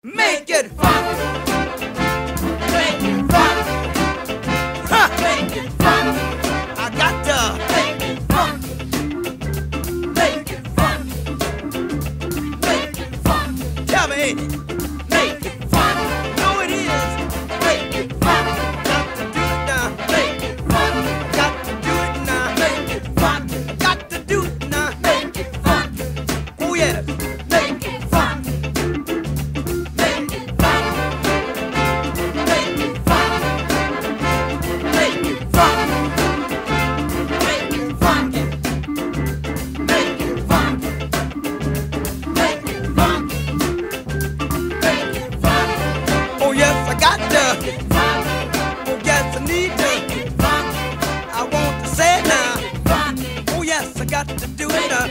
Make it fun. Make it fun. Ha! Make it fun. I got to make it fun. Make it fun. Make it fun. Tell me, ain't it? Make it fun. No, it is. Make it fun. Got to do it now. Make it fun. Got to do it now. Make it fun. Got to do it now. Make it fun. Oh yes. Make it fun. Got to do it now.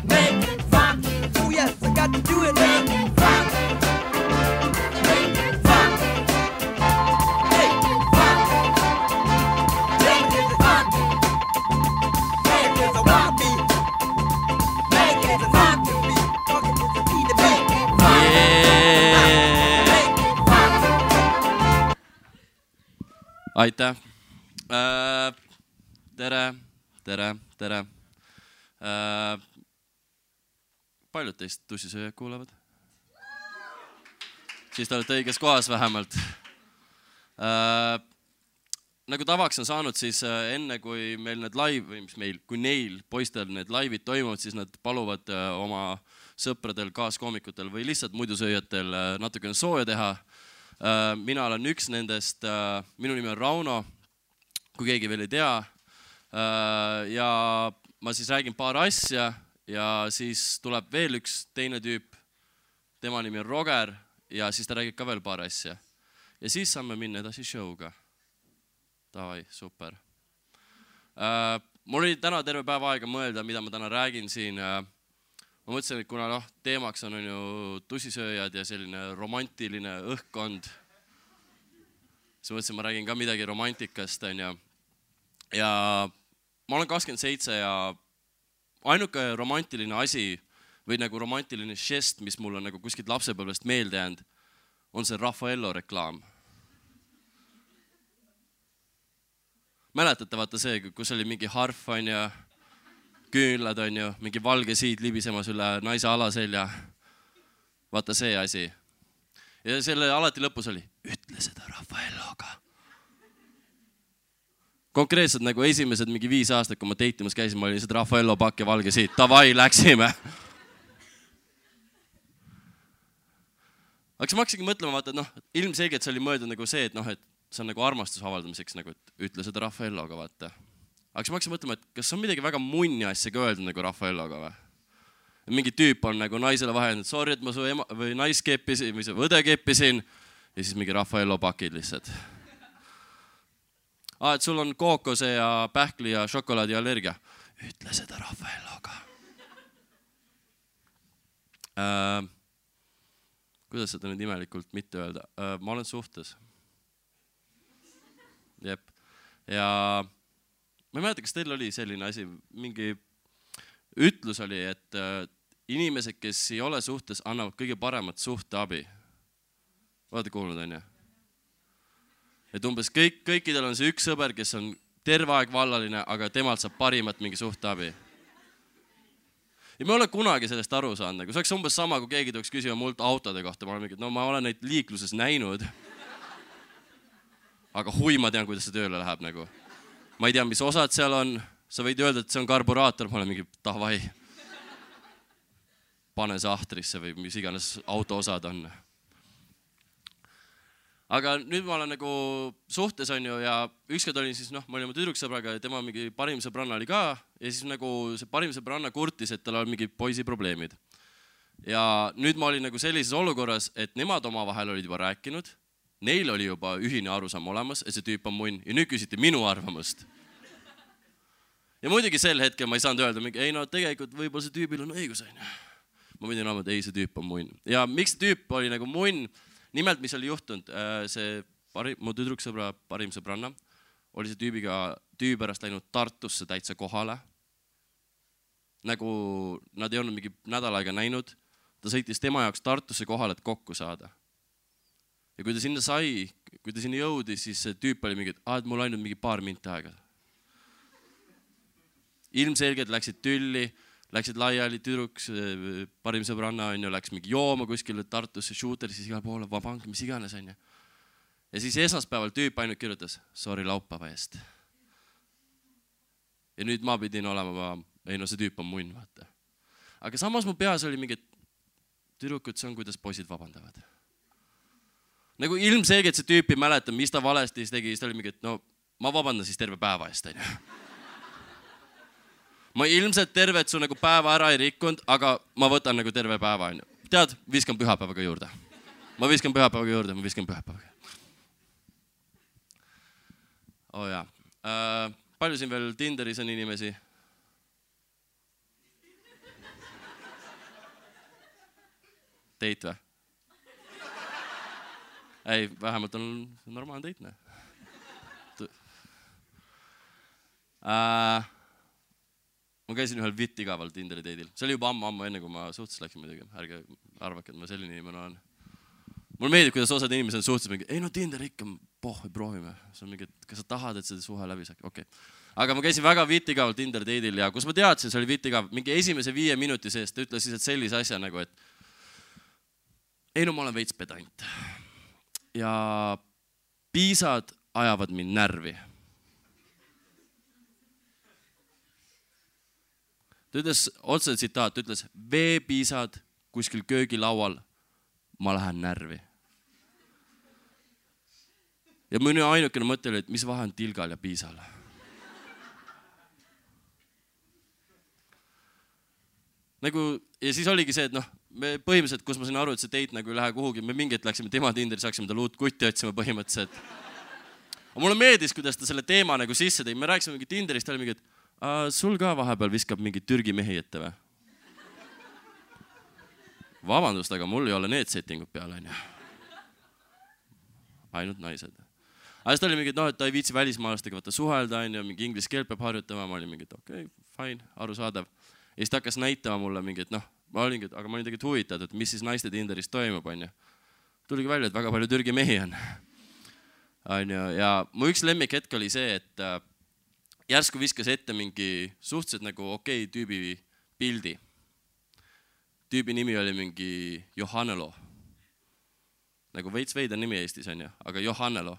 Make it fun. Oh yes, I got to do it now. Make it fun. Make it fun. Make it fun. Make it fun. Make it a wanna be. Make it a not to be. Talking to the need to be. Make it fun. Aitäh. Tere. Paljud teist tussisööjad kuulavad? Siis te olete õiges kohas vähemalt. Nagu tavaks on saanud, siis enne kui meil need live, või mis meil, kui neil poistel need live'id toimuvad, siis nad paluvad oma sõpradel, kaaskoomikutel või lihtsalt muidusööjatel natukene sooja teha. Mina olen üks nendest, minu nimi on Rauno, kui keegi veel ei tea. Ja ma siis räägin paar asja ja siis tuleb veel üks teine tüüp, tema nimi on Roger ja siis ta räägib ka veel paar asja. Ja siis saame minna edasi show'ga. Davai, super. Mul oli täna terve päev aega mõelda, mida ma täna räägin siin. Ma mõtlesin, et kuna teemaks on ju tussisööjad ja selline romantiline õhkkond, siis mõtlesin, ma räägin ka midagi romantikast. Ja ma olen 27 ja ainuke romantiline asi või nagu romantiline žest, mis mul on nagu kuskilt lapsepõlvest meelde jäänud, on see Raffaello reklaam. Mäletate vaata see, kus oli mingi harf ja küünlad mingi valge siid libisemas üle naise alaselja. Vaata see asi. Ja selle alati lõpus oli, ütle seda Raffaelloga. Konkreetselt nagu esimesed mingi 5 aastat, kui ma teitimas käisin, ma olin seda Raffaello pakk ja valge siit. Davai, läksime. Aga siis ma hakkasingi mõtlema, vaata, et ilmselgelt see oli mõeldud nagu see, et see on nagu armastuse avaldamiseks, nagu, et ütle seda Raffaelloga, vaata. Aga siis ma hakkasin mõtlema, et kas on midagi väga munni asja ka öeldud nagu Raffaelloga või? Mingi tüüp on nagu naisele vahel, et sorry, et ma su ema või nais keppisin või su õde keppisin ja siis mingi Raffaello pakid lihtsalt. Et sul on kookose ja pähkli ja šokolaadi allergia. Ütle seda Raffaelloga. Kuidas seda nüüd imelikult mitte öelda? Ma olen suhtes. Jep. Ja ma ei mäleta, kas teil oli selline asi, mingi ütlus oli, et inimesed, kes ei ole suhtes, annavad kõige paremat suhteabi. Olete kuulnud, on ju? Et umbes kõikidel on see üks sõber, kes on terve aeg vallaline, aga temalt saab parimat mingi suhteabi. Ja ma olen kunagi sellest aru saanud. See oleks umbes sama, kui keegi tuleks küsima mult autode kohta. Ma olen mingi, ma olen neid liikluses näinud. Aga hui, ma tean, kuidas see tööle läheb. Nagu. Ma ei tea, mis osad seal on. Sa võid öelda, et see on karburaator. Ma olen mingi, davai. Pane sahtrisse või mis iganes auto osad on. Aga nüüd ma olen nagu suhtes ja ükskord olin siis, ma olin oma tüdruksõbraga ja tema mingi parim sõbranna oli ka ja siis nagu see parim sõbranna kurtis, et tal on mingi poisi probleemid. Ja nüüd ma olin nagu sellises olukorras, et nemad oma vahel olid juba rääkinud, neil oli juba ühine arusaam olemas, et see tüüp on munn ja nüüd küsiti minu arvamust. Ja muidugi sel hetkel ma ei saanud öelda, ei tegelikult võib-olla see tüübil on õigus. Ma pidin arvama, et ei, see tüüp on munn. Ja miks see tüüp oli nagu munn? Nimelt, mis oli juhtunud, see mu tüdruksõbra parim sõbranna oli see tüübi pärast läinud Tartusse täitsa kohale. Nagu nad ei olnud mingi nädal aega näinud. ta sõitis tema jaoks Tartusse kohale, et kokku saada. Ja kui ta sinna sai, kui ta sinna jõudis, siis see tüüp oli mingi, et mul ainult mingi paar minti aega. Ilmselgelt läksid tülli, läksid laiali tüdruks, parim sõbranna on ju, läks mingi jooma kuskile Tartusse, shooter, siis igal poole, vabank, mis iganes on ju. Ja siis esmaspäeval tüüp ainult kirjutas, sorry laupäeva eest. Ja nüüd ma pidin olema, see tüüp on munn, vaata. Aga samas mu peas oli mingi, tüdrukud, see on, kuidas poisid vabandavad. Nagu ilmselgelt see tüüp ei mäleta, mis ta valesti tegi, siis ta oli mingi, et no ma vabandan siis terve päeva eest, on ju. Ma ilmselt tervet su nagu päeva ära ei rikkunud, aga ma võtan nagu terve päeva, on ju. Tead, viskan pühapäevaga juurde. Ma viskan pühapäevaga. Oh jaa. Palju siin veel Tinderis on inimesi? Teit või? Ei, vähemalt on normaalne teit, ne? Ma käisin ühel igaval Tinderi teidil. See oli juba ammu enne, kui ma suhtes läksin muidugi. Ärge arvake, et ma selline inimene olen. Mul meeldib, kuidas osad inimesed on suhtes mingi, ei no Tinder ikka, proovime. See on mingi, et kas sa tahad, et seda suhe läbi saaks? Okei. Aga ma käisin väga igaval Tinderi teidil ja kus ma teadsin, see oli igav. Mingi esimese 5 minuti seest ta ütles lihtsalt sellise asja nagu, et ei no ma olen veits pedant. Ja piisad ajavad mind närvi. Ta ütles, otse tsitaat, ütles, veepiisad kuskil köögilaual, ma lähen närvi. Ja minu ainukene mõte oli, et mis vahe on tilgal ja piisal. Nagu, ja siis oligi see, et noh, me põhimõtteliselt, kus ma sain aru, et see teit nagu ei lähe kuhugi, me mingit läksime tema Tinderis, haksime tal uut kutti otsima põhimõtteliselt. Aga mulle meeldis, kuidas ta selle teema nagu sisse tõi. Me rääkisime mingi Tinderist, ta oli mingi, et sul ka vahepeal viskab mingi Türgi mehi ette või? Vabandust, aga mul ei ole need settingud peale, on ju. Ainult naised. Aga siis ta oli mingi, et ta ei viitsi välismaalastega võtta suhelda, on ju, mingi inglise keel peab harjutama. Ma olin mingi, et okei, fine, arusaadav. Ja siis ta hakkas näitama mulle mingi, et ma olingi, aga ma olin tegelikult huvitatud, et mis siis naiste Tinderis toimub, on ju. Tuligi välja, et väga palju Türgi mehi on. Ja mu üks lemmik hetk oli see, et järsku viskas ette mingi suhteliselt nagu okei tüübi pildi. Tüübi nimi oli mingi Johannelo. Nagu veits veider nimi Eestis on ju, aga Johannelo.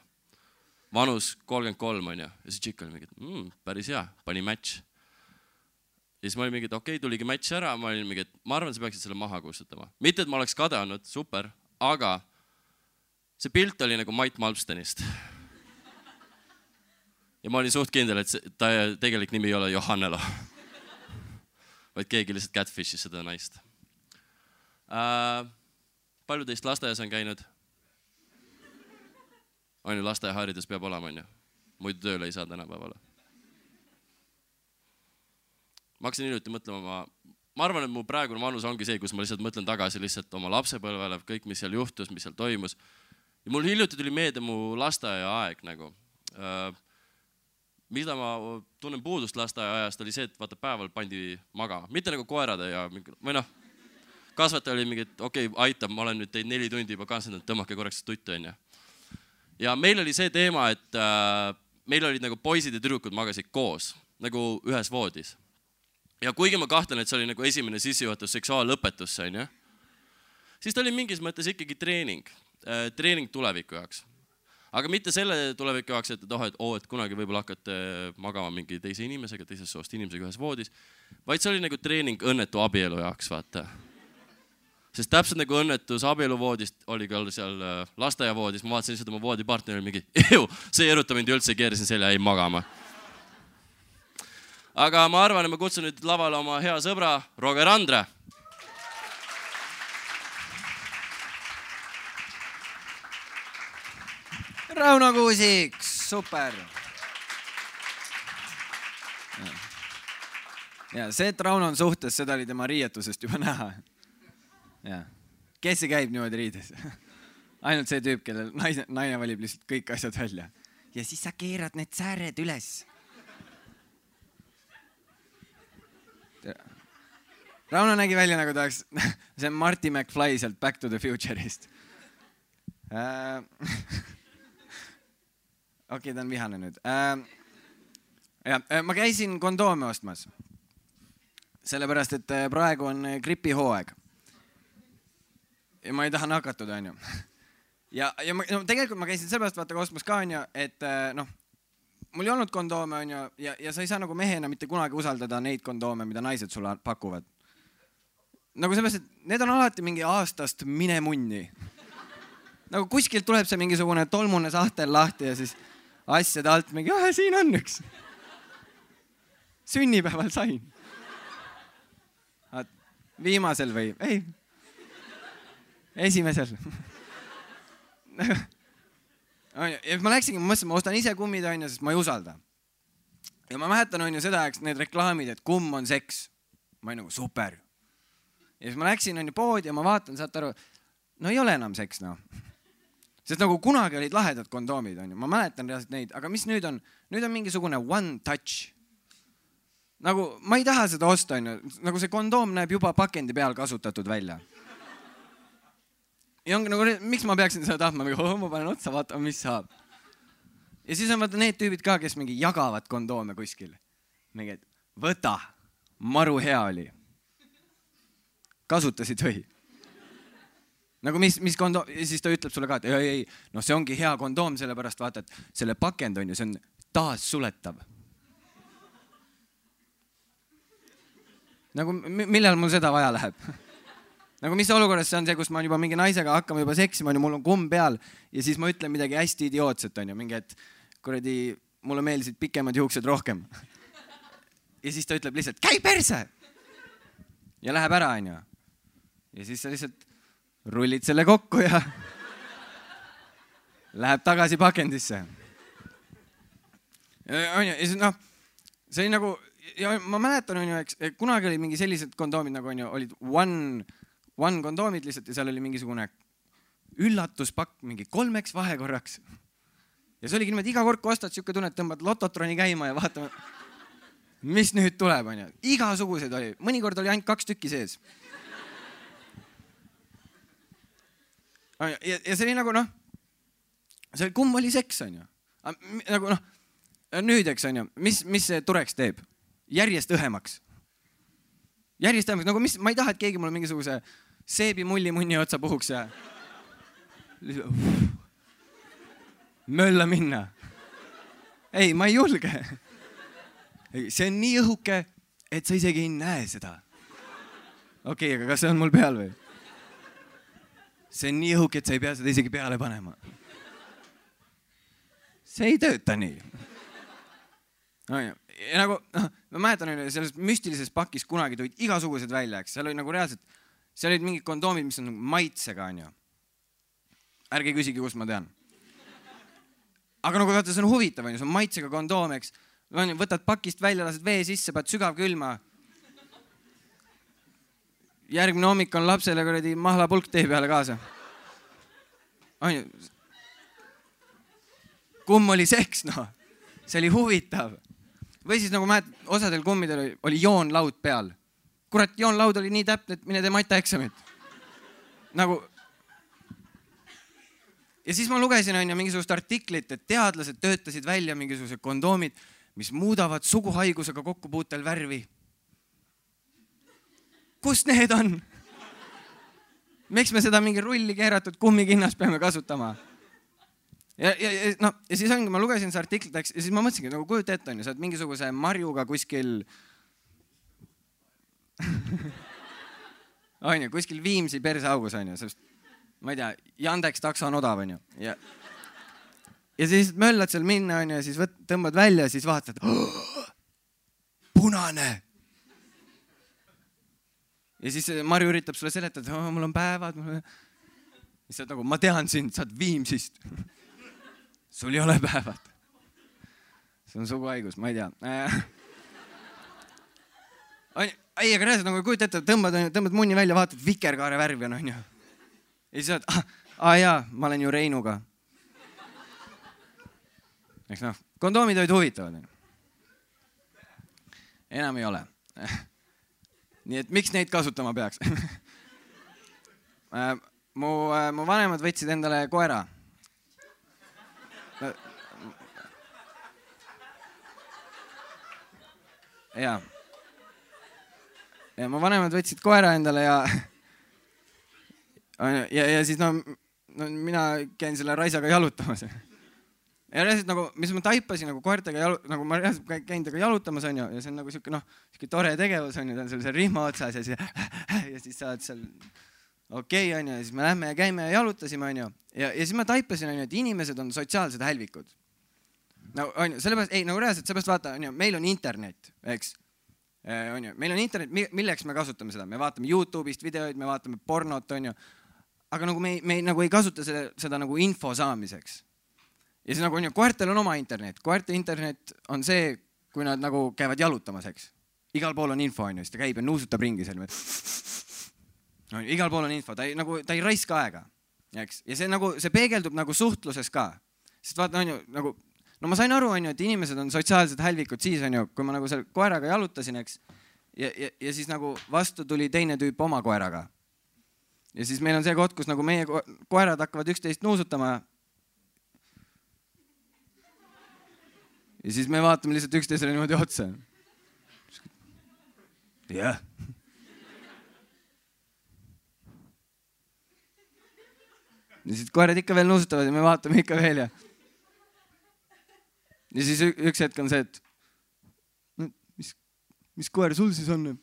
Vanus 33 on ju. Ja see tšikk oli mingi, et päris hea, pani match. Ja siis ma olin mingi, et okei, tuligi match ära. Ma olin mingi, et ma arvan, sa peaksid selle maha kustutama. Mitte, et ma oleks kade olnud, super, aga see pilt oli nagu Mait Malmstenist. Ja ma olin suht kindel, et ta tegelik nimi ei ole Johannelo. Vaid keegi lihtsalt catfishis seda naist. Palju teist lasteaias on käinud? On ju, lasteaiaharidus peab olema, on ju. Muidu tööle ei saa tänapäevale. Ma hakkasin hiljuti mõtlema, ma arvan, et mu praegune vanus ongi see, kus ma lihtsalt mõtlen tagasi lihtsalt oma lapsepõlvele, kõik, mis seal juhtus, mis seal toimus. Ja mul hiljuti tuli meelde mu lasteaia aeg nagu. Mida ma tunnen puudust lasteaia ajast oli see, et vaata päeval pandi magama. Mitte nagu koerade ja või noh, kasvataja oli mingi, et okei, aitab, ma olen nüüd teid 4 tundi juba kaasendanud, tõmmake korraks tuttu, on ju. Ja meil oli see teema, et meil olid nagu poisid ja tüdrukud magasid koos, nagu ühes voodis. Ja kuigi ma kahtlen, et see oli nagu esimene sissejuhatus seksuaallõpetusse, on ju, siis ta oli mingis mõttes ikkagi treening tuleviku jaoks. Aga mitte selle tuleviku jaoks, et kunagi võib-olla hakkate magama mingi teise inimesega, teisest soost inimesega ühes voodis, vaid see oli nagu treening õnnetu abielu jaoks, vaata. Sest täpselt nagu õnnetus abieluvoodist oli ka seal lasteaiavoodis, ma vaatasin seda oma voodipartneri mingi, see ei eruta mind üldse, keerisin selja, ei magama. Aga ma arvan, et ma kutsun nüüd lavale oma hea sõbra, Roger Andre. Rauno Kuusik, super. Ja see, et Rauno on suhtes, seda oli tema riietusest juba näha. Ja. Kes see käib niimoodi riides? Ainult see tüüp, kellel naine valib lihtsalt kõik asjad välja. Ja siis sa keerad need sääred üles. Rauno nägi välja nagu ta oleks, see on Marty McFly sealt Back to the Future'ist. Okei, ta on vihane nüüd. Ma käisin kondoome ostmas. Sellepärast, et praegu on gripihooaeg. Ja ma ei taha nakatuda, on ju. Ja tegelikult ma käisin sellepärast vaata ostmas ka, on ju, et mul ei olnud kondoome, on ju, ja sa ei saa nagu mehena mitte kunagi usaldada neid kondoome, mida naised sulle pakuvad. Nagu sellepärast, et need on alati mingi aastast mine munni. Nagu kuskilt tuleb see mingisugune tolmune sahtel lahti ja siis asjade alt mingi, siin on üks. Sünnipäeval sain. Viimasel või? Ei. Esimesel. Ja ma läksingi, ma mõtlesin, ma ostan ise kummid, on ju, sest ma ei usalda. Ja ma mäletan, on ju seda, eks need reklaamid, et kumm on seks. Ma olin nagu super. Ja siis ma läksin, on ju poodi ja ma vaatan, saate aru, no ei ole enam seks, no. Sest nagu kunagi olid lahedad kondoomid, on ju. Ma mäletan reaalselt neid, aga mis nüüd on? Nüüd on mingisugune one touch. Nagu ma ei taha seda osta, on ju. Nagu see kondoom näeb juba pakendi peal kasutatud välja. Ja ongi nagu, miks ma peaksin seda tahtma? Ma panen otsa, vaatama, mis saab. Ja siis on vaata need tüübid ka, kes mingi jagavad kondoome kuskil. Mingi, et võta, maru hea oli. Kasutasid või? Nagu mis kondoom, ja siis ta ütleb sulle ka, et ei, no see ongi hea kondoom, sellepärast vaata, et selle pakend on ju, see on taas suletav. Nagu millal mul seda vaja läheb? Nagu mis olukorras see on see, kus ma juba mingi naisega hakkama juba seksima, mul on kumm peal ja siis ma ütlen midagi hästi idiootset, on ju, mingi, et kuradi, mulle meeldisid pikemad juuksed rohkem. Ja siis ta ütleb lihtsalt, käi perse! Ja läheb ära, on ju. Ja siis sa lihtsalt rullid selle kokku ja läheb tagasi pakendisse. On ju, ja siis see oli nagu, ja ma mäletan, on ju, eks, kunagi oli mingi sellised kondoomid, nagu on ju, olid one kondoomid lihtsalt ja seal oli mingisugune üllatuspakk mingi 3 vahekorraks. Ja see oligi niimoodi, iga kord, kui ostad siuke tunne, et tõmbad lototroni käima ja vaatame, mis nüüd tuleb, on ju. Igasugused oli, mõnikord oli ainult 2 tükki sees. Ja see oli nagu, see kumm oli seks, on ju. Nagu nüüd, eks, on ju, mis see tureks teeb? Järjest õhemaks. Järjest õhemaks, nagu ma ei taha, et keegi mulle mingisuguse seebi mulli otsa puhuks ja mölla minna. Ei, ma ei julge. See on nii õhuke, et sa isegi ei näe seda. Okei, aga kas see on mul peal või? See on nii õhuke, et sa ei pea seda isegi peale panema. See ei tööta nii. Ja nagu, ma mäletan, selles müstilises pakis kunagi tulid igasugused välja, eks. Seal oli nagu reaalselt, seal olid mingid kondoomid, mis on nagu maitsega, on ju. Ärge küsigi, kust ma tean. Aga nagu vaata, see on huvitav, on ju, see on maitsega kondoom, eks. Võtad pakist välja, lased vee sisse, paned sügav külma. Järgmine hommik on lapsele kuradi mahlapulk tee peale kaasa. On ju. Kumm oli seks, no. See oli huvitav. Või siis nagu mäed, osadel kummidel oli joonlaud peal. Kurat, joonlaud oli nii täpne, et mine tee matjaeksamit. Nagu. Ja siis ma lugesin, on ju, mingisugust artiklit, et teadlased töötasid välja mingisugused kondoomid, mis muudavad suguhaigusega kokkupuutel värvi. Kus need on? Miks me seda mingi rulli keeratud kummikinnas peame kasutama? Ja siis ongi, ma lugesin see artiklit, ja siis ma mõtlesingi, nagu kujuta ette, on ju, sa oled mingisuguse marjuga kuskil on ju, kuskil Viimsi perseaugus, on ju, sest ma ei tea, Yandex takso on odav, on ju. Ja siis möllad seal minna, on ju, ja siis tõmbad välja ja siis vaatad, punane. Ja siis Marju üritab sulle seletada, mul on päevad. Ja siis nagu, ma tean sind, sa oled Viimsist. Sul ei ole päevad. See on suguhaigus, ma ei tea. Ei, aga reaalselt nagu kujuta ette, tõmbad munni välja, vaatad vikerkaare värvi on, ju. Ja siis saad, jaa, ma olen ju Reinuga. Eks kondoomid olid huvitavad. Enam ei ole. nii et miks neid kasutama peaks? mu vanemad võtsid endale koera. Ja mu vanemad võtsid koera endale ja siis mina käin selle raisaga jalutamas. Ja reaalselt nagu, mis ma taipasin nagu koertega nagu ma reaalselt käin temaga jalutamas on ju, ja see on nagu siuke tore tegevus on ju, ta on seal rihma otsas ja siis saad seal okei on ju, ja siis me lähme ja käime ja jalutasime on ju, ja siis ma taipasin on ju, et inimesed on sotsiaalsed hälvikud. No on ju, sellepärast, ei nagu reaalselt, sellepärast vaata on ju, meil on internet, eks, on ju, meil on internet, milleks me kasutame seda, me vaatame YouTube'ist videoid, me vaatame pornot on ju, aga nagu me nagu ei kasuta seda nagu info saamiseks. Ja siis nagu on ju, koertel on oma internet. Koerte internet on see, kui nad nagu käivad jalutamas, eks. Igal pool on info, on ju, siis ta käib ja nuusutab ringi seal. No, igal pool on info, ta ei raiska aega, eks. Ja see peegeldub nagu suhtluses ka. Sest vaata, on ju, nagu, no ma sain aru, on ju, et inimesed on sotsiaalsed hälvikud siis, on ju, kui ma nagu selle koeraga jalutasin, eks. Ja siis nagu vastu tuli teine tüüp oma koeraga. Ja siis meil on see koht, kus nagu meie koerad hakkavad üksteist nuusutama. Ja siis me vaatame lihtsalt üksteisele niimoodi otsa. Jah. Ja siis koerad ikka veel nuusutavad ja me vaatame ikka veel ja siis üks hetk on see, et mis koer sul siis on?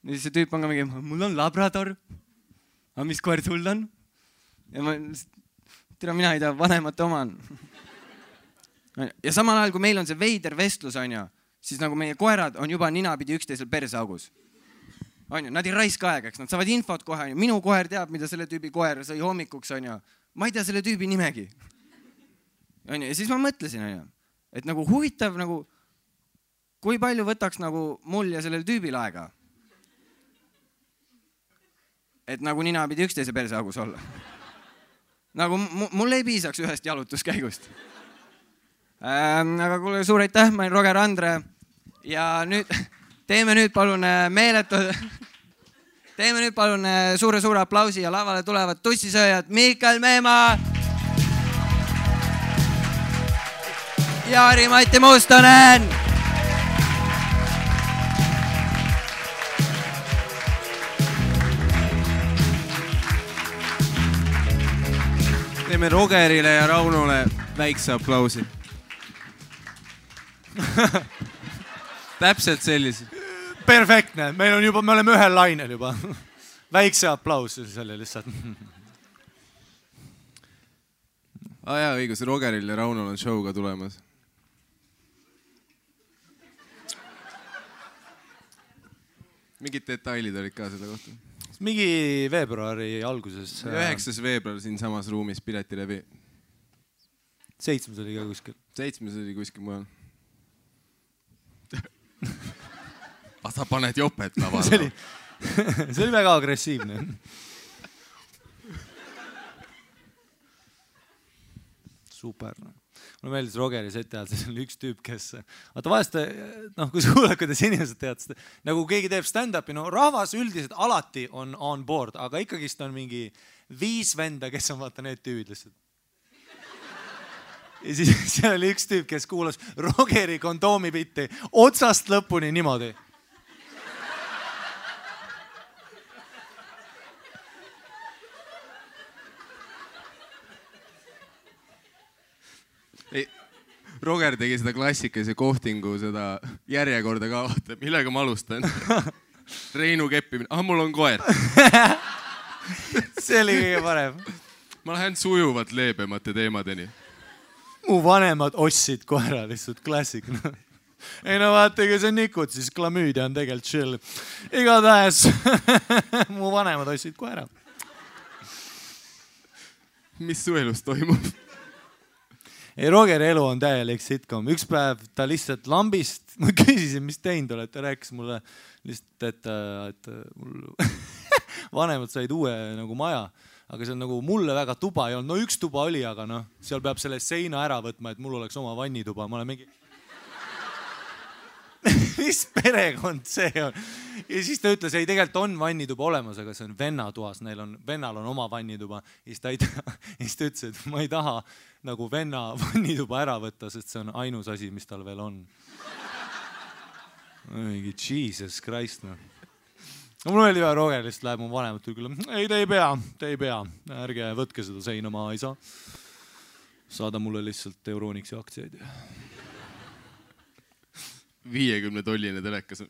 Ja siis see tüüp on ka mingi, mul on labrador. Aga mis koer sul on? Ja mina ei tea, vanemate oma on. Ja samal ajal, kui meil on see veider vestlus, on ju, siis nagu meie koerad on juba ninapidi üksteisel persaugus. On ju, nad ei raiska aegaks, nad saavad infot kohe, on ju. Minu koer teab, mida selle tüübi koer sõi hommikuks, on ju. Ma ei tea selle tüübi nimegi. On ju, ja siis ma mõtlesin, on ju, et nagu huvitav, nagu, kui palju võtaks nagu mul ja sellel tüübil aega. Et nagu ninapidi üksteise persaugus olla. Nagu mul ei piisaks ühest jalutuskäigust. Aga kuule, suur aitäh, ma olen Roger Andre ja nüüd teeme nüüd palun suure aplausi ja lavale tulevad tussisööjad Mikael Meemaa ja Ari-Mati Mustonen. Teeme Rogerile ja Raunole väikse aplausi. Täpselt sellised. Perfektne, me oleme ühel lainel juba. Väikse aplaus selle lihtsalt. Jaa, õigus, Rogeril ja Raunol on show ka tulemas. Mingid detailid olid ka selle kohta? Mingi veebruari alguses. 9. veebruar siin samas ruumis Piletilevi. 7. oli ka kuskil. 7. oli kuskil mujal. Sa paned jopet lavale. See oli väga agressiivne. Super. Mulle meeldis Rogeri seti ajal, see on üks tüüp, kes... Vaata vahest, kui kuuled, kuidas inimesed tead, nagu keegi teeb stand-upi, no rahvas üldiselt alati on board, aga ikkagist on mingi 5 venda, kes on vaata need tüübid lihtsalt. Ja siis seal oli üks tüüp, kes kuulas Rogeri kondoomi bitti otsast lõpuni niimoodi. Roger tegi seda klassikalise kohtingu, seda järjekorda ka, vaata, millega ma alustan. Reinu keppimine. Mul on koer. See oli kõige parem. Ma lähen sujuvalt leebemate teemadeni. Mu vanemad ostsid koera, lihtsalt klassik. Ei no vaata, kui see on nikud, siis klamüüdia on tegelikult chill. Igatahes mu vanemad ostsid koera. Mis su elus toimub? Ei, Rogeri elu on täielik sitcom. Üks päev ta lihtsalt lambist, ma küsisin, mis teinud oled, ta rääkis mulle lihtsalt, et mul vanemad said uue nagu maja, aga see on nagu mulle väga tuba ei olnud. No üks tuba oli, aga noh, seal peab selle seina ära võtma, et mul oleks oma vannituba. Ma olen mingi... mis perekond see on? Ja siis ta ütles, ei tegelikult on vannituba olemas, aga see on vennatoas, vennal on oma vannituba. Ja siis ta ütles, et ma ei taha nagu venna vannituba ära võtta, sest see on ainus asi, mis tal veel on. Mingi Jesus Christ, no. Mul oli vaja Roger, lihtsalt läheb mu vanemat küll. Ei, te ei pea. Ärge võtke seda seina, ma ei saa. Saada mulle lihtsalt Euronixi aktsiaid. 50-tolline telekas.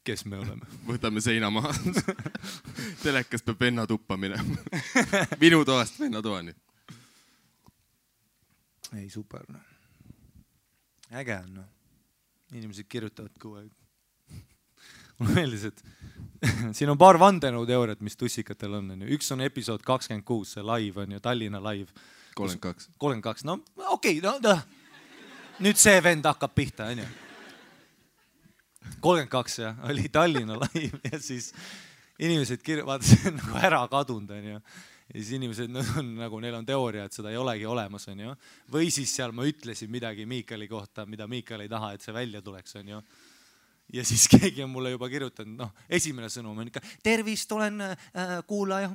Kes me oleme? Võtame seina maha. Telekas peab venna tuppa minema. Minu toast venna toani. Ei, super. No. Äge on. No. Inimesed kirjutavad kogu aeg. Mulle meeldis, et siin on paar vandenõuteooriat, mis tussikatel on. Üks on episood 26, see live on ju, Tallinna live. 32. 32, no okei, no. Nüüd see vend hakkab pihta, on ju. 32, jah, oli Tallinna live ja siis inimesed vaata, see on nagu ära kadunud, on ju. Ja siis inimesed on, nagu, neil on teooria, et seda ei olegi olemas, on ju. Või siis seal ma ütlesin midagi Miikali kohta, mida Miikal ei taha, et see välja tuleks, on ju. Ja siis keegi on mulle juba kirjutanud, noh, esimene sõnum on ikka, tervist, olen kuulaja.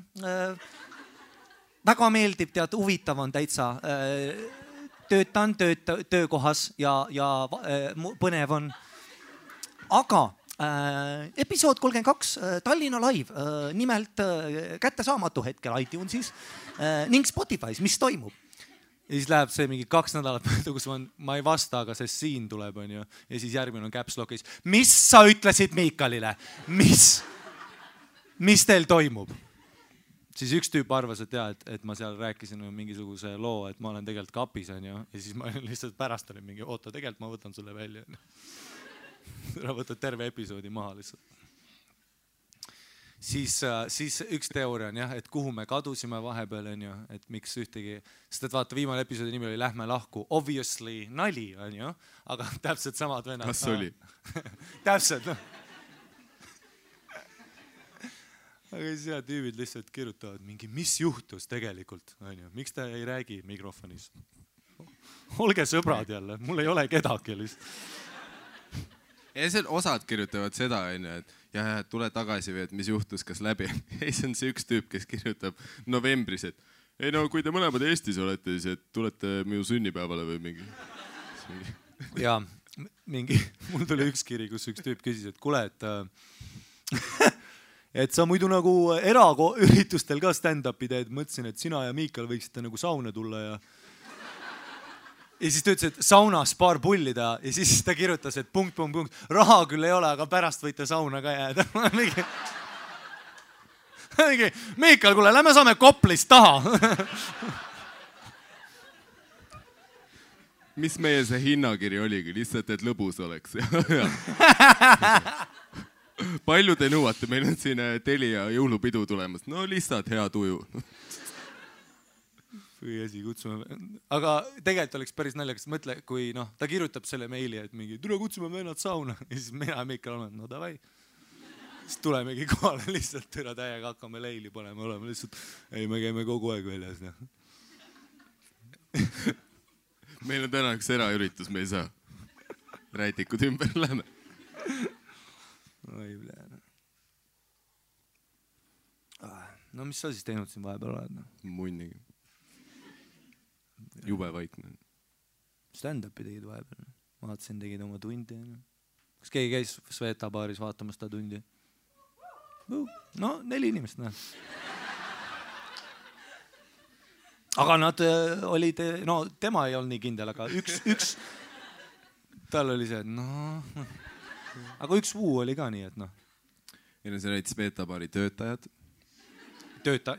Väga meeldib, tead, huvitav on täitsa. Töötan töökohas ja põnev on. Aga episood 32, Tallinna live, nimelt kättesaamatu hetkel iTunesis ning Spotify's, mis toimub. Ja siis läheb see mingi 2 nädalat, kus ma ei vasta, aga see siin tuleb, on ju. Ja siis järgmine on caps lock'is. Mis sa ütlesid Miikalile? Mis teil toimub? Siis üks tüüp arvas, et ma seal rääkisin mingisuguse loo, et ma olen tegelikult kapis, on ju. Ja siis ma lihtsalt pärast olin mingi, oota, tegelikult ma võtan sulle välja. Ära võtad terve episoodi maha lihtsalt. Siis üks teooria on jah, et kuhu me kadusime vahepeal, on ju, et miks ühtegi, sest et vaata, viimane episoodi nimi oli Lähme lahku, obviously nali, on ju, aga täpselt samad vennad. Kas oli? Täpselt, noh. Aga siis jah, tüübid lihtsalt kirjutavad mingi, mis juhtus tegelikult, on ju, miks ta ei räägi mikrofonis? Olge sõbrad jälle, mul ei ole kedagi lihtsalt. Ja see osad kirjutavad seda, et ja tule tagasi või, et mis juhtus, kas läbi. Ei, see on see üks tüüp, kes kirjutab novembris, et ei no, kui te mõlemad Eestis olete, siis et tulete minu sünnipäevale või mingi. Ja mingi, mul tuli üks kiri, kus üks tüüp küsis, et kuule, et sa muidu nagu eraüritustel ka stand-upi teed, mõtlesin, et sina ja Miikal võiksite nagu sauna tulla ja siis ta ütles, et saunas paar pullida ja siis ta kirjutas, et ... Raha küll ei ole, aga pärast võite sauna ka jääda. Miikal, kuule, lähme saame Koplist taha. Mis meie see hinnakiri oligi? Lihtsalt, et lõbus oleks. Palju te nõuate? Meil on siin Telia jõulupidu tulemas. No lihtsalt hea tuju. Või asi kutsume. Aga tegelikult oleks päris naljakas. Mõtle, kui ta kirjutab selle meili, et mingi, tule kutsume vennad sauna. Ja siis mina ja Miikal oleme, no davai. Siis tulemegi kohale lihtsalt türa täiega, hakkame leili panema, oleme lihtsalt, ei, me käime kogu aeg väljas. Meil on täna üks eraüritus, me ei saa. Rätikud ümber lähme. Oi, pläne. No mis sa siis teinud siin vahepeal oled? Munnigi. Jube vaikne. Stand-upi tegid vahepeal. Vaatasin, tegid oma tundi. Kas keegi käis Sveta baaris vaatamas ta tundi? No, 4 inimest, näe. Aga nad olid, no tema ei olnud nii kindel, aga üks tal oli see, et no. Aga üks vuu oli ka nii, et noh. Ja see olid Sveta baari töötajad.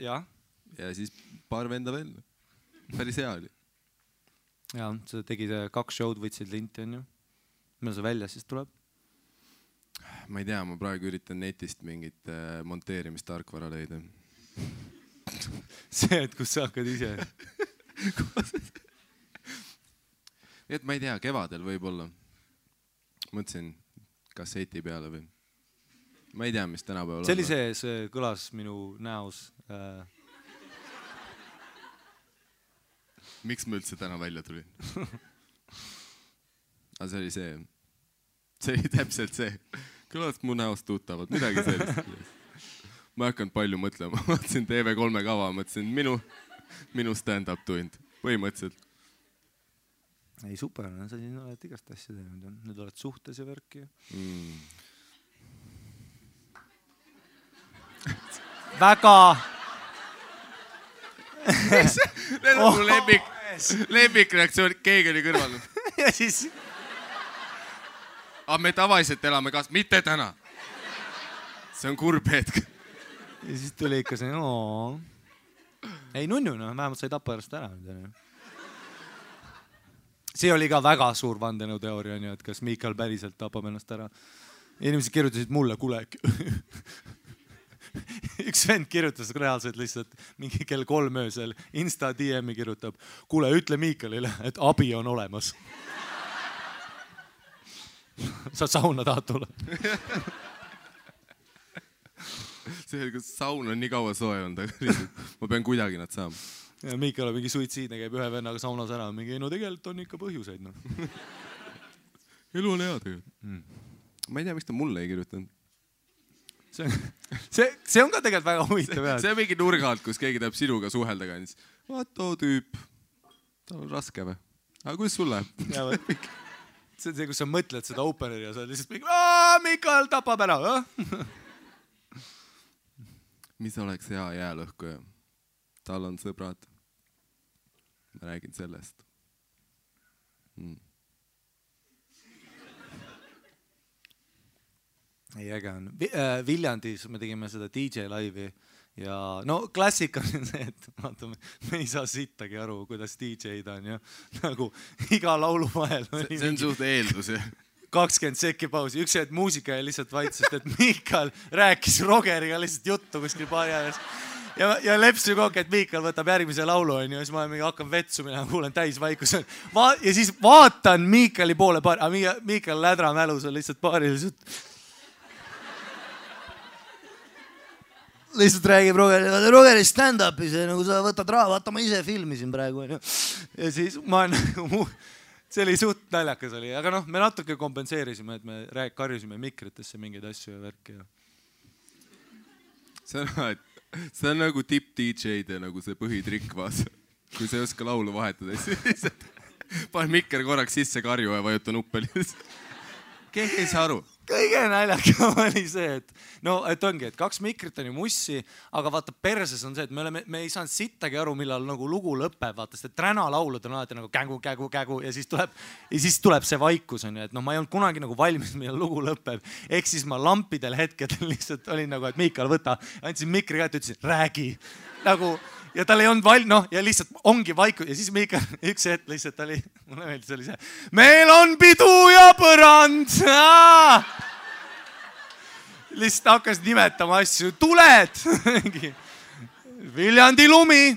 Jah. Ja siis paar venda veel. Päris hea oli. Ja, sa tegid 2 show'd, võtsid linti, on ju. Millal see välja siis tuleb? Ma ei tea, ma praegu üritan netist mingit monteerimistarkvara leida. See, et kus sa hakkad ise? Et ma ei tea, kevadel võib-olla. Mõtlesin kasseti peale või. Ma ei tea, mis tänapäeval see oli see kõlas minu näos. Miks ma üldse täna välja tulin? Aga see oli see. see oli täpselt see. Kõlast mu näost tuttavad, midagi sellist. Ma ei hakanud palju mõtlema. Ma vaatasin TV3 kava, mõtlesin minu stand-up tund. Põhimõtteliselt. Ei, super, sa siin oled igast asja teinud. Nüüd oled suhtes ja värki. Väga... Need on mu lemmikreaktsioon, keegi oli kõrval. Ja siis... Aga me tavaliselt elame kaas, mitte täna. See on kurb hetk. Ja siis tuli ikka see, ei nunnu, vähemalt sai Tapajarast ära. See oli ka väga suur vandenõuteooria, et kas Miikal päriselt tapab ennast ära. Inimesed kirjutasid mulle, kuule, üks vend kirjutas reaalselt lihtsalt mingi kell 3 öösel Insta DM-i kirjutab, kuule, ütle Miikalile, et abi on olemas. Sa sauna tahad tulla? See, kas saun on nii kaua soe olnud, aga ma pean kuidagi nad saama. Ja Miikal on mingi suitsiidne, käib ühe vennaga saunas ära. Mingi, no tegelikult on ikka põhjuseid. No. Elu on hea tegelikult. Ma ei tea, miks ta mulle ei kirjutanud. See on ka tegelikult väga huvitav. See on mingi nurga alt, kus keegi tahab sinuga suhelda ka. Vaat too tüüp, tal on raske või? Aga kuidas sul läheb? See on see, kus sa mõtled seda openeri ja sa lihtsalt mingi, Miikal tapab ära. Mis oleks hea jäälõhkuja? Tal on sõbrad. Ma räägin sellest. Ei, äge on. Viljandis me tegime seda DJ laivi ja no klassika on see, et vaatame, me ei saa sittagi aru, kuidas DJ-d on ja nagu iga laulu vahel. See on suht eeldus, 20 sekki pausi. Üks hetk muusika ja lihtsalt vaitsest, et Miikal rääkis Rogeriga lihtsalt juttu kuskil paari ajast. Ja lepsi kokku, et Miikal võtab järgmise laulu ja siis ma hakkan vetsu minema, kuulen täis vaikus. Ja siis vaatan Miikali poole paari, Miikal lädra mälus on lihtsalt paari lihtsalt räägib Rogeri stand-upis ja nagu sa võtad raha, vaata ma ise filmisin praegu. Ja siis ma nagu, see oli suht naljakas oli, aga noh, me natuke kompenseerisime, et me karjusime mikritesse mingeid asju ja värki. See on nagu tipp-DJ-de nagu see põhitrikk vaasa. Kui sa ei oska laulu vahetada, siis panen mikker korraks sisse karju ja vajuta nuppeli. Keegi ei saa aru. Kõige naljakam oli see, et ongi, et 2 mikrit on ju mussi, aga vaata perses on see, et me ei saanud sittagi aru, millal nagu lugu lõpeb, vaata, sest träna laulud on alati nagu kägu ja siis tuleb see vaikus on ju, et ma ei olnud kunagi nagu valmis, millal lugu lõpeb. Ehk siis ma lampidel hetkedel lihtsalt olin nagu, et Miikal võta, andsin mikri kätte, ütlesin, räägi. Nagu, ja tal ei olnud ja lihtsalt ongi vaikus ja siis Miikal üks hetk lihtsalt oli, mulle meeldis oli see, meil on pidu ja põrand. Lihtsalt hakkas nimetama asju, tuled, Viljandi lumi,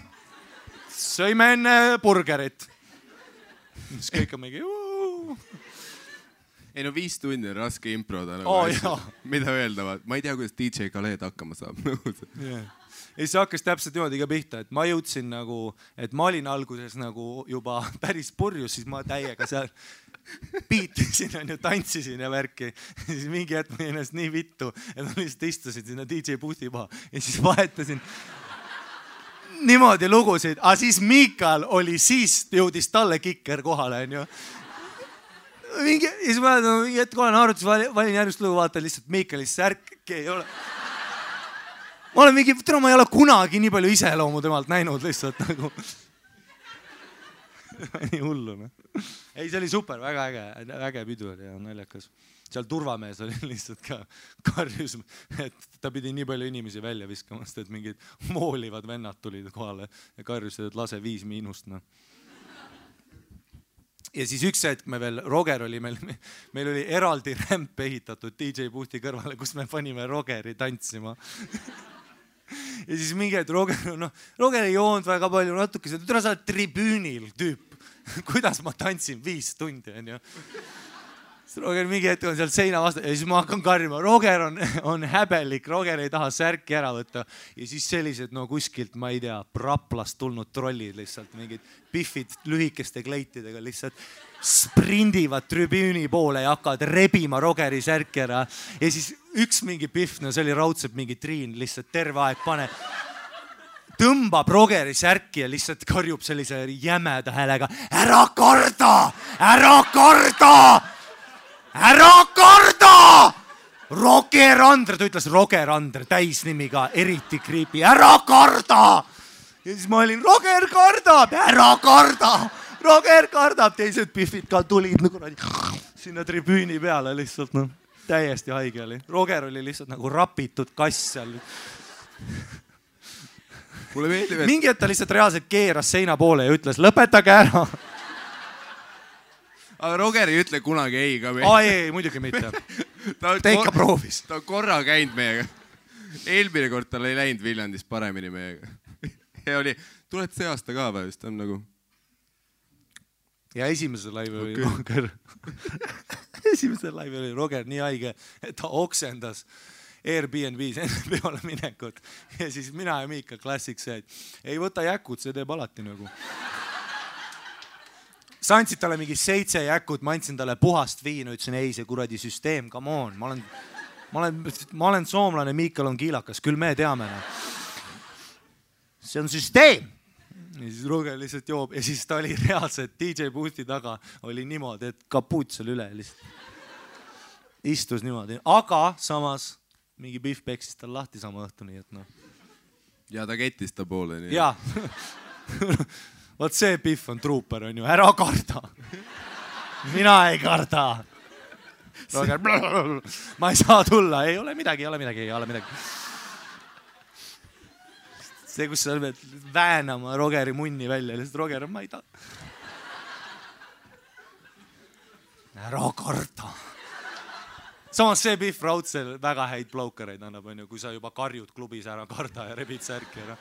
sõime enne burgerit. Siis kõik on mingi Ei no 5 tundi on raske improda. Mida öelda? Ma ei tea, kuidas DJ Khaled hakkama saab. Ja siis hakkas täpselt niimoodi ka pihta, et ma jõudsin nagu, et ma olin alguses nagu juba päris purjus, siis ma täiega seal piitisin ja tantsisin ja värki. Ja siis mingi hetk ma ennast nii vittu, et ma lihtsalt istusin sinna DJ boothi maha ja siis vahetasin niimoodi lugusid. Aga siis Miikal oli, siis jõudis talle kikker kohale. Ja siis ma mingi hetk olen arvutis, valin järgmist lugu, vaatan lihtsalt Miikali särk ei ole. Ma olen mingi, ma ei ole kunagi nii palju iseloomu temalt näinud lihtsalt nagu. Nii hullu. Ei, see oli super, väga äge pidu oli ja naljakas. Seal turvamees oli lihtsalt ka karjus, et ta pidi nii palju inimesi välja viskamast, et mingid moolivad vennad tulid kohale ja karjusid, et lase 5-. Ja siis üks hetk me veel, Roger oli meil oli eraldi rämp ehitatud DJ boothi kõrvale, kus me panime Rogeri tantsima. Ja siis mingi hetk Roger ei joonud väga palju natuke, et sa oled tribüünil tüüp. Kuidas ma tantsin 5 tundi, on ju. Roger mingi hetk on seal seina vastu ja siis ma hakkan karjuma. Roger on häbelik, Roger ei taha särki ära võtta. Ja siis sellised, no kuskilt, ma ei tea, Raplast tulnud trollid lihtsalt, mingid pihvid lühikeste kleitidega lihtsalt sprindivad tribüüni poole ja hakkavad rebima Rogeri särki ära. Ja siis üks mingi pihv, no see oli raudselt mingi Triin, lihtsalt terve aeg tõmbab Rogeri särki ja lihtsalt karjub sellise jämeda häälega. Ära karda! Ära karda! Ära karda! Roger Andre, ta ütles Roger Andre, täisnimiga, eriti creepy. Ära karda! Ja siis ma olin, Roger kardab, ära karda! Roger kardab, teised pihvid ka tulid sinna tribüüni peale lihtsalt, no, täiesti haige oli. Roger oli lihtsalt nagu rapitud kass seal. Mulle meeldib, et... Mingi et ta lihtsalt reaalselt keeras seina poole ja ütles, lõpetage ära. Aga Roger ei ütle kunagi ei ka meil. Ei, muidugi mitte. Ta ikka proovis. Ta on korra käinud meiega. Eelmine kord tal ei läinud Viljandis paremini meiega. Ja oli, tuled see aasta ka või? Ta on nagu... Ja esimese laivi oli Roger. Esimese laivi oli Roger nii haige, et ta oksendas Airbnb's enne peale minekut. Ja siis mina ja Miika klassiks see, et ei võta jäkud, see teeb alati nagu. Sa andsid talle mingi 7 jäkut, ma andsin talle puhast viinu, ütlesin, ei, see kuradi süsteem, come on. Ma olen soomlane, Miikal on kiilakas, küll me teame. See on süsteem. Ja siis Roger lihtsalt joob ja siis ta oli reaalselt DJ Boosti taga oli niimoodi, et kapuut seal üle lihtsalt istus niimoodi. Aga samas mingi pihv peksis tal lahti sama õhtu, nii et noh. Ja ta kettis ta poole. Nii. Jaa. Vaat see pihv on truuper, on ju. Ära karda. Mina ei karda. Roger, ma ei saa tulla. Ei ole midagi. See, kus sa pead väänama Rogeri munni välja. Lihtsalt Roger, ma ei taha. Ära karda. Samas see pihv raudselt väga häid blowkareid annab, on ju, kui sa juba karjud klubis ära karda ja rebid särki ära.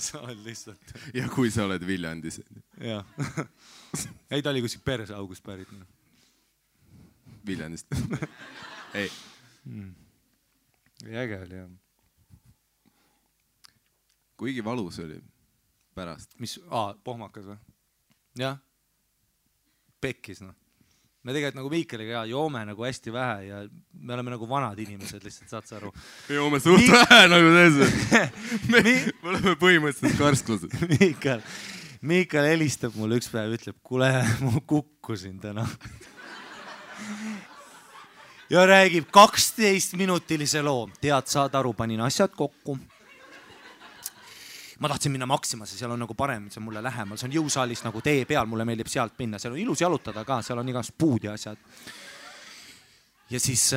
Sa oled lihtsalt. Ja kui sa oled Viljandis. Jah. Ei, ta oli kuskil perse august pärit. Viljandist. Ei. Äge oli, jah. Kuigi valus oli pärast. Mis? Pohmakas või? Jah. Pekkis, noh. Me tegelikult nagu Miikaliga joome nagu hästi vähe ja me oleme nagu vanad inimesed, lihtsalt saad sa aru. Me joome suht vähe nagu see. Me oleme põhimõtteliselt karsklased. Miikal helistab mulle üks päev, ütleb, kuule, ma kukkusin täna. Ja räägib 12-minutilise loo. Tead, saad aru, panin asjad kokku. Ma tahtsin minna Maximasse, seal on nagu parem, see on mulle lähemal. See on jõusaalis nagu tee peal, mulle meeldib sealt minna. Seal on ilus jalutada ka, seal on igast puud ja asjad. Ja siis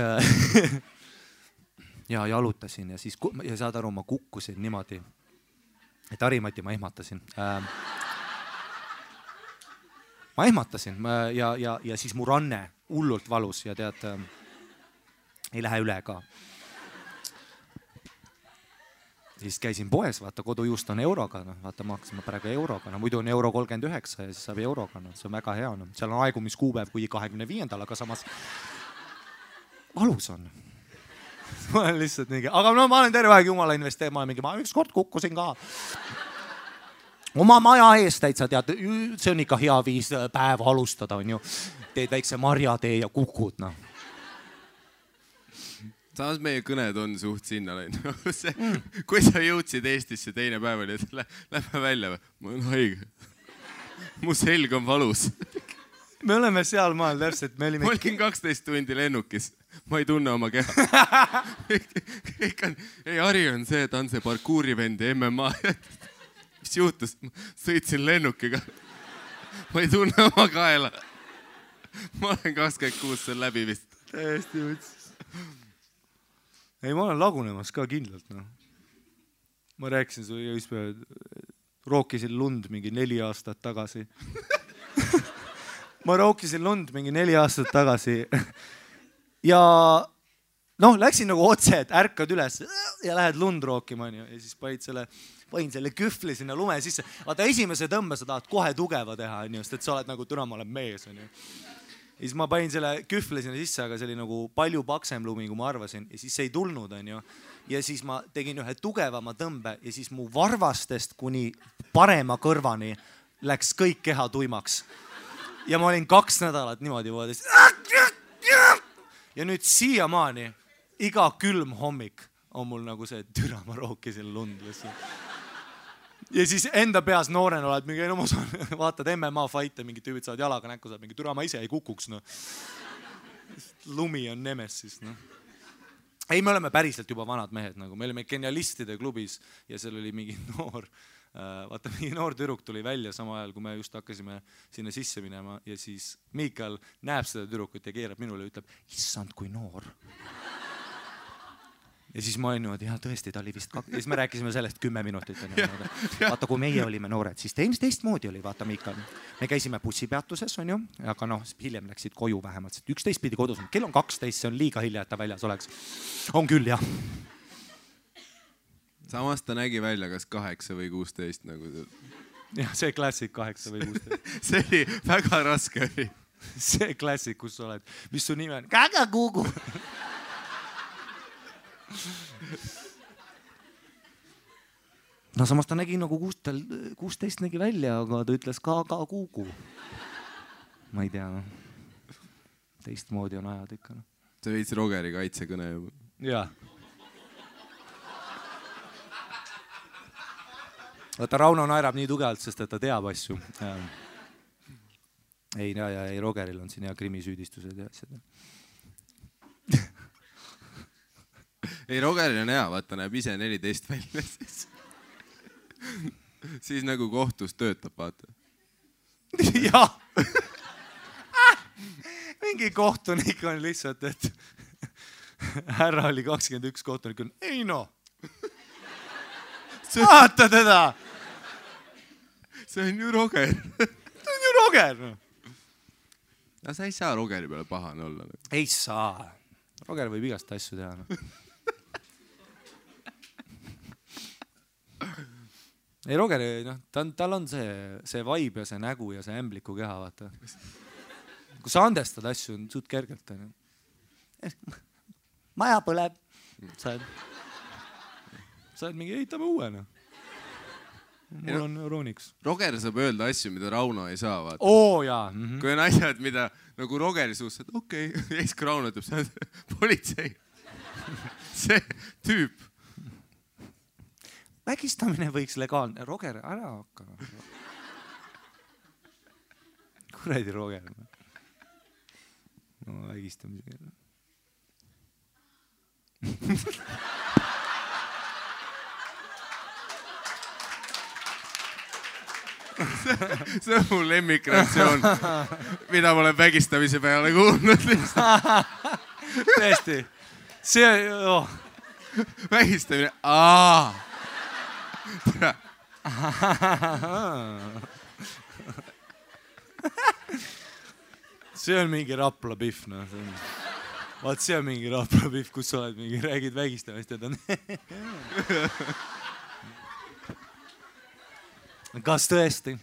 ja jalutasin ja siis ja saad aru, ma kukkusin niimoodi, et Harimati ma ehmatasin. Ma ehmatasin ja siis mu ranne hullult valus ja tead, ei lähe üle ka. Siis käisin poes, vaata kodujuust on euroga, no, vaata maksime praegu euroga, no, muidu on euro 39 ja siis saab euroga, no, see on väga hea, no. Seal on aegumiskuupäev kui 25. Aga samas valus on. Ma olen lihtsalt mingi, aga no ma olen terve aeg jumala investeerima, ma üks kord kukkusin ka. Oma maja eest täitsa tead, see on ikka hea viis päeva alustada, on ju. Teed väikse marjatee ja kukud, no. Samas meie kõned on suht sinna läinud. Kui sa jõudsid Eestisse teine päev oli, et lähme välja või? Ma olen haige. Mu selg on valus. Me oleme seal maal täpselt. Ma olin 12 tundi lennukis. Ma ei tunne oma keha. Ei, Harri on see, ta on see parkuurivend ja MMA. Mis juhtus? Sõitsin lennukiga. Ma ei tunne oma kaela. Ma olen 26 seal läbi vist. Täiesti võtsis. Ei, ma olen lagunemas ka kindlalt, no. Ma rääkisin sulle just päev, rookisin lund mingi 4 aastat tagasi. Ma rookisin lund mingi 4 aastat tagasi. Ja noh, läksin nagu otse, et ärkad üles ja lähed lund rookima, ja siis panin selle kühvli sinna lume sisse. Vaata, esimese tõmbe sa tahad kohe tugeva teha, sest et sa oled nagu, türa, ma olen mees, on ju. ja siis ma panin selle kühvle sinna sisse, aga see oli nagu palju paksem lumi, kui ma arvasin ja siis see ei tulnud, onju. Ja siis ma tegin ühe tugevama tõmbe ja siis mu varvastest kuni parema kõrvani läks kõik keha tuimaks. Ja ma olin 2 nädalat niimoodi voodis. Ja nüüd siiamaani iga külm hommik on mul nagu see türa, ma rookisin lund lihtsalt. Ja siis enda peas noorena oled mingi, no ma saan, vaatad MMA fight'e, mingid tüübid saavad jalaga näkku, saad mingi türa, ma ise ei kukuks, no. Lumi on nemesis, no. Ei, me oleme päriselt juba vanad mehed, nagu me olime genialistide klubis ja seal oli mingi noor, vaata mingi noor tüdruk tuli välja sama ajal, kui me just hakkasime sinna sisse minema ja siis Miikal näeb seda tüdrukut ja keerab minule ja ütleb, issand, kui noor. Ja siis ma olin niimoodi, jah, tõesti, ta oli vist ja siis me rääkisime sellest 10 minutit. Vaata, kui meie olime noored, siis teistmoodi oli, vaata Miikal. Me käisime bussipeatuses, on ju, aga noh, hiljem läksid koju vähemalt. 11 pidi kodus, kell on 12, see on liiga hilja, et ta väljas oleks. On küll, jah. Samas ta nägi välja kas 8 või 16 nagu. Jah, see klassik 8 või 16. See oli väga raske. See klassik, kus sa oled. Mis su nime on? Kaga Kugu. No samas ta nägi nagu 16 nägi välja, aga ta ütles ka Kugu. Ma ei tea, no. Teistmoodi on ajad ikka. No. See veits Rogeri kaitsekõne juba. Jaa. Vaata, Rauno naerab nii tugevalt, sest et ta teab asju. Ei, Rogeril on siin hea krimisüüdistused ja asjad. Ei, Rogeril on hea, vaata, näeb ise 14 välja. Siis nagu kohtus töötab, vaata. Jah. Mingi kohtunik on lihtsalt, et härra oli 21 kohtunik. Ei no. Vaata teda. See on ju Roger. See on ju Roger. No sa ei saa Rogeri peale pahane olla. Ei saa. Roger võib igast asju teha. No. Ei, Roger, noh, tal on see vaib ja see nägu ja see ämbliku keha, vaata. Kui sa andestad asju, on suht kergelt. Maja põleb. Sa oled mingi, ehitame uue, noh. Mul on Euroniks. Roger saab öelda asju, mida Rauno ei saa, vaata. Oo, jaa. Kui on asjad, mida nagu Rogeri suust, et okei, ja siis kui Rauno ütleb, see on politsei. See tüüp. Vägistamine võiks legaalne. Roger, ära hakka. Kuredi Roger. No, vägistamisega. See on mu lemmikreaktsioon, mida ma olen vägistamise peale kuulnud. Tõesti. See on... Vägistamine. See on mingi Rapla pihv, no. Vaat see on mingi Rapla pihv, kus sa oled mingi, räägid vägistamist ja ta on... Kas tõesti?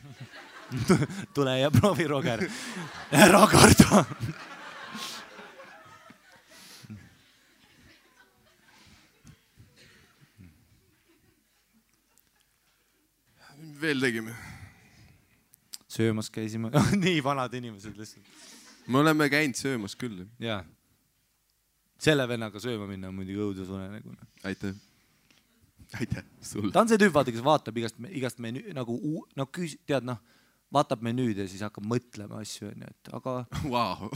Tule ja proovi, Roger. Ära karda. Veel tegime. Söömas käisime. Nii vanad inimesed lihtsalt. Me oleme käinud söömas küll. Jaa. Selle vennaga sööma minna on muidugi õudus unenägu. Aitäh. Aitäh sulle. Ta on see tüüp, vaata, kes vaatab igast menüü, nagu, tead, noh, vaatab menüüd ja siis hakkab mõtlema asju, et aga... Vau.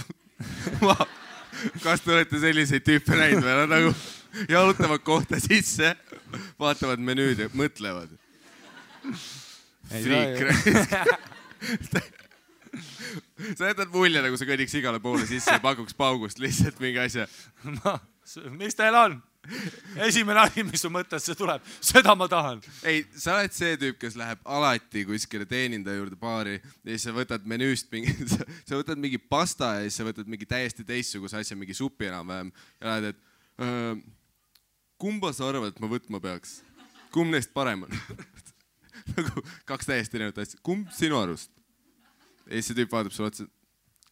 Kas te olete selliseid tüüpe näinud või? Nad nagu jalutavad kohta sisse, vaatavad menüüd ja mõtlevad. Friik. Sa jätad mulje, nagu sa kõnniks igale poole sisse ja pakuks paugust lihtsalt mingi asja. Mis teil on? Esimene asi, mis su mõttesse tuleb, seda ma tahan. Ei, sa oled see tüüp, kes läheb alati kuskile teenindaja juurde baari ja siis sa võtad menüüst mingi, sa võtad mingi pasta ja siis sa võtad mingi täiesti teistsuguse asja, mingi supi enam-vähem ja lähed, et kumba sa arvad, et ma võtma peaks? Kumb neist parem on? Nagu 2 täiesti erinevat asja. Kumb sinu arust? Ja siis see tüüp vaatab sulle otsa,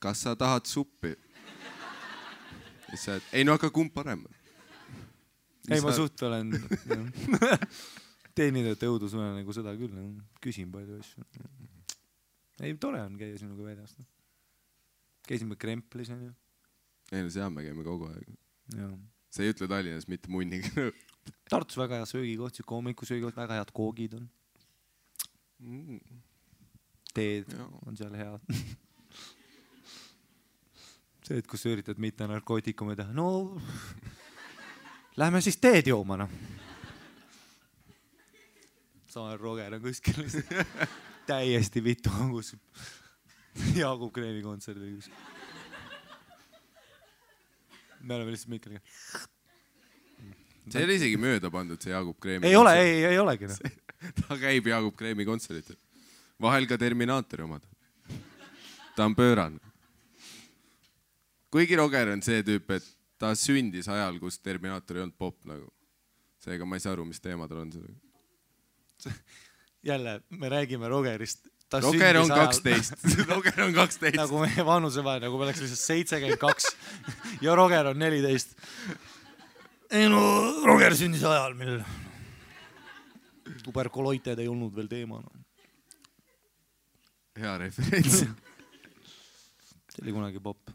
kas sa tahad suppi? Ei no aga kumb parem? Ei, ma suht olen teenindajate õudusune nagu seda küll. Küsin palju asju. Ei, tore on käia sinuga väljas. Käisime Kremplis. Ei no seal me käime kogu aeg. Ja. Sa ei ütle Tallinnas mitte munniga. Tartus väga hea söögikoht, hommikusöögikoht, väga head koogid on. Teed on seal head. See, et kus üritad mitte narkootikume teha. No, lähme siis teed jooma, noh. Sama Roger on kuskil. Täiesti vitu hangus. Jaagup Kreemi kontserdil kuskil. Me oleme lihtsalt Mikkeliga. See oli isegi mööda pandud, see Jaagup Kreemi. Ei ole, ei olegi. No. Ta käib Jaagup Kreemi kontseritel. Vahel ka Terminaatori omad. Ta on pööran. Kuigi Roger on see tüüp, et ta sündis ajal, kus Terminaator ei olnud pop nagu. Seega ma ei saa aru, mis teemadel on seda. Jälle, me räägime Rogerist. Roger on 12. Roger on 12. Nagu meie vanuse vahe, nagu me oleks lihtsalt 72 ja Roger on 14. Ei no, Roger sündis ajal, mil tuberkuloited ei olnud veel teema. No. Hea referents. See oli kunagi pop.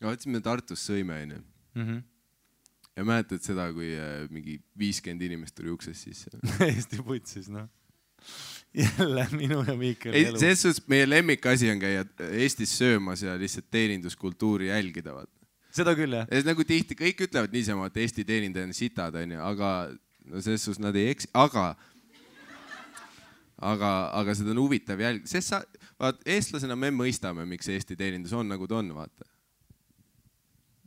Ja võtsime Tartus sõime, ja mäletad seda, kui mingi 50 inimest tuli ukses sisse. Eesti putsis, noh. Jälle minu ja Miikeli elu. Selles suhtes meie lemmikasi on käia Eestis söömas ja lihtsalt teeninduskultuuri jälgida. Seda küll, jah. Ja nagu tihti kõik ütlevad niisama, et Eesti teenindaja on sitad, aga no selles suhtes nad ei eksi. Aga seda on huvitav jälg. Eestlasena me mõistame, miks Eesti teenindus on nagu ta on, vaata.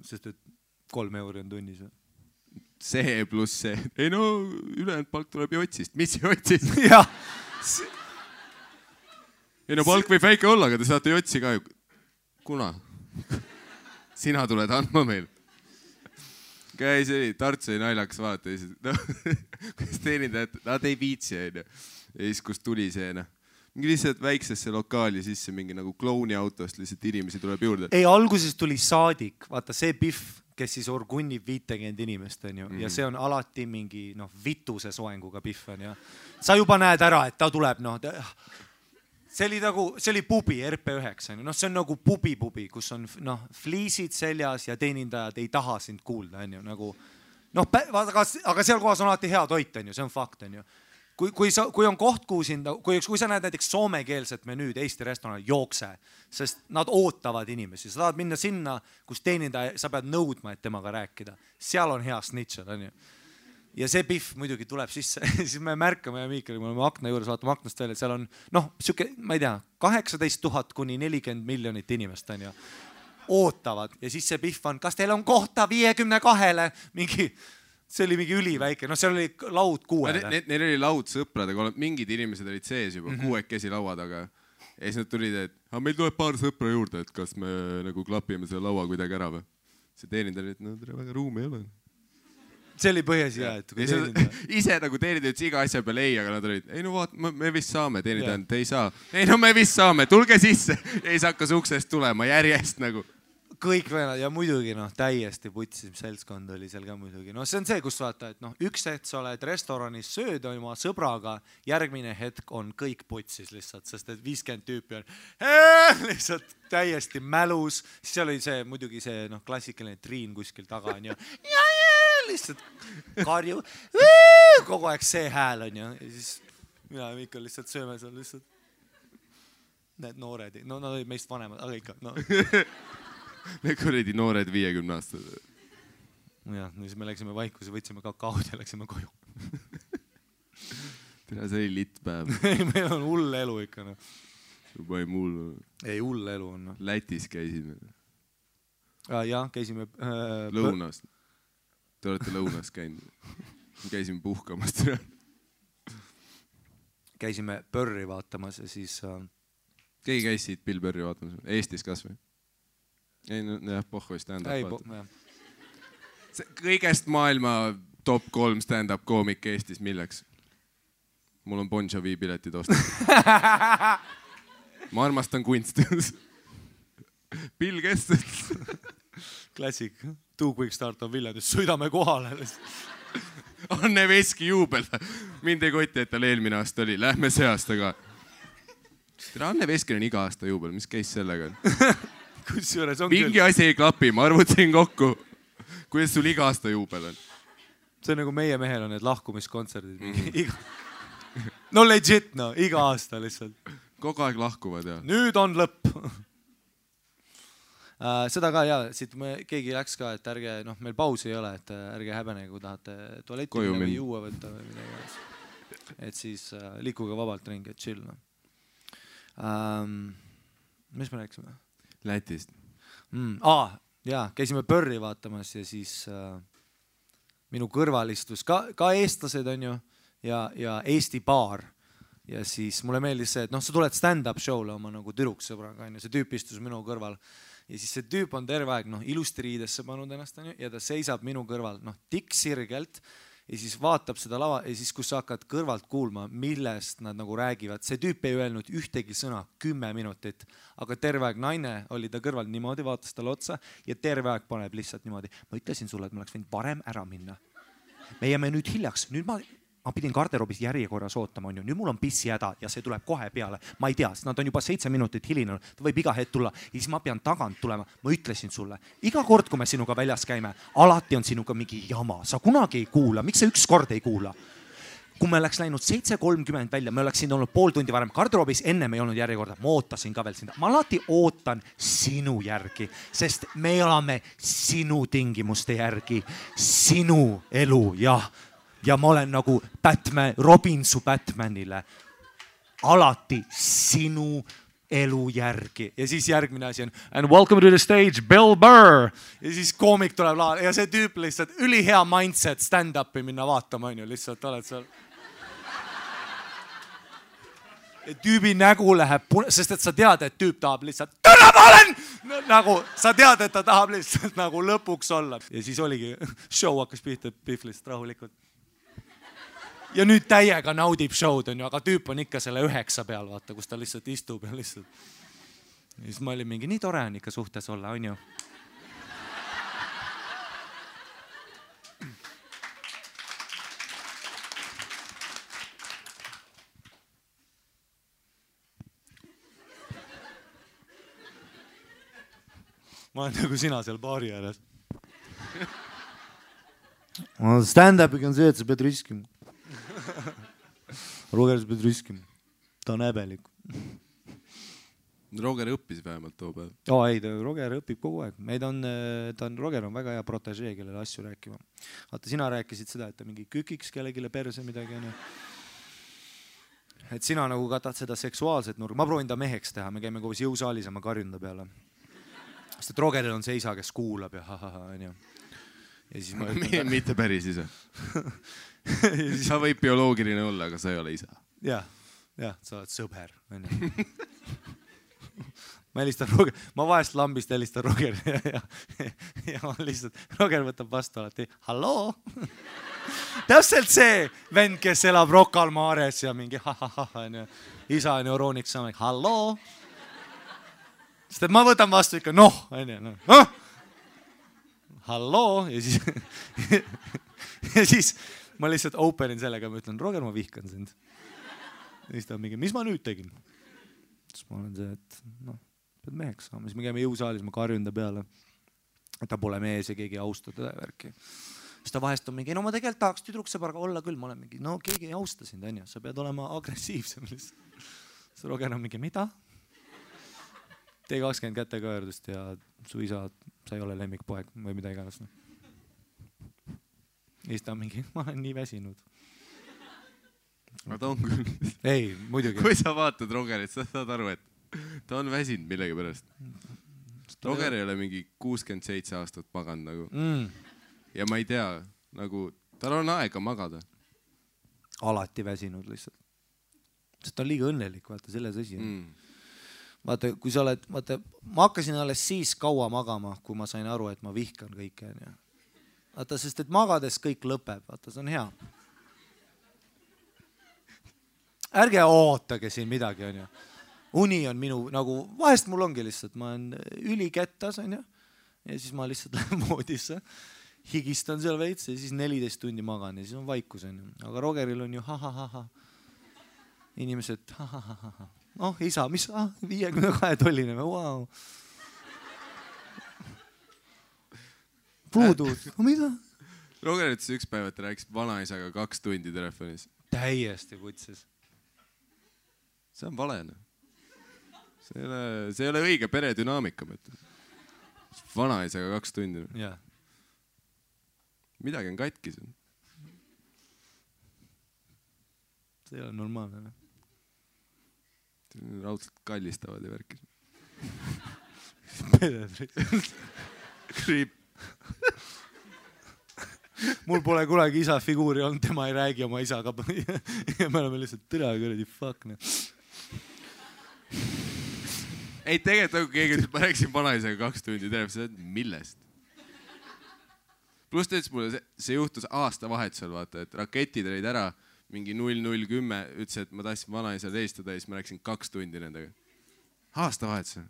Sest et 3 euri on tunnis. See pluss see. Ei no, ülejäänud palk tuleb jotsist. Mis jotsist? Jah. Ei no palk võib väike olla, aga te saate jotsi ka ju. Kuna? Sina tuled andma meil. Käis oli, Tartu oli naljaks vaata. Kus teenindajad, nad ei viitsi. Ja siis kus tuli see, mingi lihtsalt väiksesse lokaali sisse mingi nagu klouni autost lihtsalt inimesi tuleb juurde. Ei, alguses tuli saadik. Vaata, see Biff, kes siis orgunnib 50 inimest, on ju. Ja see on alati mingi vituse soenguga Biff on, ja sa juba näed ära, et ta tuleb, see oli pubi RP9, see on nagu pubi, kus on fliisid seljas ja teenindajad ei taha sind kuulda, on ju, aga seal kohas on alati hea toit, on ju, see on fakt, on ju. Kui on koht, kui sa näed näiteks soomekeelset menüüd Eesti restoranil, jookse, sest nad ootavad inimesi. Sa tahad minna sinna, kus teenindaja, sa pead nõudma, et temaga rääkida. Seal on hea snitšad, on ju. Ja see Biff muidugi tuleb sisse. Siis me märkame ja Miikeli, me oleme akna juures, vaatame aknast välja, et seal on, ma ei tea, 18 000 kuni 40 miljonit inimest, on ju. Ootavad. Ja siis see Biff on, kas teil on kohta 52-le? See oli mingi üliväike, seal oli laud 6. Neil oli laud sõpradega, mingid inimesed olid sees juba 6 laua taga. Ja siis nad tulid, et meil tuleb paar sõpra juurde, et kas me nagu klapime selle laua kuidagi ära või. See teenindaja oli, et väga ruumi ei ole. See oli põhjas hea, et kui teenindaja. Ise nagu teenindaja iga asja peale ei, aga nad olid, ei no vaat, me vist saame, teenindaja, te ei saa. Ei no me vist saame, tulge sisse. Ja siis hakkas uksest tulema järjest nagu. Kõik venad ja muidugi täiesti putsim seltskond oli seal ka muidugi. See on see, kus vaata, et üks hetk sa oled restoranis sööd oma sõbraga, järgmine hetk on kõik putsis lihtsalt, sest et 50 tüüpi on lihtsalt täiesti mälus. Siis oli see muidugi see klassikaline Triin kuskil taga on ju. Ja lihtsalt karju. Kogu aeg see hääl on ju. Ja siis mina ja Mikkel lihtsalt sööme seal lihtsalt. Need noored, nad olid meist vanemad, aga ikka, Need kuredi noored 50 aastad. Jah, siis me läksime vaikusse, võtsime kakaod ja läksime koju. Tere, see oli litt päev. Meil on hull elu ikka. Juba ei mul. Ei, hull elu on. Lätis käisime. Jah, käisime... Lõunast. Te olete lõunast käinud. Käisime puhkamast. Käisime Pörri vaatamas ja siis... Keegi käis siit Bill Pörri vaatamas? Eestis kas või? Ei, jah, pohhu stand-up. Kõigest maailma top 3 stand-up koomik Eestis, milleks? Mul on Bon Jovi piletid osta. Ma armastan kunsti. Bill Kestel. Klassik. Too quick start on Viljandis. Sõidame kohale. Anne Veski juubel. Mind ei kotti, et tal eelmine aasta oli. Lähme see aasta ka. Anne Veskil on iga aasta juubel. Mis käis sellega? Kusjuures on mingi asi ei klapi. Ma arvutasin kokku. Kuidas sul iga aasta juubel on? See on nagu meie mehel on need lahkumiskontserdid. No legit, no. Iga aasta lihtsalt. Kogu aeg lahkuvad, jah. Nüüd on lõpp. Seda ka, jaa, siit keegi läks ka, et ärge, meil pausi ei ole, et ärge häbenege, kui tahate tualetti või juua võtta või midagi. Et siis liikuge vabalt ringi, et chill. Mis me rääksime? Lätist. Jaa, käisime Pörri vaatamas ja siis minu kõrval istus ka eestlased on ju ja Eesti baar. Ja siis mulle meeldis see, et sa tuled stand-up show'le oma nagu tüdruksõbraga, see tüüp istus minu kõrval. Ja siis see tüüp on terve aeg ilusti riidesse pannud ennast ja ta seisab minu kõrval tikk sirgelt ja siis vaatab seda lava ja siis kus sa hakkad kõrvalt kuulma, millest nad nagu räägivad. See tüüp ei öelnud ühtegi sõna 10 minutit, aga terve aeg naine oli ta kõrval niimoodi, vaatas talle otsa ja terve aeg paneb lihtsalt niimoodi. Ma ütlesin sulle, et ma oleks võinud varem ära minna. Me jääme nüüd hiljaks, nüüd ma pidin garderoobis järjekorras ootama, on ju. Nüüd mul on pissi häda ja see tuleb kohe peale. Ma ei tea, nad on juba 7 minutit hilinenud. Ta võib iga hetk tulla ja siis ma pean tagant tulema. Ma ütlesin sulle, iga kord, kui me sinuga väljas käime, alati on sinuga mingi jama. Sa kunagi ei kuula. Miks sa üks kord ei kuula? Kui me oleks läinud 7:30 välja, me oleks siin olnud pool tundi varem garderoobis, enne me ei olnud järjekorda. Ma ootasin ka veel sinna. Ma alati ootan sinu järgi, sest me elame sinu tingimuste järgi, sinu elu, jah. Ja ma olen nagu Batman, Robin su Batmanile. Alati sinu elu järgi. Ja siis järgmine asi on and welcome to the stage, Bill Burr. Ja siis koomik tuleb laval ja see tüüp lihtsalt ülihea mindset stand-upi minna vaatama, on ju, lihtsalt oled seal. Ja tüübi nägu läheb, sest et sa tead, et tüüp tahab lihtsalt täna ma olen! Nagu sa tead, et ta tahab lihtsalt nagu lõpuks olla. Ja siis oligi, show hakkas pihta Pihvlist rahulikult. Ja nüüd täiega naudib show'd, on ju, aga tüüp on ikka selle 9 peal, vaata, kus ta lihtsalt istub ja lihtsalt. Ja siis ma olin mingi, nii tore on ikka suhtes olla, on ju. Ma olen nagu sina seal baari ääres. Stand-upiga on see, et sa pead riskima. Roger, sa pead riskima. Ta on häbelik. Roger õppis vähemalt too päev. Ei, Roger õpib kogu aeg. Roger on väga hea protegee, kellele asju rääkima. Vaata, sina rääkisid seda, et ta mingi kükiks kellegile perse midagi. Et sina nagu katad seda seksuaalset nurga. Ma proovin ta meheks teha. Me käime koos jõusaalis ja ma karjun ta peale. Sest et Rogeril on see isa, kes kuulab ja on ju. Ja siis ma ütlen... Mitte päris isa. Sa võib bioloogiline olla, aga sa ei ole isa. Jah, sa oled sõber. Ma helistan Roger, ma vahest lambist helistan Roger ja ma lihtsalt, Roger võtab vastu alati, halloo. Täpselt see vend, kes elab Rocca al Mares ja mingi isa on euroonik saamine, halloo. Sest et ma võtan vastu ikka, halloo ja siis ma lihtsalt openin sellega, ma ütlen, Roger, ma vihkan sind. Ja siis ta on mingi, mis ma nüüd tegin? Siis ma olen see, et pead meheks saama. Siis me käime jõusaalis, ma karjun ta peale. Et ta pole mees ja keegi ei austa teda värki. Siis ta vahest on mingi, ma tegelikult tahaks tüdruksõbraga olla küll. Ma olen mingi, keegi ei austa sind, on ju. Sa pead olema agressiivsem. Siis Roger on mingi, mida? T20 käteköördust ja su isa, sa ei ole lemmikpoeg või mida iganes. Ja siis ta on mingi, ma olen nii väsinud. Aga ta on küll. Ei, muidugi. Kui sa vaatad Rogerit, sa saad aru, et ta on väsinud millegi pärast. Roger ei ole mingi 67 aastat maganud nagu. Ja ma ei tea, nagu tal on aega magada. Alati väsinud lihtsalt. Sest ta on liiga õnnelik, vaata, selles asi. Vaata, kui sa oled, vaata, ma hakkasin alles siis kaua magama, kui ma sain aru, et ma vihkan kõike. Vaata, sest et magades kõik lõpeb, vaata, see on hea. Ärge ootage siin midagi, on ju. uni on minu nagu, vahest mul ongi lihtsalt, ma olen ülikettas onju ja siis ma lihtsalt lähen voodisse, higistan seal veits ja siis 14 tundi magan ja siis on vaikus onju, aga Rogeril on ju ha-ha-ha-ha. Inimesed ha-ha-ha-ha. Oh isa, mis 52 tolline või, wow. Puudud, mida? Roger ütles üks päev, et rääkis vanaisaga 2 tundi telefonis. Täiesti kutses. See on vale. See ei ole õige peredünaamika. Vanaisaga 2 tundi. Ja. Midagi on katkis. See ei ole normaalne. Raudselt kallistavad ja värkis. Kriip. Mul pole kunagi isa figuuri olnud, tema ei räägi oma isaga. Ja me oleme lihtsalt tõle kuradi fuck. Ei, tegelikult keegi ütles, ma rääkisin vanaisaga 2 tundi telefonis, millest? Pluss ta ütles mulle, see juhtus aastavahetusel, vaata, et raketid olid ära, mingi 0010, ütles, et ma tahtsin vanaisale helistada ja siis ma rääkisin 2 tundi nendega. Aastavahetusel.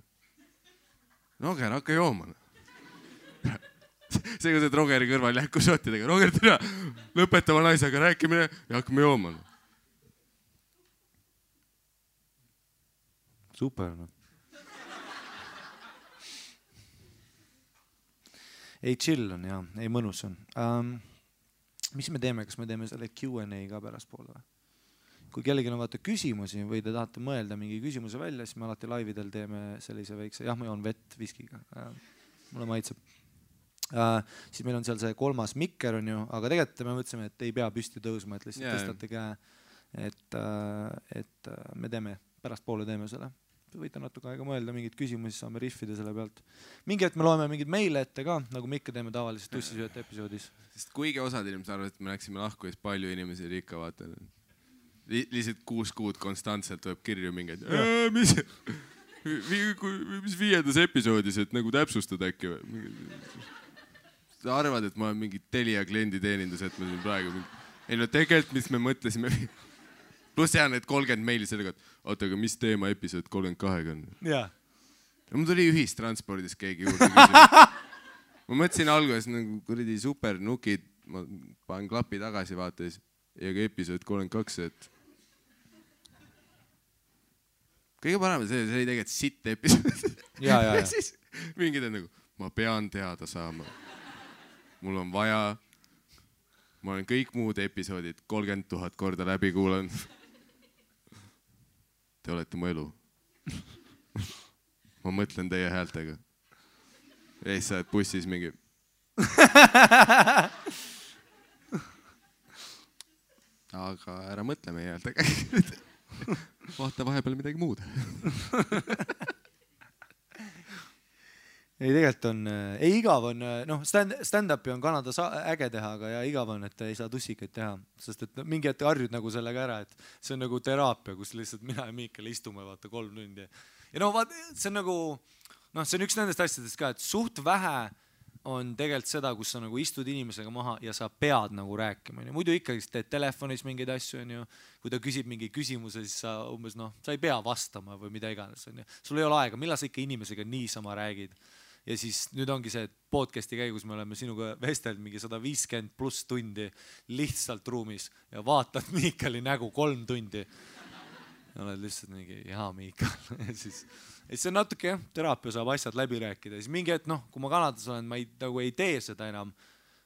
Roger, hakka jooma. See kus, et Rogeri kõrval jähku šottidega. Roger, tere, lõpeta vanaisaga rääkimine ja hakkame jooma. Super. Ei chill on ja, ei mõnus on. Mis me teeme, kas me teeme selle Q&A ka pärast poole või? Kui kellelgi on vaata küsimusi või te tahate mõelda mingi küsimuse välja, siis me alati laividel teeme sellise väikse, jah, ma joon vett viskiga. Mulle maitseb. Siis meil on seal see 3. mikker on ju, aga tegelikult me mõtlesime, et ei pea püsti tõusma, et lihtsalt tõstate käe, et me teeme, pärast poole teeme selle. Võite natuke aega mõelda, mingid küsimusi saame riffida selle pealt. Mingi hetk me loeme mingid meile ette ka, nagu me ikka teeme tavaliselt tussisööte episoodis. Sest kuigi osad inimesed arvavad, et me läksime lahku, siis palju inimesi oli ikka vaata. Lihtsalt 6 kuud konstantselt tuleb kirju mingeid. Mis 5. episoodis, et nagu täpsustad äkki või? Sa arvad, et ma olen mingi Telia kliendi teenindus, et me siin praegu... Ei no tegelikult, mis me mõtlesime... Pluss jään need 30 meili sellega, et oota, aga mis teema episood 32 on? Jaa. Ja mul tuli ühistranspordis keegi juurde küsima. Ma mõtlesin alguses nagu kuradi super nukid, ma panen klapi tagasi vaates ja ka episood 32, et... Kõige parem see oli tegelikult sitt episood. Ja. Siis mingid on nagu, ma pean teada saama. Mul on vaja, ma olen kõik muud episoodid 30 000 korda läbi kuulanud. Te olete mu elu. Ma mõtlen teie häältega. Ja siis sa oled bussis mingi. Aga ära mõtle meie häältega. Vaata vahepeal midagi muud. Ei, tegelikult on, ei igav on, noh, stand-upi on Kanada äge teha, aga ja igav on, et ei saa tussikaid teha, sest et mingi hetk harjud nagu sellega ära, et see on nagu teraapia, kus lihtsalt mina ja Miikal istume vaata 3 tundi. Ja no vaat, see on nagu, noh, see on üks nendest asjadest ka, et suht vähe on tegelikult seda, kus sa nagu istud inimesega maha ja sa pead nagu rääkima. Muidu ikkagi teed telefonis mingeid asju, on ju. Kui ta küsib mingi küsimuse, siis sa umbes, noh, sa ei pea vastama või mida iganes. Sul ei ole aega, millal sa ikka inimesega niisama räägid. Ja siis nüüd ongi see podcasti käigus me oleme sinuga vestelnud mingi 150 plus tundi lihtsalt ruumis ja vaatad Miikali nägu 3 tundi. Ja oled lihtsalt mingi, jaa Miikal. Ja siis see on natuke, jah, teraapia saab asjad läbi rääkida. Siis mingi hetk, noh, kui ma Kanadas olen, ma nagu ei tee seda enam.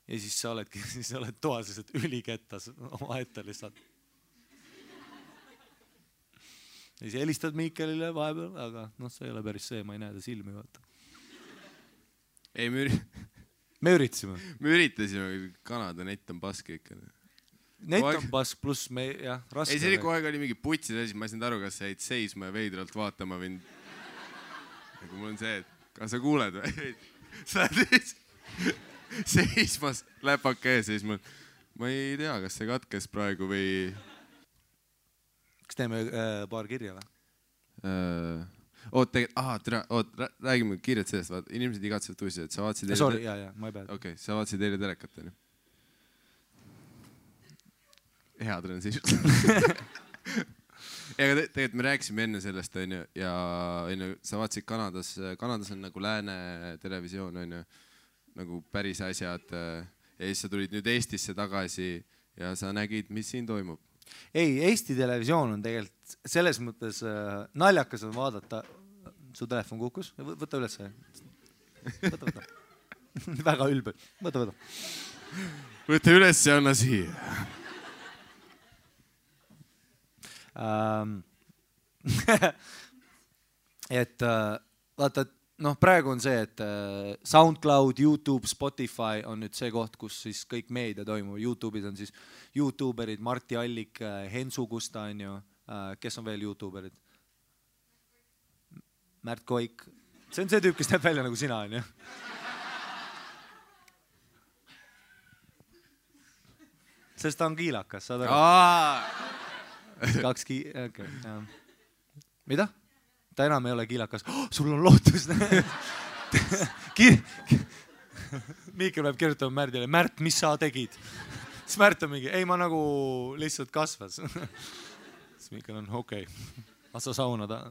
Ja siis sa oled toas lihtsalt ülikettas oma ette lihtsalt. Ja siis helistad Miikalile vahepeal, aga noh, see ei ole päris see, ma ei näe ta silmi vaata. Ei, me üritasime. Me üritasime, Kanada net on paske ikka. Net on pask pluss me, jah, raske. Ei, see oli kogu aeg oli mingi putsid asi, ma ei saanud aru, kas sa jäid seisma ja veidralt vaatama või... Aga mul on see, et kas sa kuuled või? Sa oled seismas, läpake ees, siis ma ei tea, kas see katkes praegu või... Kas teeme paar kirja või? Räägime kiirelt sellest, inimesed igatsevad tuusid, et sa vaatasid eile... Sorry, jah, ma ei pea. Okei, sa vaatasid eile telekat, on ju? Hea transition. Ega tegelikult me rääkisime enne sellest, onju, ja onju, sa vaatasid Kanadas on nagu lääne televisioon, onju, nagu päris asjad. Ja siis sa tulid nüüd Eestisse tagasi ja sa nägid, mis siin toimub. Ei, Eesti televisioon on tegelikult selles mõttes naljakas on vaadata. Su telefon kukkus? Võta üles. Võta. Väga ülbe. Võta. Võta üles ja anna siia. Et vaata, praegu on see, et SoundCloud, YouTube, Spotify on nüüd see koht, kus siis kõik meedia toimub. YouTube'is on siis YouTuberid, Marti Allik, Hensu Kusta, on ju. Kes on veel YouTuberid? Märt Koik. See on see tüüp, kes näeb välja nagu sina, on ju. Sest ta on kiilakas, saad aru? Okay. Mida? Ta enam ei ole kiilakas. Sul on lootus. Miikel peab kirjutama Märdile. Märt, mis sa tegid? Siis Märt on mingi, ei ma nagu lihtsalt kasvas. Siis Miikel on okei. Asa sauna ta.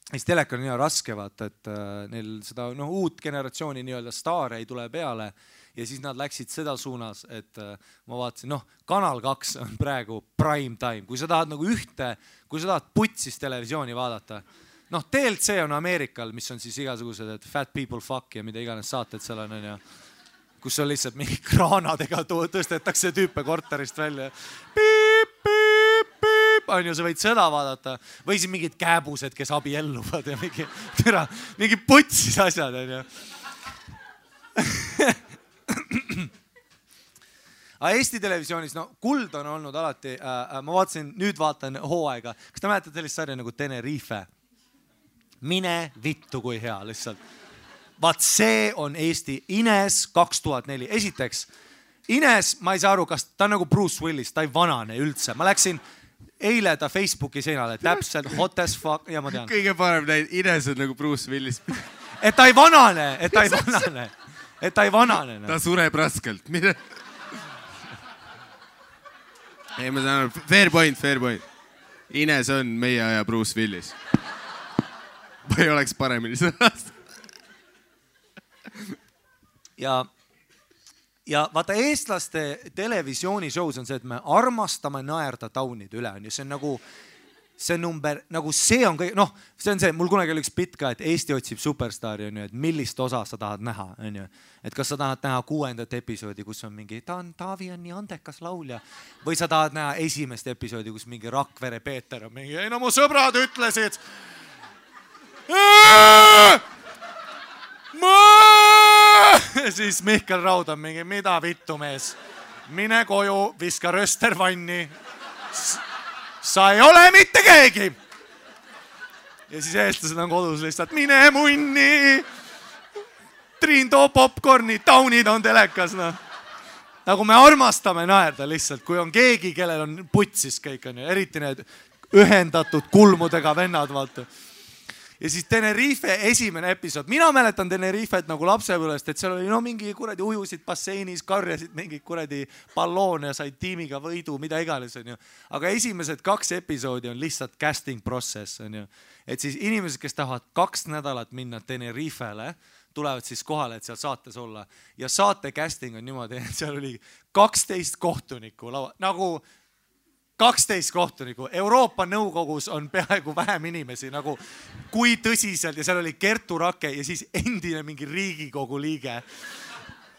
Siis teleka on nii raske vaata, et neil seda uut generatsiooni nii-öelda staare ei tule peale. Ja siis nad läksid seda suunas, et ma vaatasin, Kanal 2 on praegu prime time. Kui sa tahad nagu kui sa tahad putsis televisiooni vaadata, TLC on Ameerikal, mis on siis igasugused, et fat people fuck ja mida iganes saated seal on, ja kus on lihtsalt mingi kraanadega tõstetakse tüüpe korterist välja. Piip, piip, piip, on ju, sa võid seda vaadata. Või siis mingid kääbused, kes abielluvad ja mingi putsis asjad, on ju. Aga Eesti televisioonis, kuld on olnud alati, ma nüüd vaatan hooaega. Kas te mäletate sellist sarja nagu Tenerife? Mine vittu kui hea lihtsalt. Vaat see on Eesti Ines 2004. Esiteks, Ines, ma ei saa aru, kas ta on nagu Bruce Willis, ta ei vanane üldse. Ma läksin eile ta Facebooki seinale, täpselt hot as fuck ja ma tean. Kõige parem näid, Ines on nagu Bruce Willis. Et ta ei vanane, et ta ei vanane. Ta sureb raskelt. Ei, ma saan aru, fair point. Ines on meie aja Bruce Willis. Ma ei oleks paremini sõnast. Ja vaata, eestlaste televisiooni-shows on see, et me armastame naerda taunide üle. See on nagu, see number, nagu see on kõik, see on see, mul kunagi oli üks bitt ka, et Eesti otsib superstaari, on ju, et millist osa sa tahad näha, on ju. Et kas sa tahad näha 6. episoodi, kus on mingi, Taavi on nii andekas laulja. Või sa tahad näha 1. episoodi, kus mingi Rakvere Peeter on mingi, ei mu sõbrad ütlesid. Siis Mihkel Raud on mingi, mida vittu mees? Mine koju, viska röster vanni. Sa ei ole mitte keegi. Ja siis eestlased on kodus lihtsalt, mine munni. Triin too popcorni, taunid on telekas. Nagu me armastame naerda lihtsalt, kui on keegi, kellel on putsis kõik, on ju. Eriti need ühendatud kulmudega vennad, vaata. Ja siis Tenerife esimene episood. Mina mäletan Tenerifet nagu lapsepõlvest, et seal oli mingi kuradi ujusid basseinis, karjasid mingi kuradi balloone ja said tiimiga võidu, mida iganes, on ju. Aga esimesed 2 episoodi on lihtsalt casting process, on ju. Et siis inimesed, kes tahavad 2 nädalat minna Tenerifele, tulevad siis kohale, et seal saates olla. Ja saate casting on niimoodi, et seal oli 12 kohtunikku, nagu 12 kohtuniku. Euroopa Nõukogus on peaaegu vähem inimesi, nagu kui tõsiselt, ja seal oli Kertu Rake ja siis endine mingi Riigikogu liige.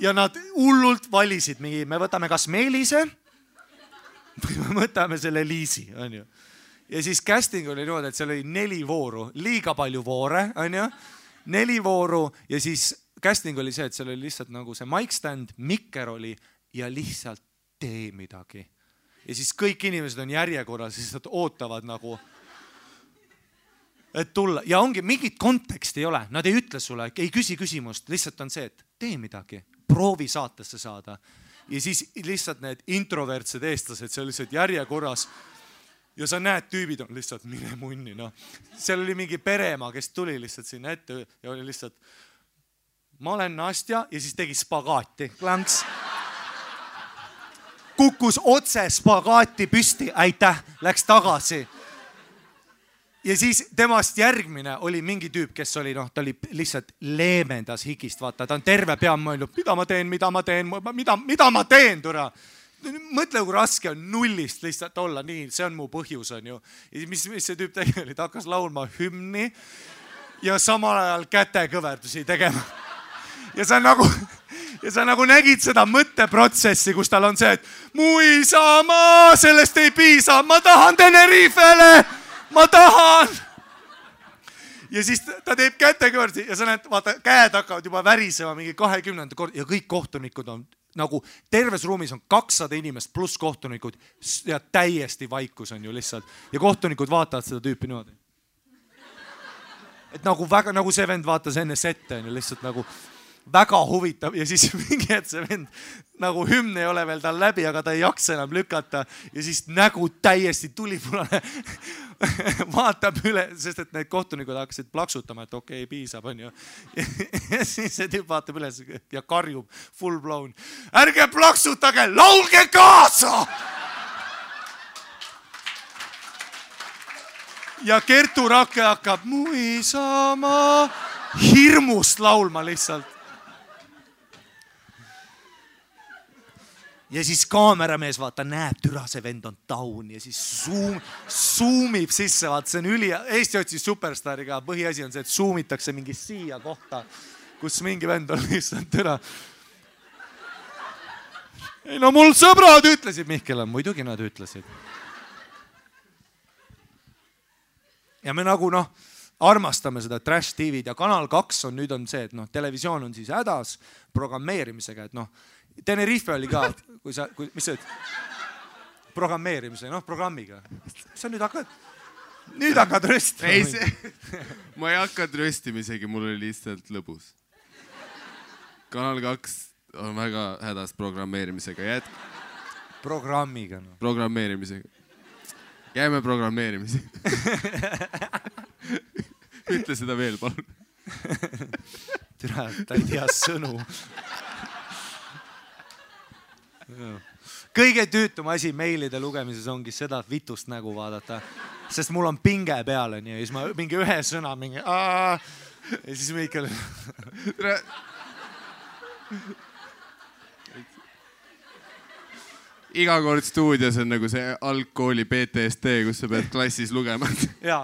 Ja nad hullult valisid mingi, me võtame kas Meelise või me võtame selle Liisi, on ju. Ja siis casting oli niimoodi, et seal oli 4 vooru, liiga palju voore, on ju. 4 vooru ja siis casting oli see, et seal oli lihtsalt nagu see mic stand, mikker oli ja lihtsalt tee midagi. Ja siis kõik inimesed on järjekorras ja siis nad ootavad nagu, et tulla. Ja ongi, mingit konteksti ei ole. Nad ei ütle sulle, ei küsi küsimust. Lihtsalt on see, et tee midagi. Proovi saatesse saada. Ja siis lihtsalt need introvertsed eestlased seal lihtsalt järjekorras. Ja sa näed, tüübid on lihtsalt mine munni. Seal oli mingi pereema, kes tuli lihtsalt sinna ette ja oli lihtsalt ma olen Nastja ja siis tegi spagaati. Klanks. kukkus otse spagaati püsti, aitäh, läks tagasi. Ja siis temast järgmine oli mingi tüüp, kes oli, ta oli lihtsalt leemendas higist, vaata, ta on terve pea mõelnud, mida ma teen, türa. Mõtle, kui raske on nullist lihtsalt olla, nii, see on mu põhjus, on ju. Ja mis see tüüp tegi oli, ta hakkas laulma hümni ja samal ajal kätekõverdusi tegema. Ja sa nagu nägid seda mõtteprotsessi, kus tal on see, et mu isamaa, sellest ei piisa, ma tahan Tenerifele, ma tahan. Ja siis ta teeb kätekõverdusi ja sa näed, vaata, käed hakkavad juba värisema mingi 20. kord ja kõik kohtunikud on nagu terves ruumis on 200 inimest pluss kohtunikud ja täiesti vaikus on ju lihtsalt. Ja kohtunikud vaatavad seda tüüpi niimoodi. Et nagu väga, nagu see vend vaatas enne sette on ju lihtsalt nagu väga huvitav ja siis mingi, et see vend nagu hümn ei ole veel tal läbi, aga ta ei jaksa enam lükata ja siis nägu täiesti tulipulane vaatab üle, sest et need kohtunikud hakkasid plaksutama, et okei, piisab, on ju. Ja siis see tüüp vaatab üles ja karjub full blown. Ärge plaksutage, laulge kaasa! Ja Kertu Rakke hakkab mu isamaa hirmust laulma lihtsalt. Ja siis kaameramees vaata näeb, türa see vend on down ja siis zoomib sisse, vaata see on Eesti otsis superstariga, põhiasi on see, et zoomitakse mingi siia kohta, kus mingi vend on lihtsalt türa. Ei no mul sõbrad ütlesid, Mihkel on, muidugi nad ütlesid. Ja me nagu armastame seda Trash TV-d ja Kanal 2 on nüüd on see, et televisioon on siis hädas programmeerimisega, et Tenerife oli ka, mis sa ütled? Programmeerimise, programmiga. Sa nüüd hakkad röstima. Ei, ma ei hakanud röstima isegi, mul oli lihtsalt lõbus. Kanal 2 on väga hädas programmeerimisega. Programmiga. Programmeerimisega. Jääme programmeerimise. Ütle seda veel, palun. Türa, ta ei tea sõnu. Kõige tüütum asi meilide lugemises ongi seda vitust nägu vaadata, sest mul on pinge peal ja siis ma mingi ühe sõna mingi ja siis Mihkel iga kord stuudios on nagu see algkooli PTSD, kus sa pead klassis lugema. Ja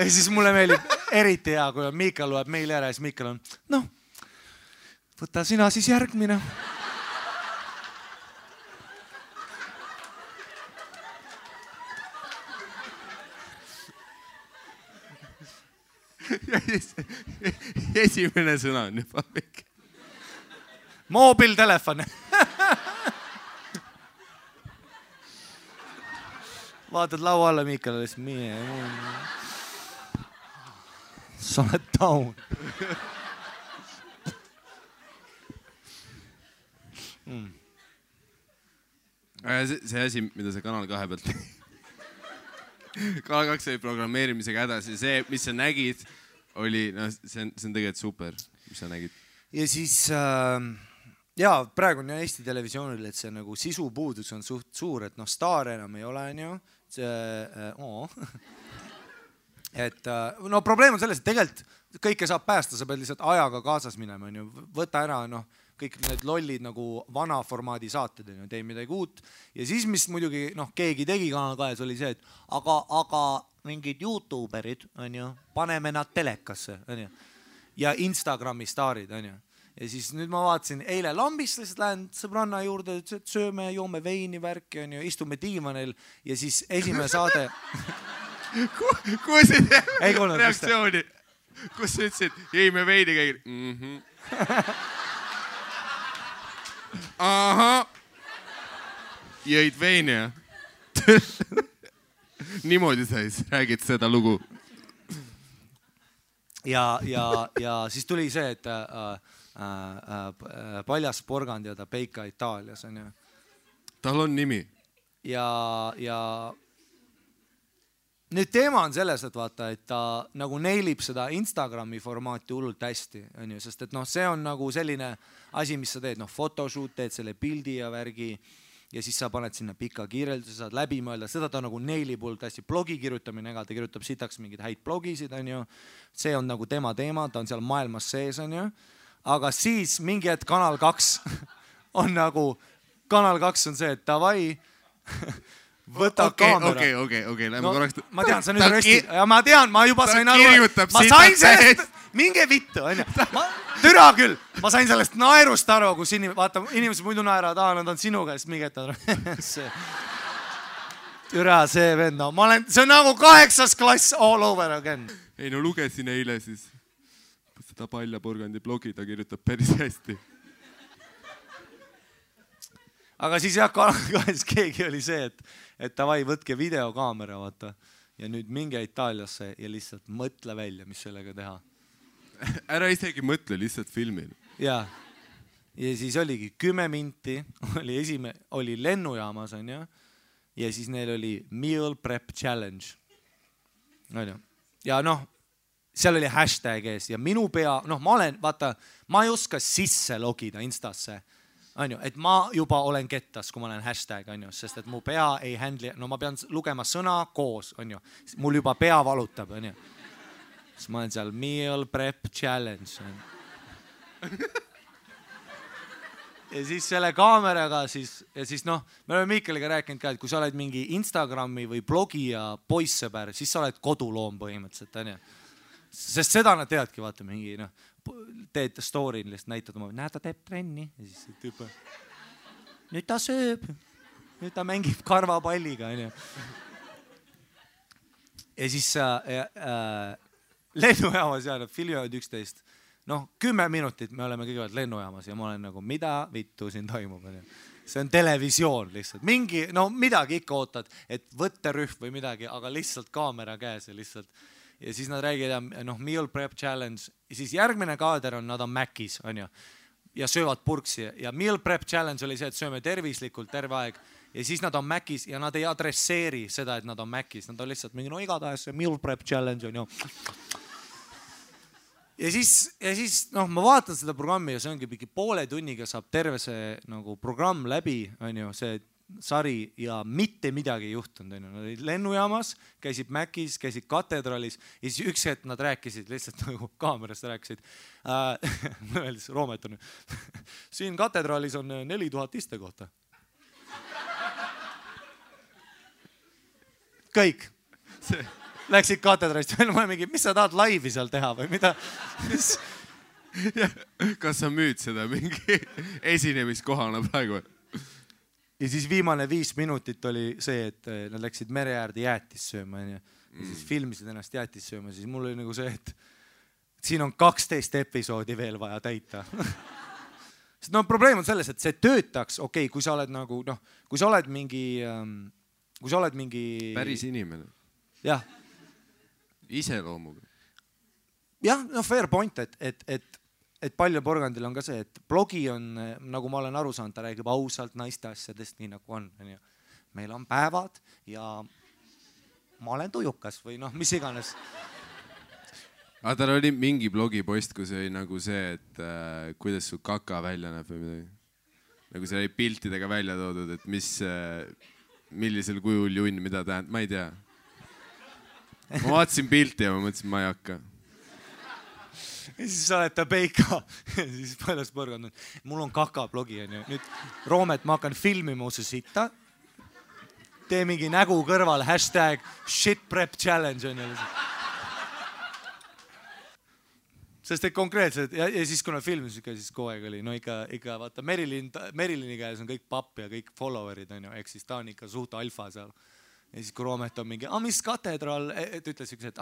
siis mulle meeldib eriti hea, kui Mihkel loeb meili ära ja siis Mihkel on võta sina siis järgmine. Esimene sõna on juba väike. Moobiltelefon. Vaatad laua alla Mihkel, sa oled down. See asi, mida sa Kanal 2 pealt Kanal 2 oli programmeerimisega hädas ja see, mis sa nägid, oli, see on tegelikult super, mis sa nägid. Ja siis, praegu on Eesti televisioonil, et see nagu sisupuudus on suht suur, et staar enam ei ole, et probleem on selles, et tegelikult kõike saab päästa, sa pead lihtsalt ajaga kaasas minema, võta ära, kõik need lollid nagu vana formaadi saated, tee midagi uut. Ja siis, mis muidugi keegi tegi Kanal 2, oli see, et aga mingid YouTuberid, paneme nad telekasse, ja Instagrami staarid, ja siis nüüd ma vaatasin, eile lambist lihtsalt lähen sõbranna juurde, et sööme, joome veini värki, istume diivanil ja siis esimene saade. Kus reaktsiooni? Kus sa ütlesid, jõime veini käigil? Aha. Jõid veini, jah? Niimoodi sa räägid seda lugu. Ja siis tuli see, et Paljas porgand ja ta Peika Itaalias on ju. Tal on nimi. Ja nüüd teema on selles, et vaata, et ta nagu neilib seda Instagrami formaati hullult hästi, on ju, sest et see on nagu selline asi, mis sa teed, photoshoot, teed selle pildi ja värgi ja siis sa paned sinna pika kirjelduse, saad läbi mõelda, seda ta nagu neilib hullult hästi. Blogi kirjutamine, ega ta kirjutab sitaks mingeid häid blogisid, on ju. See on nagu tema teema, ta on seal maailmas sees, on ju. Aga siis mingi hetk Kanal 2 on nagu, Kanal 2 on see, et davai, võta kaamera. Okei, lähme korraks. Ma tean, sa nüüd rösti. Ja ma tean, ma juba sain aru. Ma sain sellest, minge vittu, on ju. Türa küll, ma sain sellest naerust aru, kus inimesed muidu naeravad, nad on sinuga, siis mingi hetk. Türa see vend, no ma olen, see on nagu 8. klass all over again. Ei no lugesin eile siis seda Palja Porgandi blogi, ta kirjutab päris hästi. Aga siis jah, kahjuks keegi oli see, et davai, võtke videokaamera, vaata. Ja nüüd minge Itaaliasse ja lihtsalt mõtle välja, mis sellega teha. Ära isegi mõtle, lihtsalt filmil. Ja siis oligi 10 minti, oli lennujaamas, on ju. Ja siis neil oli Meal Prep Challenge. Ja noh, seal oli hashtag ees ja minu pea, noh ma ei oska sisse logida Instasse. Et ma juba olen kettas, kui ma olen hashtag, sest et mu pea ei handle, no ma pean lugema sõna koos, mul juba pea valutab, siis ma olen seal Meal Prep Challenge. Ja siis selle kaameraga ja siis noh, me oleme Miikeliga rääkinud ka, et kui sa oled mingi Instagrami või blogi ja poissõber, siis sa oled koduloom põhimõtteliselt, sest seda nad teadki, vaata mingi, noh, teed story, lihtsalt näitad oma, näed, ta teeb trenni ja siis tüüp, nüüd ta sööb, nüüd ta mängib karvapalliga, ja siis lennujaamas ja filmivad 11, noh 10 minutit me oleme kõigepealt lennujaamas ja ma olen nagu, mida vittu siin toimub, see on televisioon lihtsalt, mingi, no midagi ikka ootad, et võtterühm või midagi, aga lihtsalt kaamera käes ja lihtsalt. Ja siis nad räägivad, noh, Meal Prep Challenge, ja siis järgmine kaader on, nad on Mäkis, on ju, ja söövad purksi. Ja Meal Prep Challenge oli see, et sööme tervislikult terve aeg. Ja siis nad on Mäkis ja nad ei adresseeri seda, et nad on Mäkis. Nad on lihtsalt mingi, no igatahes see Meal Prep Challenge on ju. Ja siis, noh, ma vaatan seda programmi ja see ongi mingi poole tunniga saab terve see nagu programm läbi, on ju, see sari ja mitte midagi ei juhtunud. Nad olid lennujaamas, käisid Mäkis, käisid katedraalis ja siis üks hetk nad rääkisid lihtsalt nagu kaamerast rääkisid. Öeldes Roomet on, siin katedraalis on 4000 istekohta. Kõik. Läksid katedraalist, mis sa tahad laivi seal teha või mida? Kas sa müüd seda mingi esinemiskohana praegu? Ja siis viimane 5 minutit oli see, et nad läksid mere äärde jäätis sööma ja siis filmisid ennast jäätis sööma, siis mul oli nagu see, et siin on 12 episoodi veel vaja täita. Sest no probleem on selles, et see töötaks, okei, kui sa oled nagu, noh, kui sa oled mingi päris inimene. Jah. Iseloomuga. Jah, no fair point, et Palja Porgandil on ka see, et blogi on, nagu ma olen aru saanud, ta räägib ausalt naiste asjadest, nii nagu on. Meil on päevad ja ma olen tujukas või noh, mis iganes. Aga tal oli mingi blogipost, kus oli nagu see, et kuidas su kaka välja näeb või midagi. Nagu see oli piltidega välja toodud, et millisel kujul junn, mida tähendab, ma ei tea. Ma vaatasin pilti ja ma mõtlesin, ma ei hakka. Ja siis sa oled ta peika ja siis Paljas Porgand on, mul on kaka blogi, on ju. Nüüd Roomet, ma hakkan filmima su sita. Tee mingi nägu kõrval, hashtag shit prep challenge on ju. Sest et konkreetselt, ja siis kuna filmis siis kogu aeg oli, no ikka vaata, Merilini käes on kõik papp ja kõik followerid on ju, ehk siis ta on ikka suht alfa seal. Ja siis kui Roomet on mingi, mis katedraal, et ütles üks, et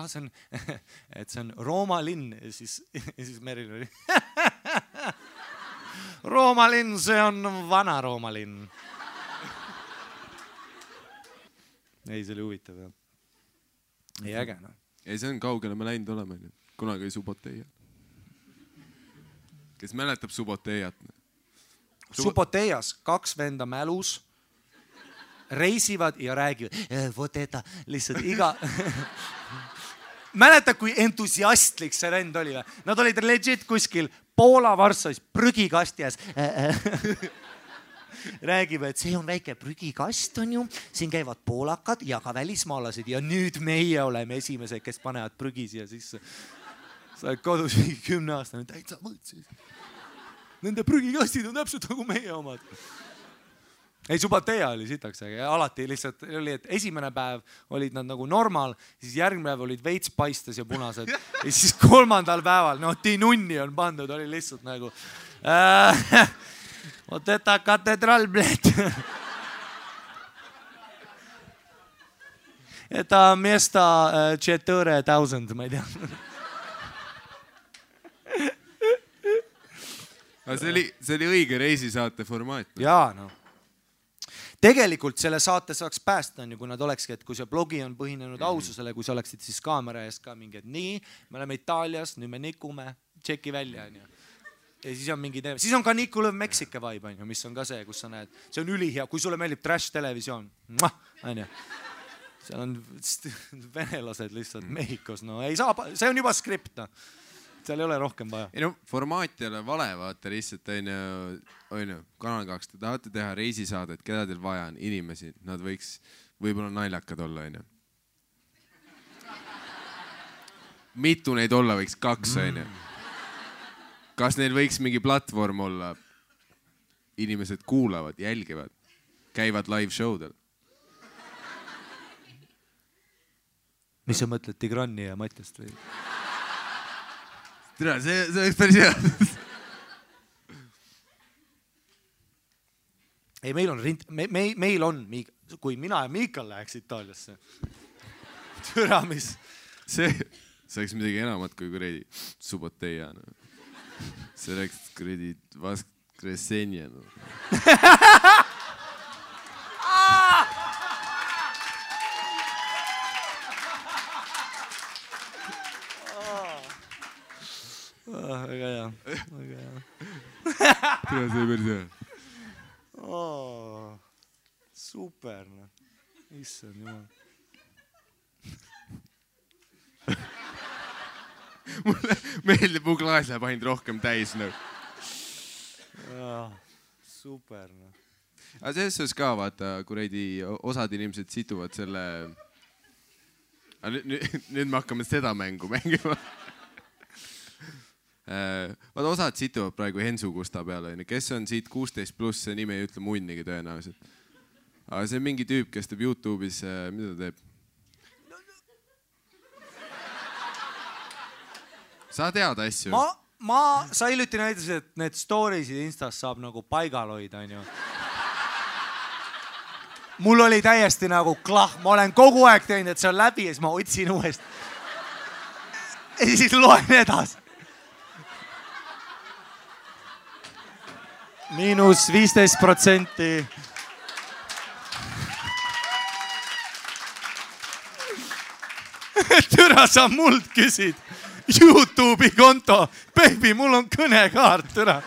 see on Rooma linn ja siis Merilin oli Rooma linn, see on vana Rooma linn. Ei, see oli huvitav. Ei äge, no. Ei, see on kaugele me läinud oleme. Kunagi oli Suboteiat. Kes mäletab Suboteiat? Suboteias 2 venda mälus reisivad ja räägivad, vot eta, lihtsalt iga... Mäletad, kui entusiastlik see rend oli? Nad olid legit kuskil Poola Varssavis prügikasti ees. räägib, et see on väike prügikast, on ju, siin käivad poolakad ja ka välismaalased ja nüüd meie oleme esimesed, kes panevad prügi siia sisse. Sa oled kodus 10 aastane, täitsa mõtsid. Nende prügikastid on täpselt nagu meie omad. Ei, Subatea oli sitaks, aga alati lihtsalt oli, et esimene päev olid nad nagu normaal, siis järgmine päev olid veits paistes ja punased. Ja siis 3. päeval, no tinunni on pandud, oli lihtsalt nagu oteta katedral, bled. Eta miesta 4000, ma ei tea. Aga see oli õige reisisaate formaat. Jaa, no. Tegelikult selle saate saaks päästa, on ju, kui nad olekski, et kui see blogi on põhinenud aususele, kui sa oleksid siis kaamera ees ka mingi, et nii, me oleme Itaalias, nüüd me nikume, tšeki välja, on ju. Ja siis on mingi teema. Siis on ka Niku Lõv Meksike vibe, on ju, mis on ka see, kus sa näed. See on ülihea, kui sulle meeldib trash televisioon, on ju. Seal on venelased lihtsalt Mehhikos, no ei saa, see on juba skript, no. Seal ei ole rohkem vaja. Ei no, formaat ei ole vale, vaata lihtsalt on ju, Kanal 2, te tahate teha reisisaadet, keda teil vaja on, inimesi, nad võiks võib-olla naljakad olla, on ju. Mitu neid olla võiks 2, on ju. Kas neil võiks mingi platvorm olla? Inimesed kuulavad, jälgivad, käivad live showdel. Mis sa mõtled, Tigrani ja Matjast või? Tere, see oleks päris hea. Ei, meil on, kui mina ja Miikal läheks Itaaliasse. Türa, mis? See oleks midagi enamat kui kuredi Suboteia. See oleks kuredi Vaskresenja. Väga hea. Tere, see päris hea. Super, no. Issand jumal. Mulle meeldib, mu klaas läheb ainult rohkem täis. No. Super, no. Aga selles suhtes ka, vaata, kuredi osad inimesed situvad selle... Nüüd me hakkame seda mängu mängima. Vaata, osad situvad praegu Hensu Kusta peale, kes on siit 16+, see nime ei ütle munnigi tõenäoliselt. Aga see on mingi tüüp, kes teeb YouTube'is, mida ta teeb? Sa tead asju? Sa hiljuti näitasid, et need storiesid Instas saab nagu paigal hoida, on ju. Mul oli täiesti nagu klah, ma olen kogu aeg teinud, et see on läbi ja siis ma otsin uuesti. Ja siis loen edasi. -15%. Türa, sa muld küsid YouTube'i konto. Baby, mul on kõnekaart, türa.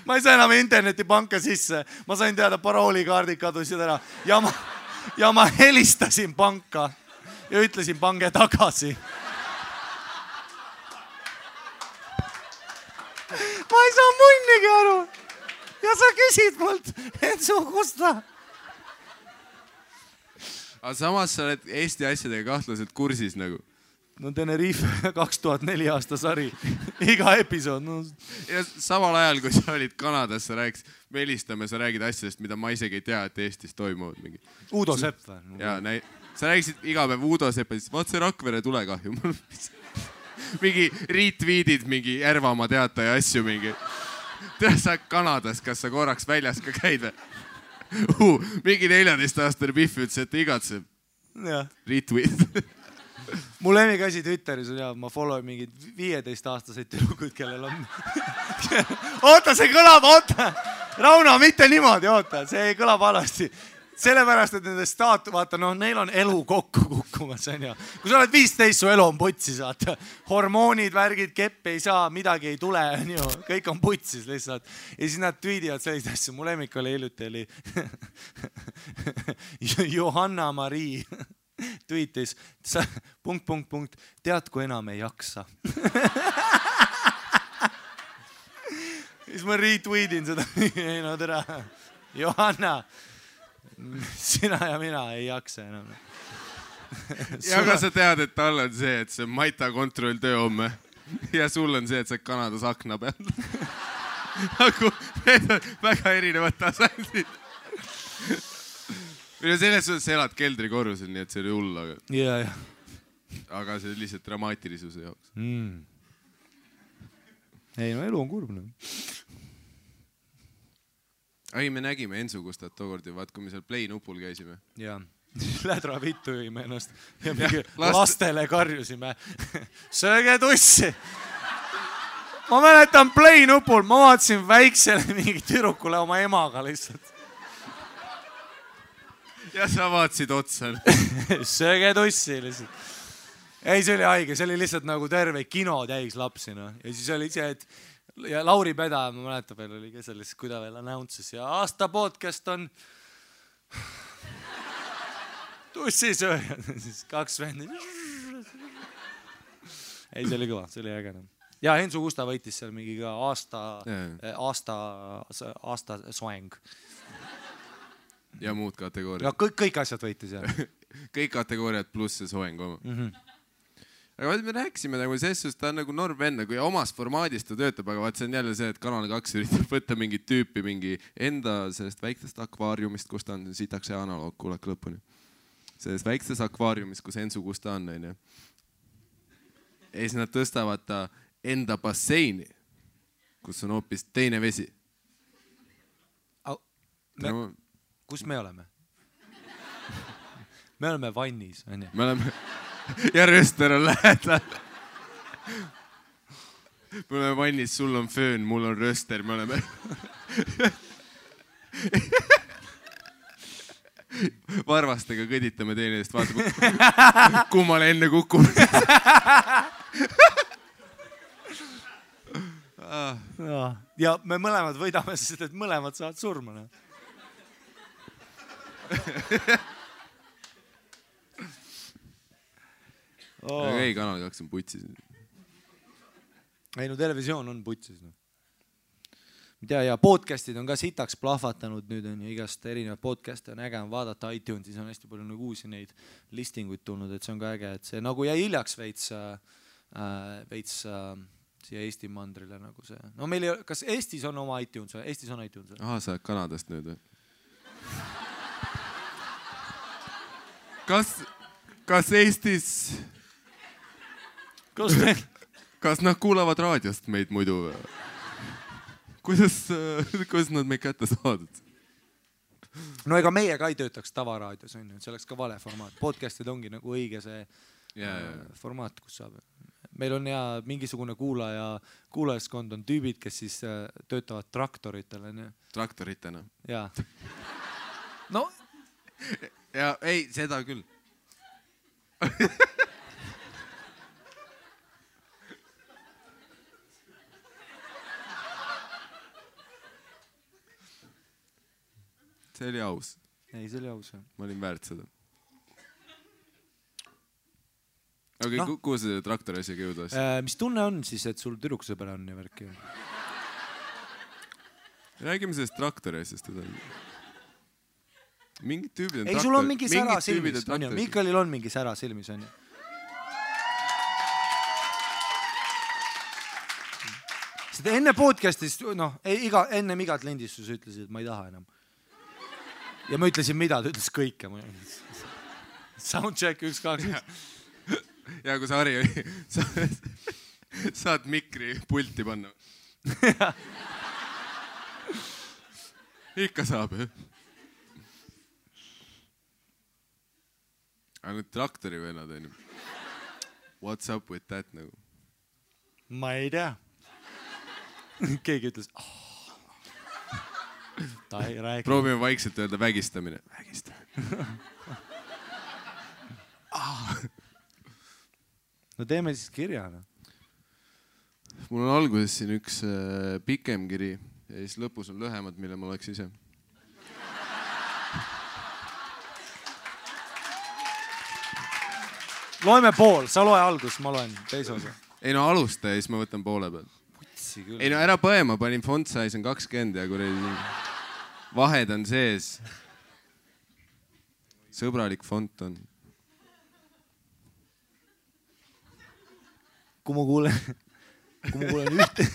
Ma ei saa enam internetipanka sisse. Ma sain teada, paroolikaardid kadusid ära. Ja ma helistasin panka ja ütlesin, pange tagasi. Ma ei saa munnigi aru. Ja sa küsid mult, et su Kusta. Aga samas sa oled Eesti asjadega kahtlaselt kursis nagu. No Tenerife 2004 aasta sari. Iga episood. No. Ja samal ajal, kui sa olid Kanadas, sa rääkis, me helistame, sa räägid asjadest, mida ma isegi ei tea, et Eestis toimuvad mingi. Udo Sepp või? Ja, sa rääkisid iga päev Udo Sepp, vaat see Rakvere tulekahju. Mingi retweetid, mingi Järvamaa teataja asju mingi. Tea sa Kanadas, kas sa korraks väljas ka käid või? Mingi 14-aastane Pihv ütles, et igatseb. Retweet. Mu lemmikasi Twitteris on ja ma follow mingid 15-aastaseid tüdrukud, kellel on... Oota, see kõlab, oota! Rauno, mitte niimoodi, oota, see kõlab alasti. Sellepärast, et nende vaata, noh, neil on elu kokku kukkumas, on ju. Kui sa oled 15, su elu on putsis, vaata. Hormoonid, värgid, kepp ei saa, midagi ei tule, on ju. Kõik on putsis lihtsalt. Ja siis nad tweedivad sellist asju. Mu lemmik oli hiljuti, oli Johanna Marii tweetis, tead, kui enam ei jaksa. siis ma retweetin seda. Ei no tere. Johanna, sina ja mina ei jaksa enam. Ja aga sa tead, et tal on see, et see Maita kontrolltöö homme ja sul on see, et sa Kanadas akna peal. Need on väga erinevad tasandid. Selles suhtes sa elad keldrikorrusel, nii et see oli hull, aga see lihtsalt dramaatilisuse jaoks. Ei no elu on kurb. Ei, me nägime Ensu Gustat tookord ja vaat, kui me seal play nupul käisime. Jaa. Lädra vittu jõime ennast ja mingi lastele karjusime. Sööge tussi! Ma mäletan play nupul, ma vaatasin väiksele mingi tüdrukule oma emaga lihtsalt. Ja sa vaatasid otsa. Sööge tussi lihtsalt. Ei, see oli haige, see oli lihtsalt nagu terve kino täis lapsi. No. Ja siis oli see, et ja Lauri Peda, ma mäletan veel, oli ka selles, kui ta veel announces ja aasta podcast on tussisööjad. Siis 2 vendi. Ei, see oli kõva, see oli äge. Ja Ensu Gusta võitis seal mingi ka aasta soeng. Ja muud kategooriad. Ja kõik asjad võitis jah. Kõik kategooriad pluss see soeng oma. Aga me rääksime nagu selles, ta on nagu norm enne, kui omas formaadis ta töötab, aga vaat see on jälle see, et Kanal 2 üritab võtta mingit tüüpi mingi enda sellest väiksest akvaariumist, kus ta on, sitaks see analoog, kuulake lõpuni. Selles väikses akvaariumist, kus Ensu Gusta on. Ja siis nad tõstavad ta enda basseini, kus on hoopis teine vesi. Kus me oleme? Me oleme vannis. Me oleme... Ja röster on lähedal. Me oleme vannis, sul on föön, mul on röster, me oleme... Varvastega kõditame teineteist, vaatame, kummale enne kukub. Ja me mõlemad võidame, sest et mõlemad saavad surma. Aga ei, Kanal 2 on putsis. Ei, no televisioon on putsis. Ja podcastid on ka sitaks plahvatanud nüüd on ja igast erinevad podcast'e on äge on vaadata iTunesis on hästi palju nagu uusi neid listinguid tulnud, et see on ka äge, et see nagu jäi hiljaks veits siia Eesti mandrile nagu see. No meil ei, kas Eestis on oma iTunes või? Eestis on iTunes või? Aha, sa oled Kanadast nüüd või? Kas Eestis... Kas nad kuulavad raadiost meid muidu? Kuidas nad meid kätte saadud? No ega meie ka ei töötaks tavaraadios, on ju, see oleks ka vale formaat. Podcastid ongi nagu õige see formaat, kus saab. Meil on ja mingisugune kuulajaskond on tüübid, kes siis töötavad traktoritel. Traktoritena? Jaa. No. Ja ei, seda küll. See oli aus. Ei, see oli aus. Ma olin väärt seda. Aga kuhu see traktori asjaga jõudas? Mis tunne on siis, et sul tüdruksõber on ja värki? Räägime sellest traktori asjast. Mingid tüübid on traktori. Ei, sul on mingi sära silmis. Mikalil on mingi sära silmis, on ju. Seda enne podcastist, ennem igat lindistus ütlesid, et ma ei taha enam. Ja ma ütlesin mida, ta ütles kõike. Soundcheck 1, 2. Ja kui sa Harri oli, saad mikri pulti panna. Ikka saab, jah. Aga nüüd traktori vennad on ju. What's up with that nagu? Ma ei tea. Keegi ütles, ta ei räägi. Proovime vaikselt öelda vägistamine. Vägistamine. No teeme siis kirja. Mul on alguses siin üks pikem kiri ja siis lõpus on lühemad, mille ma oleks ise. Loeme pool, sa loe algus, ma loen teise osa. Ei no alusta ja siis ma võtan poole peal. putsi küll. Ei no ära põe, ma panin font size on 20 ja kuradi vahed on sees. Sõbralik font on. Kui ma kuulen ühte...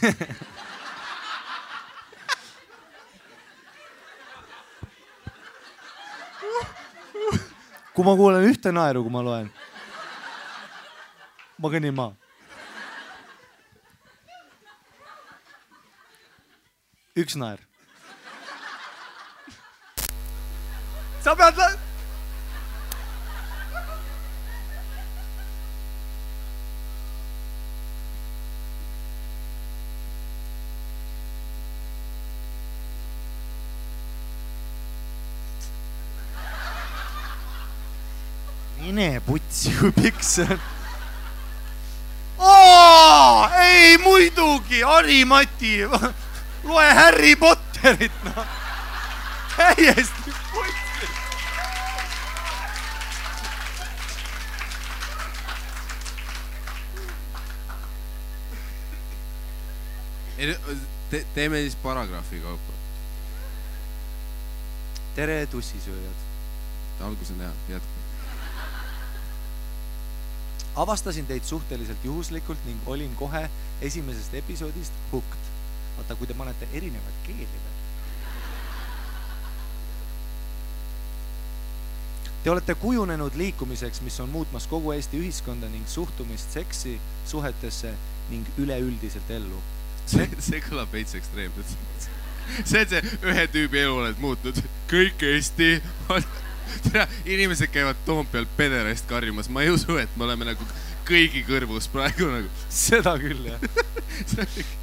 Kui ma kuulen ühte naeru, kui ma loen, ma kõnnin maa. Üks naer. Sa pead... Mine putsi, kui pikk see on. Ei, muidugi, Harri-Mati, loe Harry Potterit, no. Täiesti putsi. Teeme siis paragrahvi kaupa. Tere, tussisööjad. Algus on hea, jätku. Avastasin teid suhteliselt juhuslikult ning olin kohe esimesest episoodist hooked. Vaata, kui te panete erinevad keeli veel. Te olete kujunenud liikumiseks, mis on muutmas kogu Eesti ühiskonda ning suhtumist seksi, suhetesse ning üleüldiselt ellu. See kõlab veits ekstreemselt. See on see ühe tüübi elu oled muutnud. Kõik Eesti... Inimesed käivad Toompeal pederast karjumas. Ma ei usu, et me oleme nagu kõigi kõrvus praegu nagu. Seda küll, jah.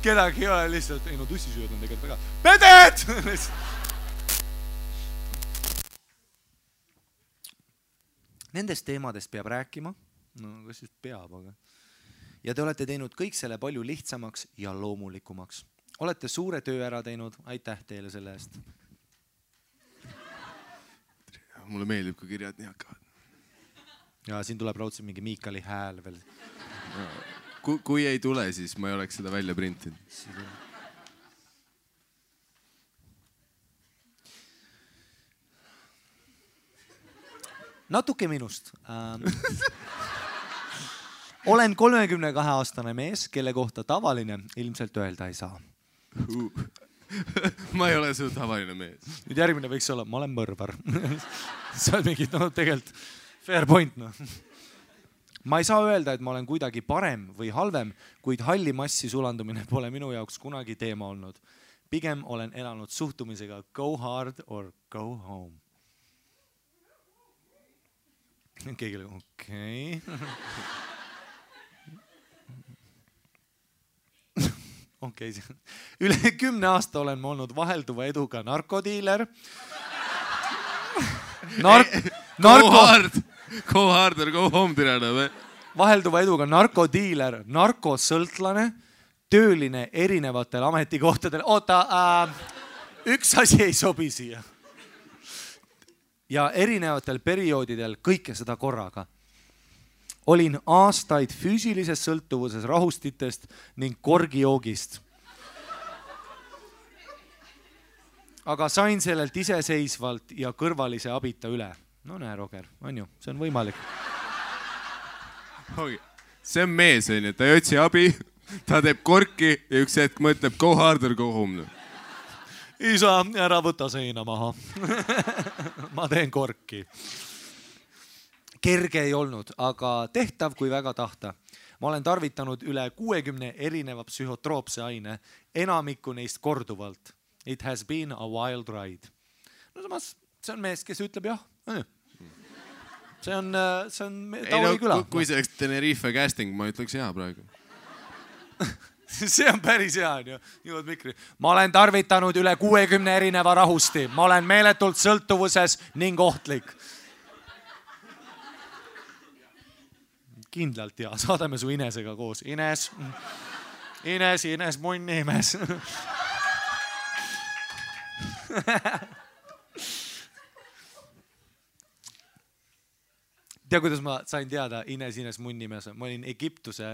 Kedagi ei ole lihtsalt, ei no tussisööd on tegelikult väga. Peded! Nendest teemadest peab rääkima. No, kas siis peab, aga... Ja te olete teinud kõik selle palju lihtsamaks ja loomulikumaks. Olete suure töö ära teinud. Aitäh teile selle eest. Mulle meeldib, kui kirjad nii hakkavad. Ja siin tuleb raudselt mingi Miikali hääl veel. Kui ei tule, siis ma ei oleks seda välja printinud. Natuke minust. Olen 32-aastane mees, kelle kohta tavaline ilmselt öelda ei saa. Ma ei ole su tavaline mees. Nüüd järgmine võiks olla, ma olen mõrvar. See on mingi, no tegelikult fair point, no. Ma ei saa öelda, et ma olen kuidagi parem või halvem, kuid halli massi sulandumine pole minu jaoks kunagi teema olnud. Pigem olen elanud suhtumisega go hard or go home. Keegi oli, okei. Okei. Üle 10 aasta olen ma olnud vahelduva eduga narkodiiler. Go hard or go home tirana või? Vahelduva eduga narkodiiler, narkosõltlane, tööline erinevatel ametikohtadel. Oota, üks asi ei sobi siia. Ja erinevatel perioodidel kõike seda korraga. Olin aastaid füüsilises sõltuvuses rahustitest ning korgijoogist. Aga sain sellelt iseseisvalt ja kõrvalise abita üle. No näe, Roger, on ju, see on võimalik. See on mees, ta ei otsi abi, ta teeb korki ja üks hetk mõtleb go hard or go home. Isa, ära võta seina maha. Ma teen korki. Kerge ei olnud, aga tehtav kui väga tahta. Ma olen tarvitanud üle 60 erineva psühhotroopse aine, enamikku neist korduvalt. It has been a wild ride. No samas, see on mees, kes ütleb jah. See on Tauli küla. Kui see oleks Tenerife casting, ma ütleks hea praegu. See on päris hea, jõud mikri. Ma olen tarvitanud üle 60 erineva rahusti. Ma olen meeletult sõltuvuses ning ohtlik. Kindlalt ja saadame su Inesega koos. Ines, munnimees. tea, kuidas ma sain teada Ines Munnimees? Ma olin Egiptuse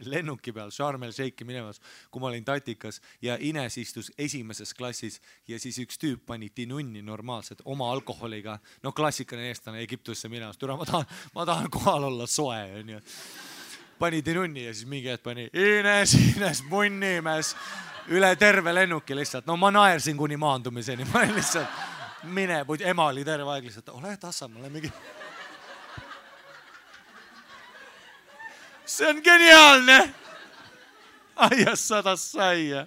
lennuki peal Sharm el Sheikhi minemas, kui ma olin tatikas ja Ines istus esimeses klassis ja siis üks tüüp pani tinunni normaalselt oma alkoholiga. No klassikaline eestlane Egiptusse minemas. Ma tahan kohal olla soe. On ju. Pani tinunni ja siis mingi hetk pani Ines Munnimees üle terve lennuki lihtsalt. No ma naersin kuni maandumiseni. Ma olin lihtsalt ema oli terve aeg lihtsalt, ole tassa, mulle mingi... See on geniaalne! Aias sadas saia.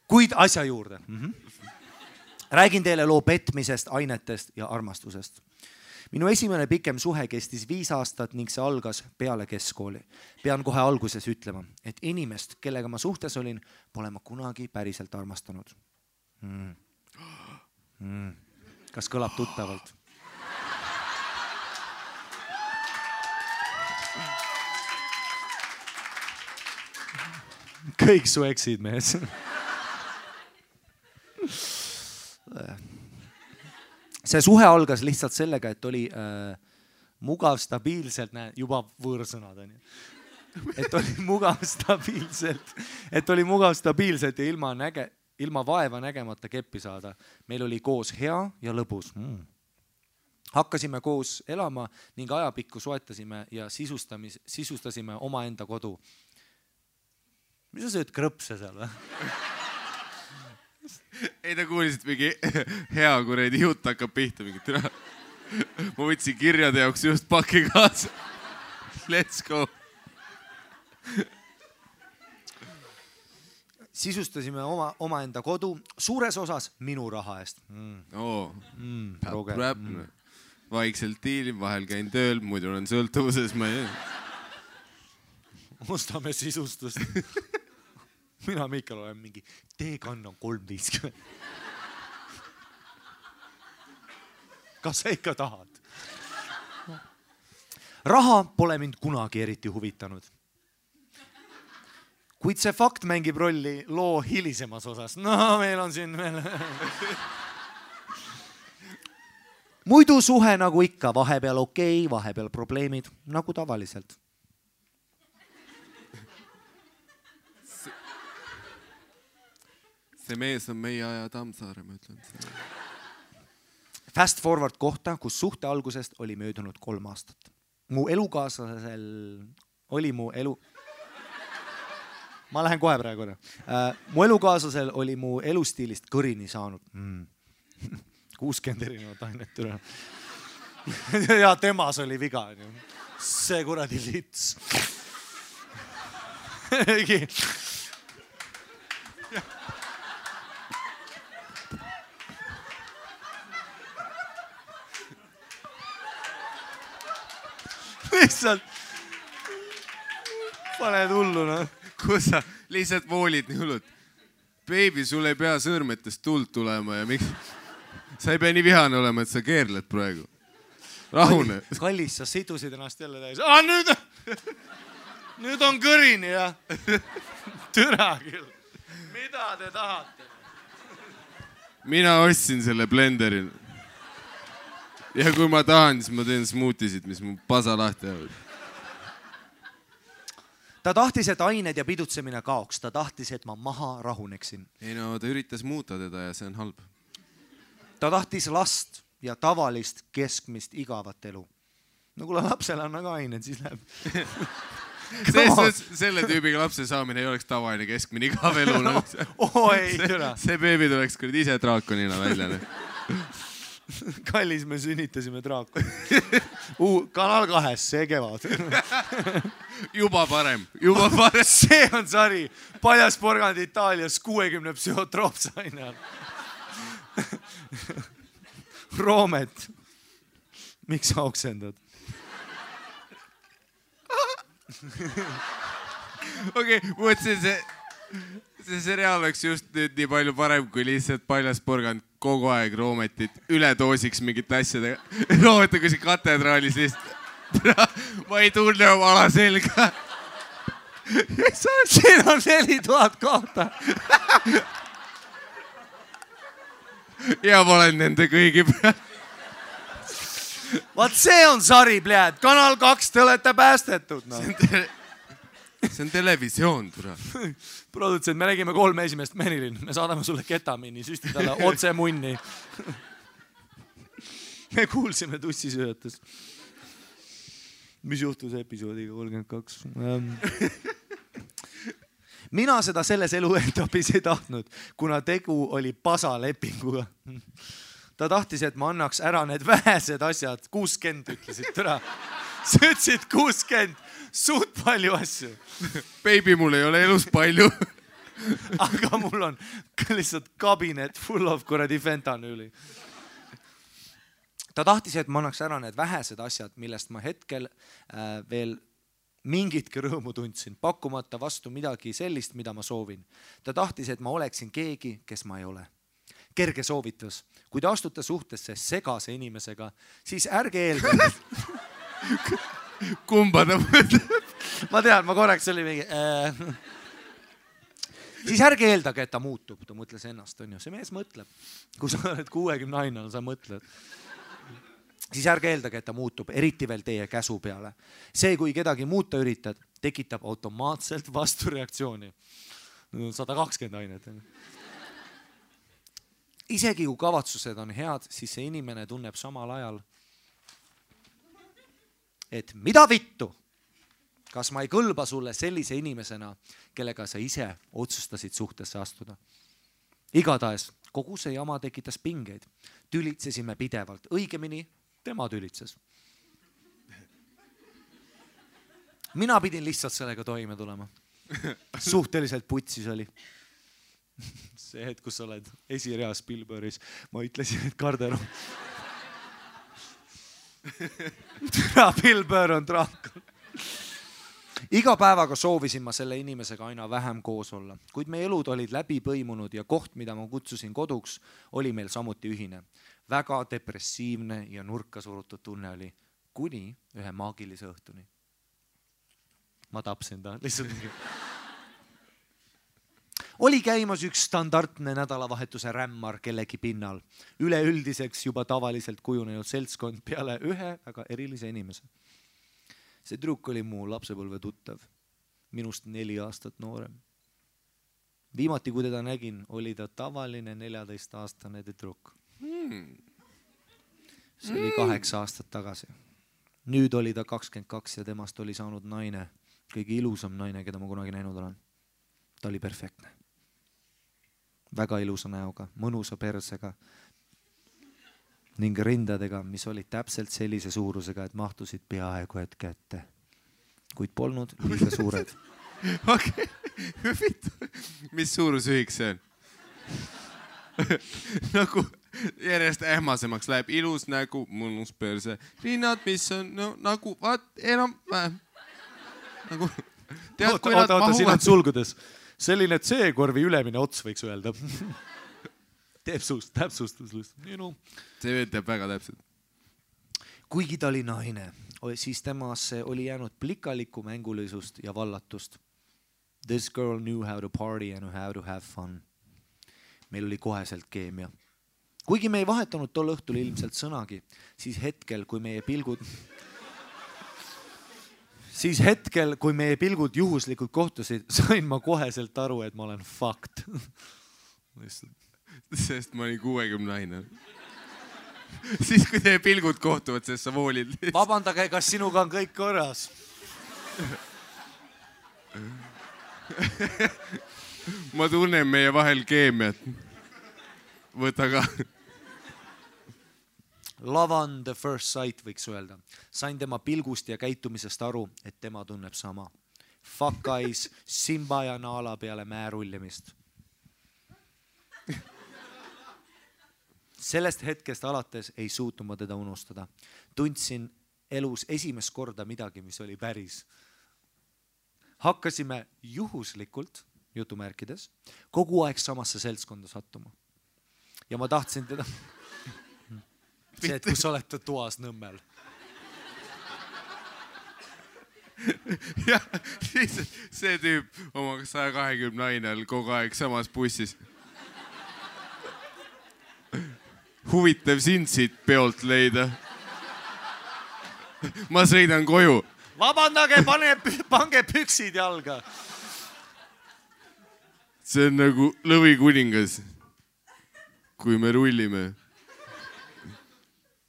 Kuid asja juurde. Räägin teile loo petmisest, ainetest ja armastusest. Minu esimene pikem suhe kestis 5 aastat ning see algas peale keskkooli. Pean kohe alguses ütlema, et inimest, kellega ma suhtes olin, pole ma kunagi päriselt armastanud. Kas kõlab tuttavalt? Kõik su eksid, mees. See suhe algas lihtsalt sellega, et oli mugav stabiilselt, juba võõrsõnad on ju. Et oli mugav stabiilselt ja ilma vaeva nägemata keppi saada. Meil oli koos hea ja lõbus. Hakkasime koos elama ning ajapikku soetasime ja sisustasime omaenda kodu. Mis sa sööd krõpse seal või? Ei, ta kuulisid mingi hea kuredi jutt hakkab pihta mingi türa. Ma võtsin kirjade jaoks just paki kaasa. Let's go. Sisustasime omaenda kodu suures osas minu raha eest. Vaikselt diilin, vahel käin tööl, muidu olen sõltuvuses. Ostame sisustust. Mina Miikal olen mingi, teekann on 3.50. Kas sa ikka tahad? Raha pole mind kunagi eriti huvitanud. Kuid see fakt mängib rolli loo hilisemas osas. No, meil on siin veel... Muidu suhe nagu ikka, vahepeal okei, vahepeal probleemid, nagu tavaliselt. See mees on meie aja Tammsaare, ma ütlen. Fast forward kohta, kus suhte algusest oli möödunud 3 aastat. Mu elukaaslasel oli Ma lähen kohe praegu. Mu elukaaslasel oli mu elustiilist kõrini saanud. 60 erinevat ainet üle. Ja temas oli viga. See kuradi lits. Lihtsalt paned hullu, no. Kus sa lihtsalt voolid nii hullud? Baby, sul ei pea sõrmetest tuld tulema ja miks? Sa ei pea nii vihane olema, et sa keerled praegu. Rahune. Kallis, sa sidusid ennast jälle täis. Nüüd on kõrini, jah. Türa küll. Mida te tahate? Mina ostsin selle blenderi. Ja kui ma tahan, siis ma teen smoothisid, mis mu pasa lahti jäävad. Ta tahtis, et ained ja pidutsemine kaoks. Ta tahtis, et ma maha rahuneksin. Ei no, ta üritas muuta teda ja see on halb. Ta tahtis last ja tavalist keskmist igavat elu. No kui lapsel on aga ained, siis läheb. Selle tüübiga lapse saamine ei oleks tavaline keskmine igav elu. Ei, türa. See beebi tuleks küll ise draakonina välja. Kallis, me sünnitasime draakoni. Kanal 2, see kevad. Juba parem. See on sari. Paljas porgand Itaalias 60 psühhotroopsaine. Roomet. Miks sa oksendad? Okei, mõtlesin see seriaal oleks just nüüd nii palju parem, kui lihtsalt paljas porgand kogu aeg Roometit üle toosiks mingit asjadega. Roometa kui see katedraalis lihtsalt ma ei tunne oma ala selga. Siin on 4000 kohta. Ja ma olen nende kõigi peal. Vaat see on sari, pljääd. Kanal 2, te olete päästetud. No. See on televisioon, tura. Produtsent, me nägime 3 esimest Merilin. Me saadame sulle ketamiini, süsti talle otse munni. Me kuulsime tussisööjates. Mis juhtus episoodiga 32? Mina seda selles eluetapis ei tahtnud, kuna tegu oli pasalepinguga. Ta tahtis, et ma annaks ära need vähesed asjad. 60 ütlesid, tere. Sa ütlesid 60, suht palju asju. Baby, mul ei ole elus palju. Aga mul on lihtsalt kabinet full of kuradi fentanüüli. Ta tahtis, et ma annaks ära need vähesed asjad, millest ma hetkel veel mingitki rõõmu tundsin, pakkumata vastu midagi sellist, mida ma soovin. Ta tahtis, et ma oleksin keegi, kes ma ei ole. Kerge soovitus. Kui te astute suhtesse segase inimesega, siis ärge eeldage. Kumba ta mõtleb? Ma tean, ma korraks oli mingi... Siis ärge eeldage, et ta muutub. Ta mõtles ennast, on ju. See mees mõtleb. Kui sa oled 60 ainal, sa mõtled. Siis ärge eeldage, et ta muutub, eriti veel teie käsu peale. See, kui kedagi muuta üritad, tekitab automaatselt vastureaktsiooni. 120 ainet. Isegi kui kavatsused on head, siis see inimene tunneb samal ajal, et mida vittu, kas ma ei kõlba sulle sellise inimesena, kellega sa ise otsustasid suhtesse astuda. Igatahes, kogu see jama tekitas pingeid. Tülitsesime pidevalt, õigemini tema tülitses. Mina pidin lihtsalt sellega toime tulema. Suhteliselt putsis oli. See hetk, kus sa oled esireas Spielbergis, ma ütlesin, et Karder on... Spielberg on draakon. Iga päevaga soovisin ma selle inimesega aina vähem koos olla, kuid meie elud olid läbi põimunud ja koht, mida ma kutsusin koduks, oli meil samuti ühine. Väga depressiivne ja nurka surutud tunne oli kuni ühe maagilise õhtuni. Ma tapsin ta lihtsalt. Oli käimas üks standardne nädalavahetuse rämmar kellegi pinnal. Üleüldiseks juba tavaliselt kujunenud seltskond peale ühe väga erilise inimese. See trukk oli mu lapsepõlve tuttav, minust 4 aastat noorem. Viimati, kui teda nägin, oli ta tavaline 14-aastane trukk. See oli 8 aastat tagasi. Nüüd oli ta 22 ja temast oli saanud naine, kõige ilusam naine, keda ma kunagi näinud olen. Ta oli perfektne. Väga ilusa näoga, mõnusa persega ning rindadega, mis olid täpselt sellise suurusega, et mahtusid peaaegu hetke ette, kuid polnud liiga suured. Okei. Mis suurusühik see on? Nagu järjest ähmasemaks läheb ilus nägu, mõnus perse, rinnad, mis on nagu, enam vähem. Nagu, tead, kui nad mahuvad... Siin on sulgudes. Selline C-korvi ülemine ots võiks öelda. Teeb suust, täpsustus. See teeb väga täpselt. Kuigi ta oli naine, siis temasse oli jäänud plikaliku mängulisust ja vallatust. This girl knew how to party and how to have fun. Meil oli koheselt keemia. Kuigi me ei vahetanud tol õhtul ilmselt sõnagi, siis hetkel, kui meie pilgud juhuslikult kohtusid, sain ma koheselt aru, et ma olen fucked. Sest ma olin 60 naine. Siis, kui teie pilgud kohtuvad, sest sa voolid. Vabandage, kas sinuga on kõik korras? Ma tunnen meie vahel keemiat. Võta ka. Love on the first sight, võiks öelda. Sain tema pilgust ja käitumisest aru, et tema tunneb sama. Fuck eyes, Simba ja Naala peale määrullimist. Sellest hetkest alates ei suutnud ma teda unustada. Tundsin elus esimest korda midagi, mis oli päris. Hakkasime juhuslikult, jutumärkides, kogu aeg samasse seltskonda sattuma. Ja ma tahtsin teda... See, et kus olete toas Nõmmel. jah, lihtsalt see tüüp oma 120 nainel kogu aeg samas bussis. Huvitav sind siit peolt leida. Ma sõidan koju. Vabandage, pange püksid jalga. See on nagu Lõvikuningas, kui me rullime.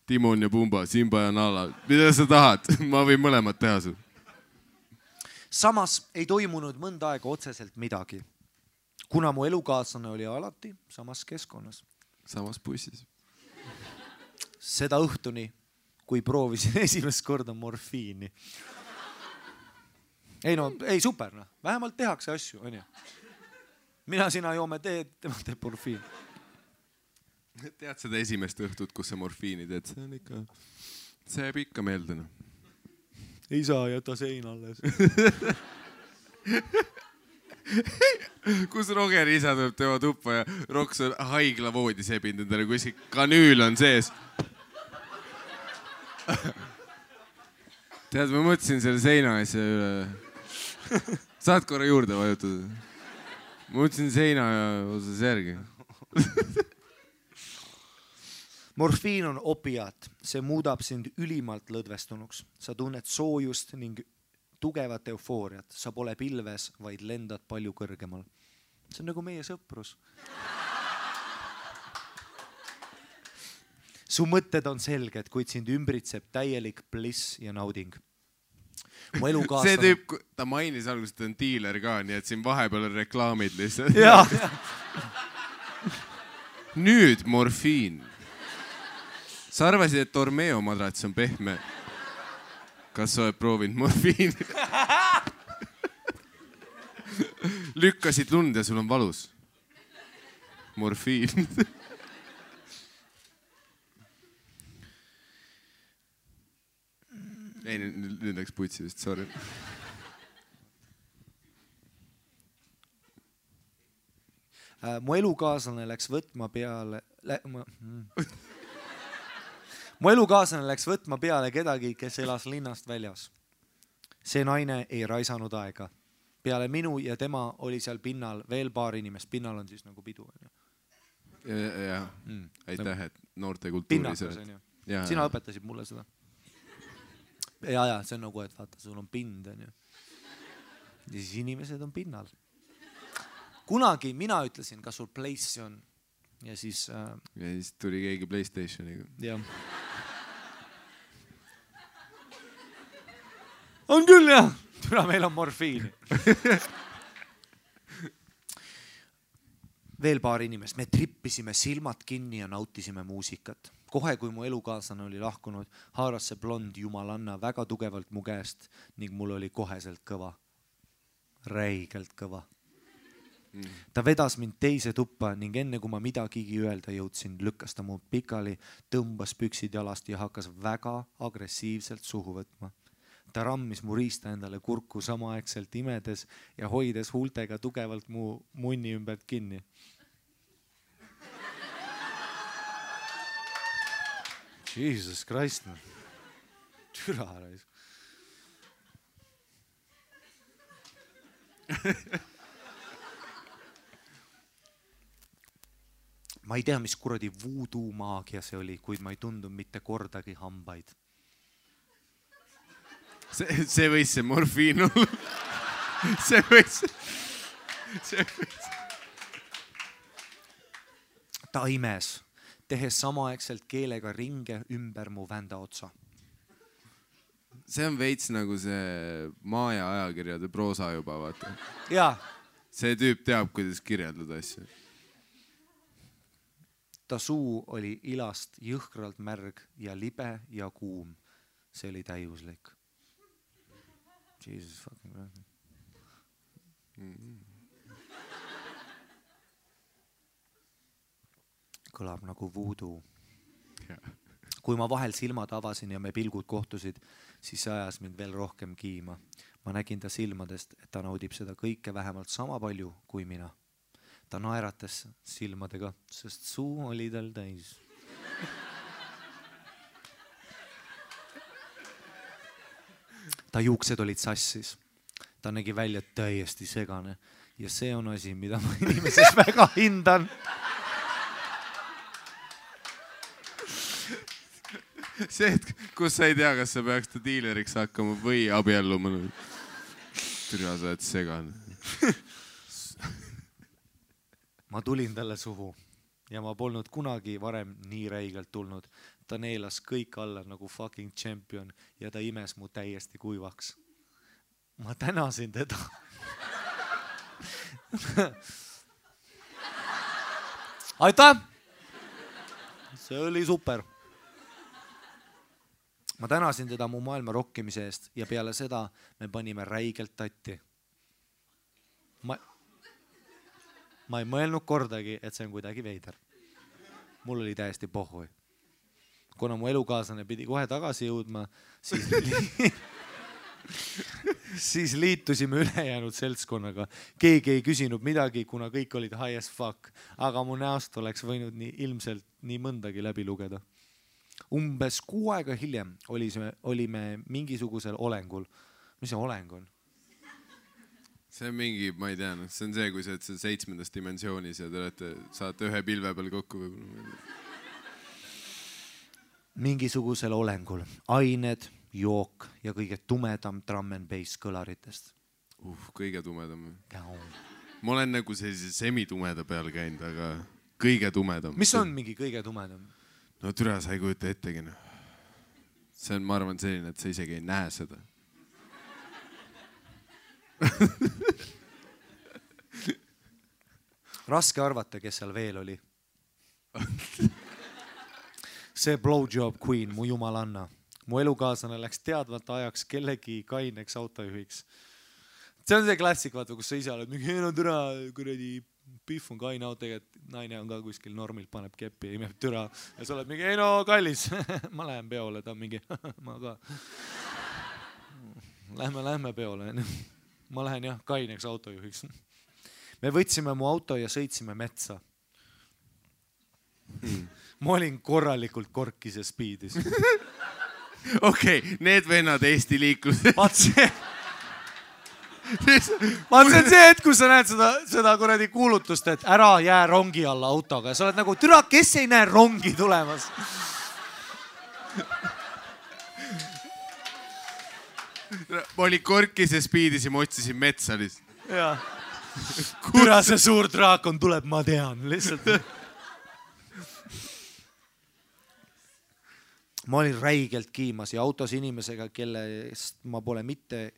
Timon ja Pumba, Simba ja Nala. Mida sa tahad? Ma võin mõlemad teha sul. Samas ei toimunud mõnda aega otseselt midagi, kuna mu elukaaslane oli alati samas keskkonnas. Samas bussis. Seda õhtuni, kui proovisin esimest korda morfiini. Ei super, no. Vähemalt tehakse asju, on ju. Mina sina joome teed, tema teeb morfiin. Tead seda esimest õhtut, kus sa morfiini teed? See on ikka, see jääb ikka meelde. No. Ei saa jätta sein alles. Kus Roger isa tuleb tema tuppa ja Roks on haigla voodi sebinud endale, kui kanüül on sees. Tead, ma mõtlesin selle seina asja üle. Saad korra juurde vajutada? Ma mõtlesin seina osas järgi. Morfiin on opiaat. See muudab sind ülimalt lõdvestunuks. Sa tunned soojust ning tugevat eufooriat. Sa pole pilves, vaid lendad palju kõrgemal. See on nagu meie sõprus. Su mõtted on selged, kuid sind ümbritseb täielik bliss ja nauding. Mu elukaaslane... See tüüp, ta mainis alguses, et on diiler ka, nii et siin vahepeal on reklaamid lihtsalt. Jaa. Nüüd morfiin. Sa arvasid, et Ormeo madrats on pehme. Kas sa oled proovinud morfiini? Lükkasid lund ja sul on valus. Morfiin. Ei, nüüd läks putsi vist, sorry. Mu elukaaslane läks võtma peale... Mu elukaaslane läks võtma peale kedagi, kes elas linnast väljas. See naine ei raisanud aega. Peale minu ja tema oli seal pinnal veel paar inimest. Pinnal on siis nagu pidu. Ja. Aitäh, et noorte kultuuri Pinnakas on ju. Sina õpetasid mulle seda. Ja, see on nagu, et vaata, sul on pind. On ju. Ja siis inimesed on pinnal. Kunagi mina ütlesin, kas sul place on. Ja siis tuli keegi PlayStationiga. Jah. On küll jah. Tule meil on morfiini. Veel paar inimest. Me trippisime silmad kinni ja nautisime muusikat. Kohe, kui mu elukaaslane oli lahkunud, haaras see blond jumalanna väga tugevalt mu käest ning mul oli koheselt kõva. Räigelt kõva. Ta vedas mind teise tuppa ning enne kui ma midagigi öelda jõudsin, lükkas ta mu pikali, tõmbas püksid jalast ja hakkas väga agressiivselt suhu võtma. Ta rammis mu riista endale kurku samaaegselt imedes ja hoides huultega tugevalt mu munni ümbert kinni. Jesus Christ. Türa rais. Ma ei tea, mis kuradi voodoo maagia see oli, kuid ma ei tundu mitte kordagi hambaid. See võis see morfiin olla. See võis. Ta imes, tehes samaaegselt keelega ringe ümber mu vända otsa. See on veits nagu see Maja ajakirjade proosa juba, vaata. Jaa. See tüüp teab, kuidas kirjeldada asju. Ta suu oli ilast jõhkralt märg ja libe ja kuum. See oli täiuslik. Jesus fucking Christ. Kõlab nagu voodoo. Kui ma vahel silmad avasin ja me pilgud kohtusid, siis see ajas mind veel rohkem kiima. Ma nägin ta silmadest, et ta naudib seda kõike vähemalt sama palju kui mina. Ta naeratas silmadega, sest suu oli tal täis. ta juuksed olid sassis. Ta nägi välja täiesti segane ja see on asi, mida ma inimeses väga hindan. See, et kus sa ei tea, kas sa peaks ta diileriks hakkama või abielluma. Türa, sa oled segane. Ma tulin talle suhu ja ma polnud kunagi varem nii räigelt tulnud. Ta neelas kõik alla nagu fucking champion ja ta imes mu täiesti kuivaks. Ma tänasin teda. Aitäh! See oli super. Ma tänasin teda mu maailma rokkimise eest ja peale seda me panime räigelt tatti. Ma ei mõelnud kordagi, et see on kuidagi veider. Mul oli täiesti pohhui. Kuna mu elukaaslane pidi kohe tagasi jõudma, siis liitusime ülejäänud seltskonnaga. Keegi ei küsinud midagi, kuna kõik olid high as fuck, aga mu näost oleks võinud ilmselt nii mõndagi läbi lugeda. Umbes 6 aega hiljem olime mingisugusel olengul. Mis see oleng on? See on mingi, ma ei tea, see on see, kui sa oled 7. dimensioonis ja te saate ühe pilve peal kokku. Mingisugusel olengul. Ained, jook ja kõige tumedam drum and bass kõlaritest. Kõige tumedam. Ma olen nagu sellise semitumeda peal käinud, aga kõige tumedam. Mis on mingi kõige tumedam? No türa, sa ei kujuta ettegi. See on, ma arvan, selline, et sa isegi ei näe seda. Raske arvata, kes seal veel oli. See blowjob queen, mu jumalanna. Mu elukaaslane läks teadvalt ajaks kellegi kaineks autojuhiks. See on see klassik, vaata, kus sa ise oled mingi, no türa, kuradi pihv on kaine auto, et naine on ka kuskil normilt, paneb keppi ja imeb türa. Ja sa oled mingi, ei no kallis, ma lähen peole, ta on mingi, ma ka. Lähme peole. Ma lähen jah kaineks autojuhiks. Me võtsime mu auto ja sõitsime metsa. Ma olin korralikult korkis ja speedis. Okei, need vennad Eesti liiklus. Vaat see on see hetk, kus sa näed seda kuradi kuulutust, et ära jää rongi alla autoga. Ja sa oled nagu, türa, kes ei näe rongi tulemas? Ma olin korkis ja speedis ja ma otsisin metsa lihtsalt. Jaa. Türa, see suur draakon tuleb, ma tean. Lihtsalt. Ma olin räigelt kiimas ja autos inimesega, kellest ma pole mitte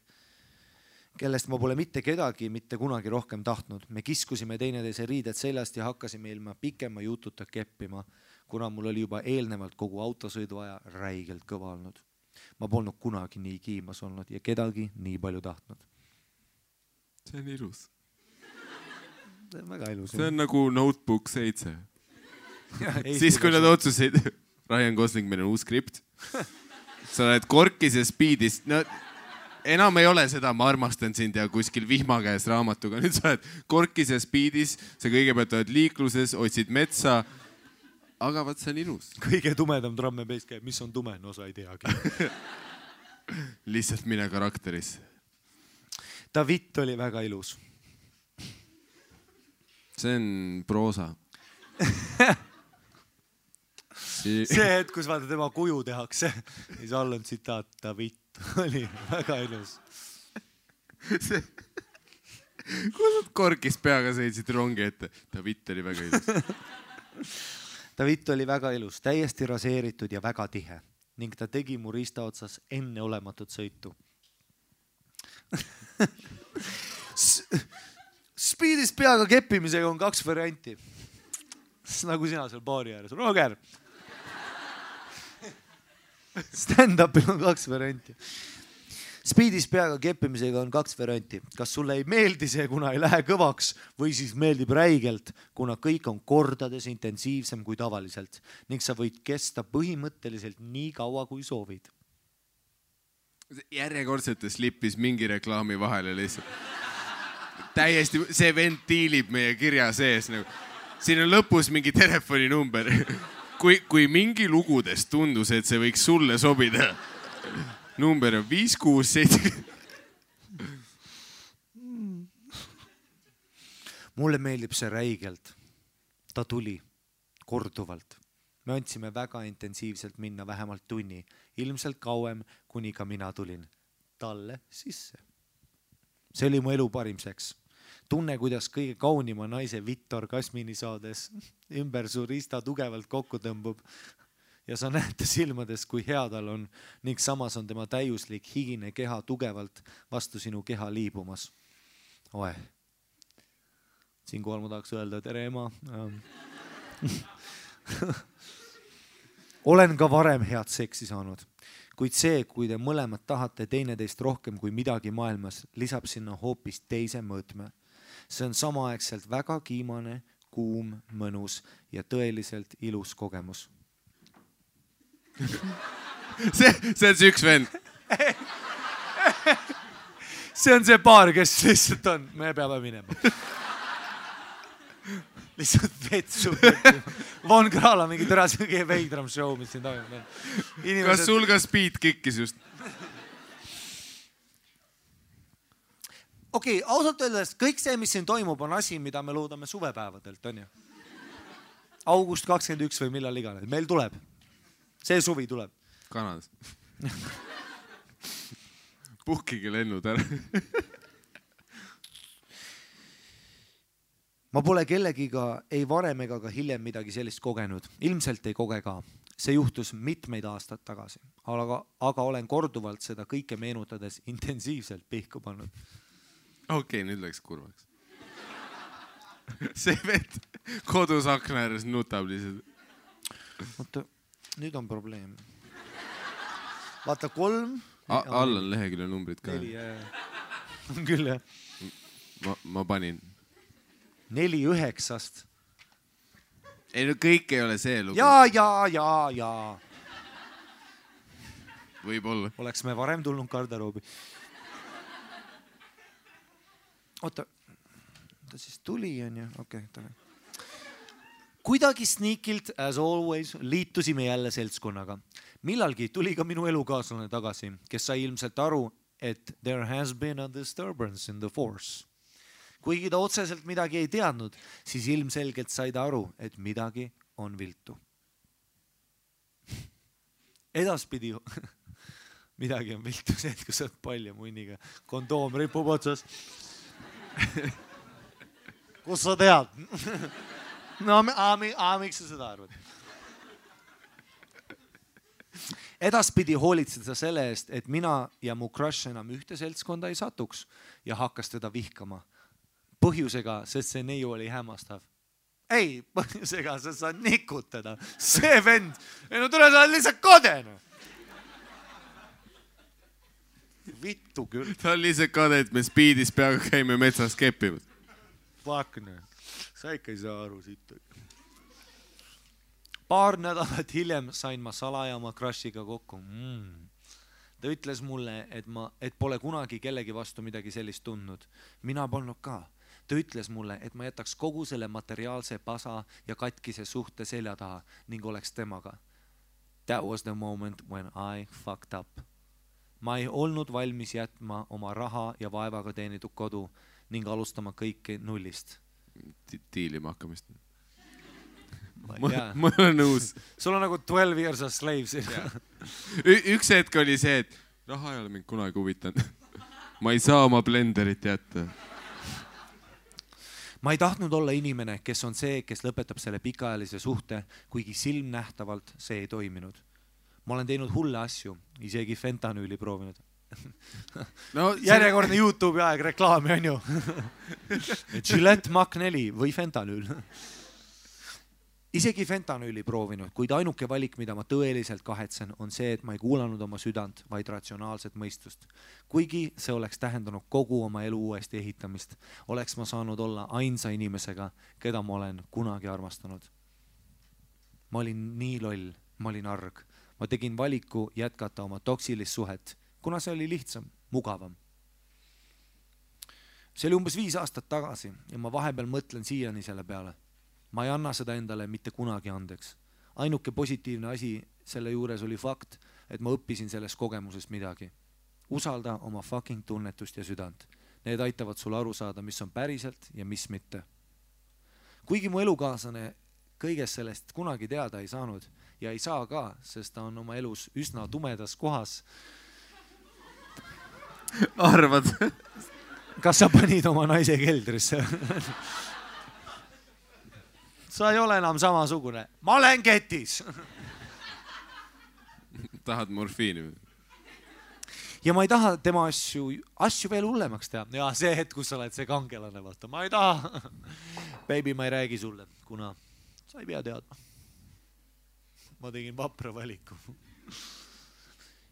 kedagi mitte kunagi rohkem tahtnud. Me kiskusime teineteise riided seljast ja hakkasime ilma pikema jututa keppima, kuna mul oli juba eelnevalt kogu autosõidu aja räigelt kõva olnud. Ma polnud kunagi nii kiimas olnud ja kedagi nii palju tahtnud. See on ilus. See on väga ilus. See on nagu Notebook 7. Siis kui nad otsuseid, Ryan Gosling, meil on uus skript. Sa oled korkis ja speedis. No, enam ei ole seda, ma armastan sind ja kuskil vihma käes raamatuga. Nüüd sa oled korkis ja speedis, sa kõigepealt oled liikluses, otsid metsa. Aga vaat see on ilus. Kõige tumedam drum and bass käib, mis on tume, no sa ei teagi. Lihtsalt mine karakterisse. David oli väga ilus. See on proosa. See hetk, kus vaata tema kuju tehakse, siis all on tsitaat, David oli väga ilus. Kus nad korkis peaga sõitsid rongi ette? David oli väga ilus. David oli väga ilus, täiesti raseeritud ja väga tihe ning ta tegi mu riista otsas enneolematut sõitu. Speedis peaga keppimisega on 2 varianti. Nagu sina seal baari ääres. Roger! Stand-upil on 2 varianti. Speedis peaga keppimisega on 2 varianti. Kas sulle ei meeldi see, kuna ei lähe kõvaks või siis meeldib räigelt, kuna kõik on kordades intensiivsem kui tavaliselt ning sa võid kesta põhimõtteliselt nii kaua, kui soovid. Järjekordselt slippis mingi reklaami vahele lihtsalt. Täiesti, see vend tiilib meie kirja sees. Siin on lõpus mingi telefoninumber. Kui mingi lugudes tundus, et see võiks sulle sobida, number on 567. Mulle meeldib see räigelt. Ta tuli korduvalt. Me andsime väga intensiivselt minna vähemalt tunni, ilmselt kauem, kuni ka mina tulin talle sisse. See oli mu elu parim seks. Tunne, kuidas kõige kaunima naise vittorgasmini saades ümber su riista tugevalt kokku tõmbub ja sa näed ta silmades, kui hea tal on ning samas on tema täiuslik higine keha tugevalt vastu sinu keha liibumas. Oe. Siinkohal ma tahaks öelda, tere ema. Olen ka varem head seksi saanud, kuid see, kui te mõlemad tahate teineteist rohkem kui midagi maailmas, lisab sinna hoopis teise mõõtme. See on samaaegselt väga kiimane, kuum, mõnus ja tõeliselt ilus kogemus. See on see üks vend. See on see paar, kes lihtsalt on. Me peame minema. Lihtsalt vetsu. Von Krala mingi tõras kõige veidram show, mis siin toimub. Kas sul ka speed kikkis just? Okei, ausalt öeldes kõik see, mis siin toimub, on asi, mida me loodame suvepäevadelt, on ju? August 21 või millal iganes. Meil tuleb. See suvi tuleb. Kanadas. Puhkige lennud ära. Ma pole kellegiga ei varem ega ka hiljem midagi sellist kogenud. Ilmselt ei koge ka. See juhtus mitmeid aastad tagasi, aga olen korduvalt seda kõike meenutades intensiivselt pihku pannud. Okei, nüüd läks kurvaks. See vend kodus akna ääres nutab lihtsalt. Oota, nüüd on probleem. Vaata 3. All on lehekülje numbrid ka. 4, on küll jah. Ma panin. 4-9. Ei no kõik ei ole see lugu. Ja. Võib-olla. Oleks me varem tulnud garderoobi. Oota, ta siis tuli, on ju? Okei, tule. Kuidagi sneakilt, as always, liitusime jälle seltskonnaga. Millalgi tuli ka minu elukaaslane tagasi, kes sai ilmselt aru, et there has been a disturbance in the force. Kuigi ta otseselt midagi ei teadnud, siis ilmselgelt sai ta aru, et midagi on viltu. Edaspidi midagi on viltu see, et kui sa oled palja munniga, kondoom ripub otsas. Kus sa tead? No, miks sa seda arvad? Edaspidi hoolitsed sa selle eest, et mina ja mu crush enam ühte seltskonda ei satuks ja hakkas teda vihkama. Põhjusega, sest see neiu oli hämmastav. Ei, põhjusega, sest sa nikud teda. See vend. Ei no tule, sa oled lihtsalt kodene. Vittu küll. Ta on lihtsalt kade, et me speedis peaga käime metsas keppimas. Fuck, no. Sa ikka ei saa aru siit. Paar nädalat hiljem sain ma salaja oma crushiga kokku. Ta ütles mulle, et pole kunagi kellegi vastu midagi sellist tundnud. Mina polnud ka. Ta ütles mulle, et ma jätaks kogu selle materiaalse pasa ja katkise suhte selja taha ning oleks temaga. That was the moment when I fucked up. Ma ei olnud valmis jätma oma raha ja vaevaga teenitud kodu ning alustama kõike nullist. Tiilima hakkamist. Yeah. Ma olen nõus. Sul on nagu 12 years of slaves. Üks hetk oli see, et raha ei ole mind kunagi huvitanud. Ma ei saa oma blenderit jätta. Ma ei tahtnud olla inimene, kes on see, kes lõpetab selle pikaajalise suhte, kuigi silmnähtavalt see ei toiminud. Ma olen teinud hulle asju, isegi fentanüüli proovinud. No, järjekordne YouTube'i aeg reklaami on ju. Gillette Mach 4 või fentanüül. Isegi fentanüüli proovinud, kuid ainuke valik, mida ma tõeliselt kahetsen, on see, et ma ei kuulanud oma südant, vaid ratsionaalset mõistust. Kuigi see oleks tähendanud kogu oma elu uuesti ehitamist, oleks ma saanud olla ainsa inimesega, keda ma olen kunagi armastanud. Ma olin nii loll, ma olin arg. Ma tegin valiku jätkata oma toksilist suhet, kuna see oli lihtsam, mugavam. See oli umbes 5 aastat tagasi ja ma vahepeal mõtlen siiani selle peale. Ma ei anna seda endale mitte kunagi andeks. Ainuke positiivne asi selle juures oli fakt, et ma õppisin sellest kogemusest midagi. Usalda oma fucking tunnetust ja südant. Need aitavad sul aru saada, mis on päriselt ja mis mitte. Kuigi mu elukaaslane kõigest sellest kunagi teada ei saanud ja ei saa ka, sest ta on oma elus üsna tumedas kohas. Arvad? Kas sa panid oma naise keldrisse? Sa ei ole enam samasugune. Ma olen ketis. Tahad morfiini? Ja ma ei taha tema asju veel hullemaks teha. Ja see hetk, kus sa oled see kangelane, vaata. Ma ei taha. Baby, ma ei räägi sulle, kuna sa ei pea teadma. Ma tegin vapra valiku.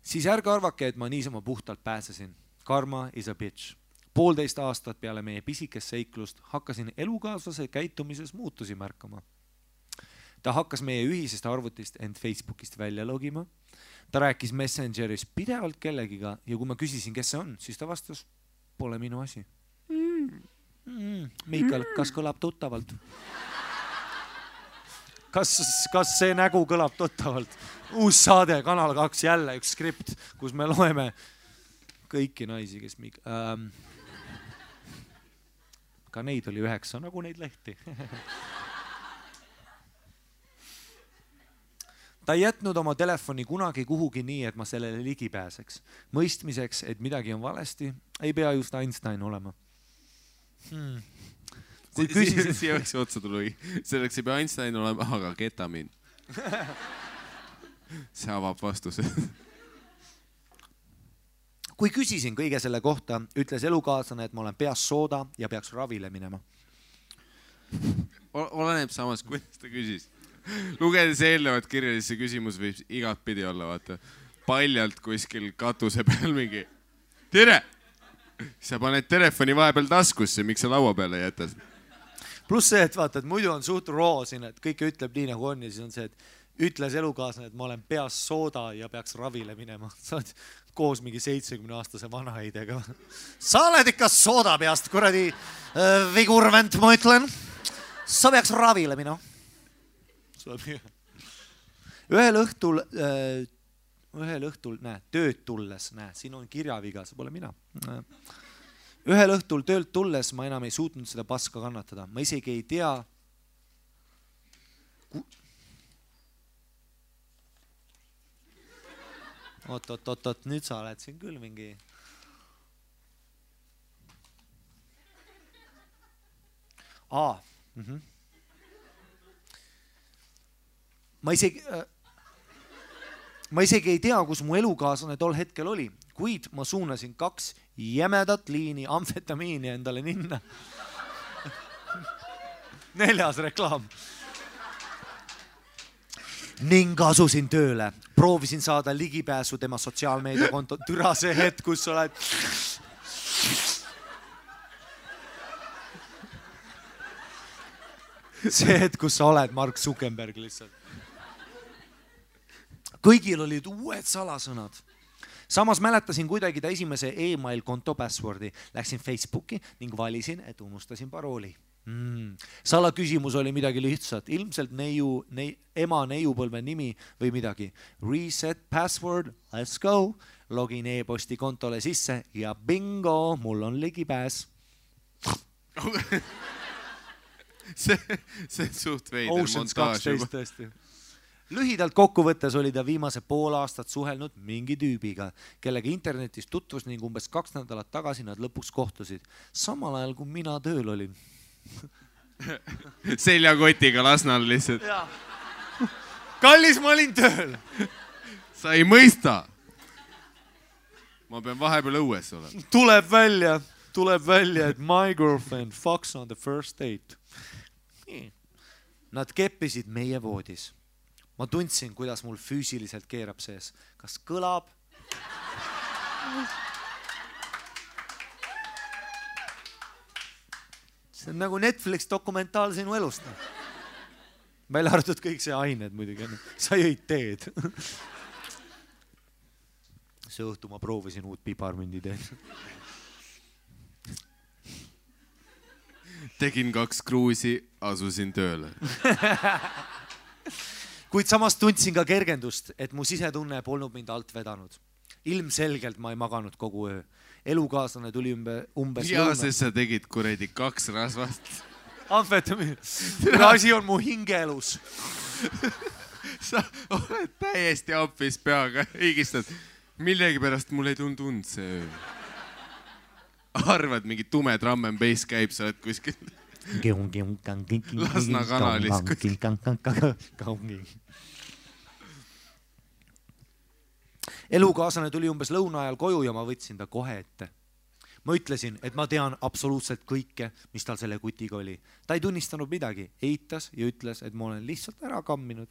Siis ärge arvake, et ma niisama puhtalt pääsesin. Karma is a bitch. 1,5 aastat peale meie pisikest seiklust hakkasin elukaaslase käitumises muutusi märkama. Ta hakkas meie ühisest arvutist end Facebookist välja logima. Ta rääkis Messengeris pidevalt kellegiga ja kui ma küsisin, kes see on, siis ta vastas, pole minu asi. Miikal, kas kõlab tuttavalt? Kas see nägu kõlab tuttavalt? Uus saade, Kanal 2, jälle üks skript, kus me loeme kõiki naisi, kes ka neid oli 9, nagu neid lehti. Ta ei jätnud oma telefoni kunagi kuhugi nii, et ma sellele ligi pääseks. Mõistmiseks, et midagi on valesti, ei pea just Einstein olema. Kui küsisin... Siia võiks otsa tuli. Selleks ei pea Einstein olema, aga ketamin. See avab vastuse. Kui küsisin kõige selle kohta, ütles elukaaslane, et ma olen peas sooda ja peaks ravile minema. Oleneb samas, kuidas ta küsis. Lugedes eelnevat kirja, siis see küsimus võib igat pidi olla, vaata. Paljalt kuskil katuse peal mingi. Tere! Sa paned telefoni vahepeal taskusse, miks sa laua peale jätad? Plus see, et vaata, et muidu on suht roo siin, et kõike ütleb nii nagu on ja siis on see, et ütles elukaaslane, et ma olen peas sooda ja peaks ravile minema. Sa oled koos mingi 70-aastase vanaheidega. Sa oled ikka sooda peast, kuradi vigurvent, ma ütlen. Sa peaks ravile minema. Ühel õhtul, tööd tulles, siin on kirjaviga, see pole mina. Ühel õhtul töölt tulles ma enam ei suutnud seda paska kannatada. Ma isegi ei tea... Oot, nüüd sa oled siin küll mingi... Ma isegi ei tea, kus mu elukaaslane tol hetkel oli, kuid ma suunasin 2 jämedat liini amfetamiini endale ninna. 4. reklaam. Ning asusin tööle. Proovisin saada ligipääsu tema sotsiaalmeediakonto. Türa see hetk, kus sa oled... See hetk, kus sa oled Mark Zuckerberg lihtsalt. Kõigil olid uued salasõnad. Samas mäletasin kuidagi ta esimese e-mail konto passwordi. Läksin Facebooki ning valisin, et unustasin parooli. Sala küsimus oli midagi lihtsat. Ilmselt ema neiupõlve nimi või midagi. Reset password, let's go. Login e-posti kontole sisse ja bingo, mul on ligipääs. See suht veider montaaž juba. Lühidalt kokkuvõttes oli ta viimase 1,5 aastat suhelnud mingi tüübiga, kellega internetis tutvus ning umbes 2 nädalat tagasi nad lõpuks kohtusid. Samal ajal, kui mina tööl olin. Seljakotiga Lasnal lihtsalt. Kallis, ma olin tööl. Sa ei mõista. Ma pean vahepeal õues olema. Tuleb välja, et my girlfriend fucks on the first date. Nad keppisid meie voodis. Ma tundsin, kuidas mul füüsiliselt keerab sees. Kas kõlab? See on nagu Netflix dokumentaal sinu elust. Välja arvatud kõik see ained muidugi. Sa jõid teed. See õhtu ma proovisin uut piparmündi teed. Tegin 2 kruusi, asusin tööle. kuid samas tundsin ka kergendust, et mu sisetunne polnud mind alt vedanud. Ilmselgelt ma ei maganud kogu öö. Elukaaslane tuli umbes ja sest sa tegid kuredi 2 rasvast. amfetamiin. Asi on mu hingeelus. Sa oled täiesti ampis peaga, higistad. Millegi pärast mul ei tund see öö. Arvad, mingi tume drum and bass käib, sa oled kuskil Lasna kanalis. Elukaaslane tuli umbes lõuna ajal koju ja ma võtsin ta kohe ette. Ma ütlesin, et ma tean absoluutselt kõike, mis tal selle kutiga oli. Ta ei tunnistanud midagi, eitas ja ütles, et ma olen lihtsalt ära kamminud.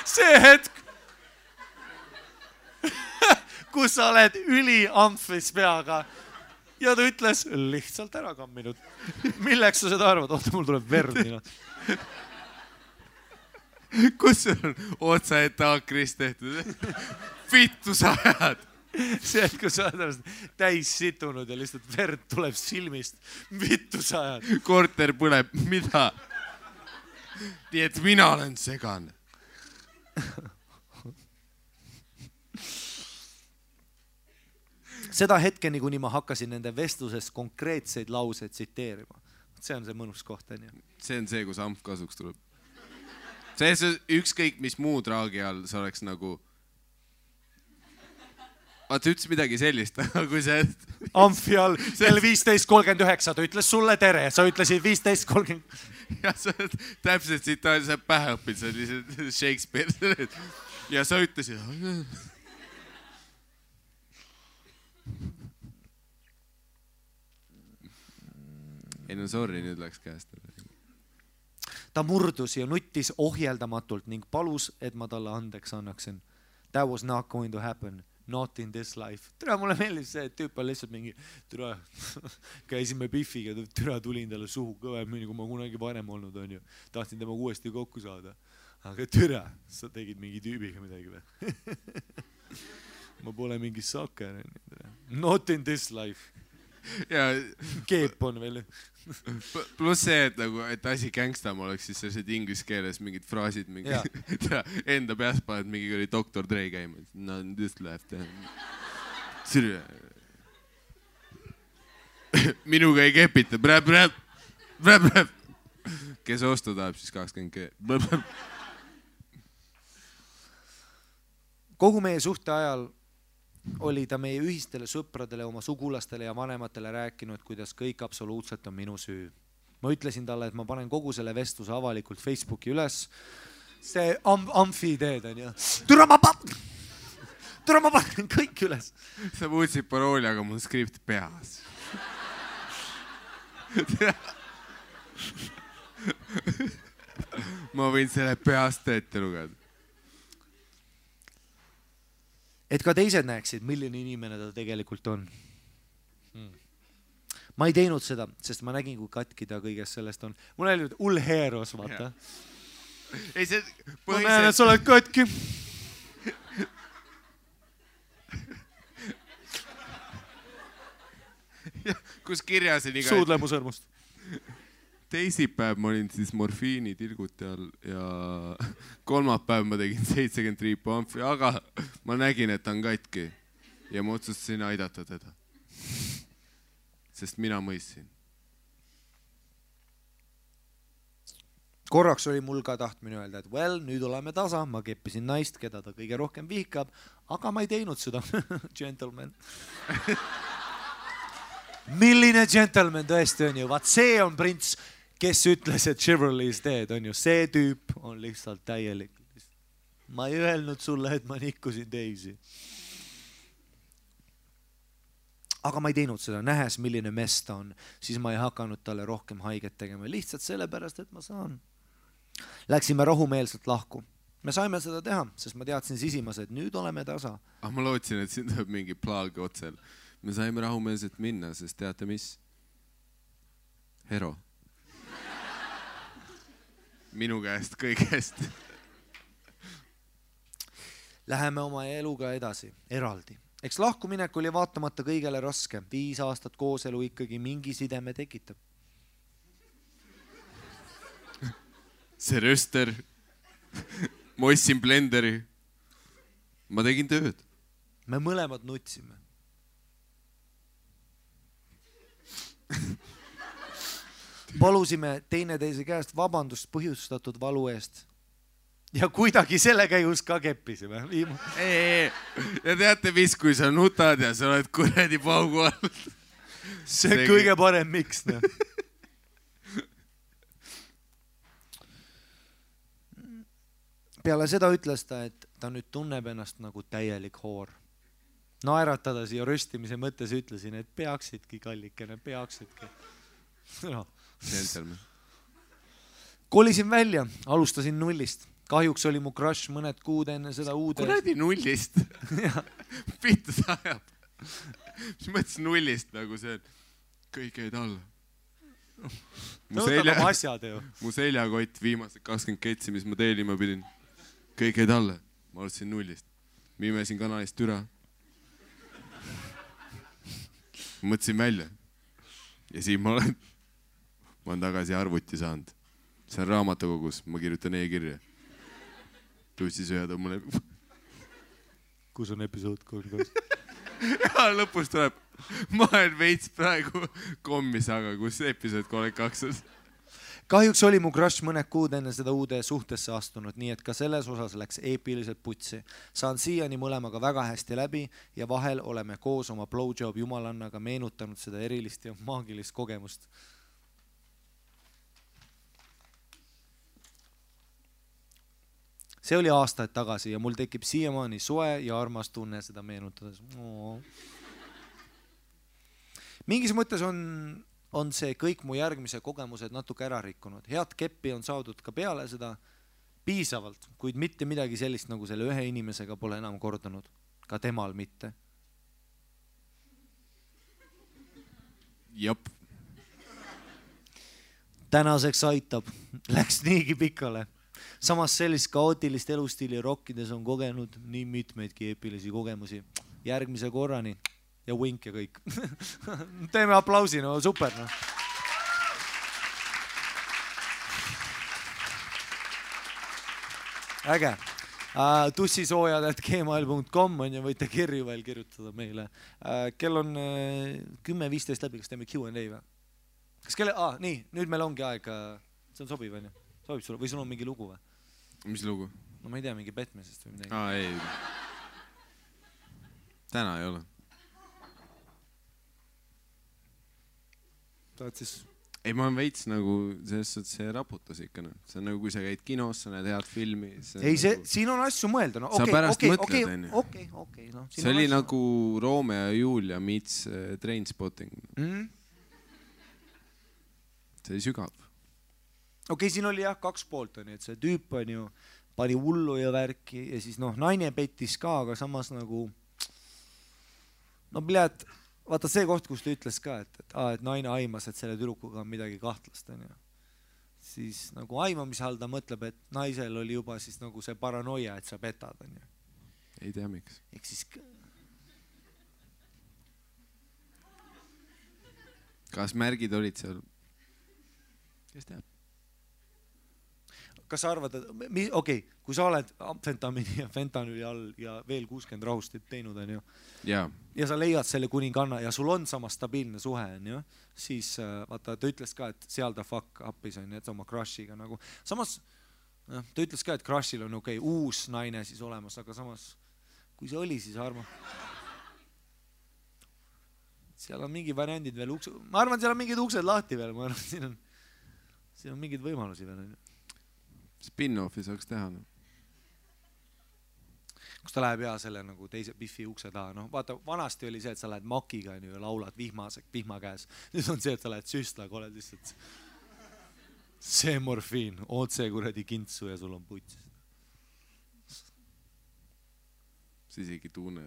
see hetk, kus sa oled üliamfis peaga ja ta ütles lihtsalt ära kamminud. Milleks sa seda arvad? Oota, mul tuleb verd. Kus sul on otsaetaakrist tehtud? Vittu sa ajad. See, et kui sa oled täis situnud ja lihtsalt verd tuleb silmist. Vittu sa ajad. Korter põleb. Mida? Nii et mina olen segane. Seda hetkeni, kuni ma hakkasin nende vestlusest konkreetseid lauseid tsiteerima. See on see mõnus koht. See on see, kus amp kasuks tuleb. See ükskõik, mis muu traagi all sa oleks nagu... Vaata, ütles midagi sellist, kui see... Amfi all, kell 15.39, ta ütles sulle tere, sa ütlesid 15.30. Ja sa täpselt siit sa pähe õpid, sa lihtsalt Shakespeare. Ja sa ütlesid... Ei no sorry, nüüd läks käest. Ta murdus ja nuttis ohjeldamatult ning palus, et ma talle andeks annaksin. That was not going to happen. Not in this life. Türa, mulle meeldis see, et tüüp on lihtsalt mingi türa, käisime Biffiga, türa tulin talle suhu kõvemini, kui ma kunagi varem olnud on ju. Tahtsin temaga uuesti kokku saada. Aga türa, sa tegid mingi tüübiga midagi või? Ma pole mingi sakker. Not in this life. Ja Keep on veel. Plus see, et asi gängstam oleks, siis sellised inglise keeles mingid fraasid, enda peas paned mingi oli Dr. Dre käima. No this left. Minuga ei kepita. Kes ostu tahab, siis 20G. Kogu meie suhte ajal oli ta meie ühistele sõpradele, oma sugulastele ja vanematele rääkinud, kuidas kõik absoluutselt on minu süü. Ma ütlesin talle, et ma panen kogu selle vestluse avalikult Facebooki üles. See amfi ideed on ju. Türa ma panen kõik üles. Sa muutsid parooli, aga mul skript peas. Ma võin selle peast ette lugeda. Et ka teised näeksid, milline inimene ta tegelikult on. Ma ei teinud seda, sest ma nägin, kui katki ta kõigest sellest on. Mul oli ulheeros, vaata. Ei, see ma näen, et sa oled katki. Kus kirjas on iga... Suudlemu sõrmust. Teisipäev ma olin siis morfiini tilguti all ja kolmapäev ma tegin 70 triipu amfi, aga ma nägin, et ta on katki ja ma otsustasin aidata teda. Sest mina mõistsin. Korraks oli mul ka tahtmine öelda, et nüüd oleme tasa, ma keppisin naist, keda ta kõige rohkem vihkab, aga ma ei teinud seda. Gentleman. Milline gentleman tõesti on ju, vaat see on prints, kes ütles, et Chivalry is dead on ju, see tüüp on lihtsalt täielik. Ma ei öelnud sulle, et ma nikkusin teisi. Aga ma ei teinud seda, nähes milline mess ta on, siis ma ei hakanud talle rohkem haiget tegema, lihtsalt sellepärast, et ma saan. Läksime rahumeelselt lahku. Me saime seda teha, sest ma teadsin sisimas, et nüüd oleme tasa. Ma lootsin, et siin tuleb mingi plaag otsel. Me saime rahumeelselt minna, sest teate mis? Hero. Minu käest kõigest. Läheme oma eluga edasi, eraldi. Eks lahkuminek oli vaatamata kõigele raske. 5 aastat kooselu ikkagi mingi sideme tekitab. see röster. Ma ostsin blenderi. Ma tegin tööd. Me mõlemad nutsime. Palusime teineteise käest vabandust põhjustatud valu eest. Ja kuidagi selle käigus ka keppisime. Ja teate mis, kui sa nutad ja sa oled kuredi paugu all. See kõige parem miks, noh. Peale seda ütles ta, et ta nüüd tunneb ennast nagu täielik hoor. Naeratades ja röstimise mõttes ütlesin, et peaksidki kallikene, peaksidki. No. Kolisin välja, alustasin nullist. Kahjuks oli mu crush mõned kuud enne seda uude... Kuradi nullist. Pittu ta ajab. Mis mõttes nullist nagu see, et kõik jäid alla. Mu seljakott viimased 20 ketsi, mis ma teelima pidin. Kõik jäid alla. Ma alustasin nullist. Ma imesin kanalist türa. Ma mõtlesin välja. Ja siin ma olen tagasi arvuti saanud. See on raamatukogus. Ma kirjutan e-kirja. Tussi sööda mulle. Kus on episood 3? Ja lõpus tuleb. Ma olen veits praegu kommis, aga kus episood 32 on? Kahjuks oli mu crush mõned kuud enne seda uude suhtesse astunud, nii et ka selles osas läks eepiliselt putsi. Saan siiani mõlemaga väga hästi läbi ja vahel oleme koos oma blowjob jumalannaga meenutanud seda erilist ja maagilist kogemust. See oli aastaid tagasi ja mul tekib siiamaani soe ja armas tunne seda meenutades. Mingis mõttes on see kõik mu järgmise kogemused natuke ära rikkunud. Head keppi on saadud ka peale seda piisavalt, kuid mitte midagi sellist nagu selle ühe inimesega pole enam kordunud. Ka temal mitte. Jop. Tänaseks aitab. Läks niigi pikale. Samas sellist kaootilist elustiili rokkides on kogenud nii mitmeidki eepilisi kogemusi. Järgmise korrani. Ja wink ja kõik. Teeme aplausi, no super. No. Äge. Tussisoojad@gmail.com on ja võite kirju veel kirjutada meile. Kell on 10:15 läbi, kas teeme Q&A või? Kas kelle... nii, nüüd meil ongi aeg. See on sobiv, on ju? Sobib sulle? Või sul on mingi lugu või? Mis lugu? No ma ei tea, mingi petmisest või midagi. Ei. Täna ei ole. Ei, ma olen veits nagu, selles suhtes see raputas ikka. See on nagu, kui sa käid kinos, sa näed head filmi. Ei, siin on asju mõelda. No, sa pärast mõtled, on ju. Okei. No, see oli nagu Romeo ja Julia meets Trainspotting. See oli sügav. Okei, siin oli jah 2 poolt, on ju, et see tüüp on ju pani hullu ja värki ja siis naine pettis ka, aga samas nagu vaata see koht, kus ta ütles ka, et naine aimas, et selle tüdrukuga on midagi kahtlast, on ju. Siis nagu aimamise all ta mõtleb, et naisel oli juba siis nagu see paranoia, et sa petad, on ju. Ei tea miks. Ehk siis... Kas märgid olid seal? Kes teab? Kas sa arvad, et kui sa oled amfetamiini ja fentanüüli all ja veel 60 rahustit teinud, on ju, ja sa leiad selle kuninganna ja sul on sama stabiilne suhe, on ju, siis vaata, ta ütles ka, et seal ta fuck up'is on, et oma crushiga nagu. Samas, ta ütles ka, et crushil on uus naine siis olemas, aga samas, kui see oli, siis arma. Seal on mingi variandid veel uksed, ma arvan, seal on mingid uksed lahti veel, ma arvan, siin on mingid võimalusi veel, on ju. Spin-offi saaks teha. No. Kus ta läheb selle nagu teise Biffi ukse taha. No, vaata, vanasti oli see, et sa lähed makiga ja laulad vihma käes. Nüüd on see, et sa lähed süstlaga, oled lihtsalt see morfiin, otse kuradi kintsu ja sul on puts. Sa isegi tunne.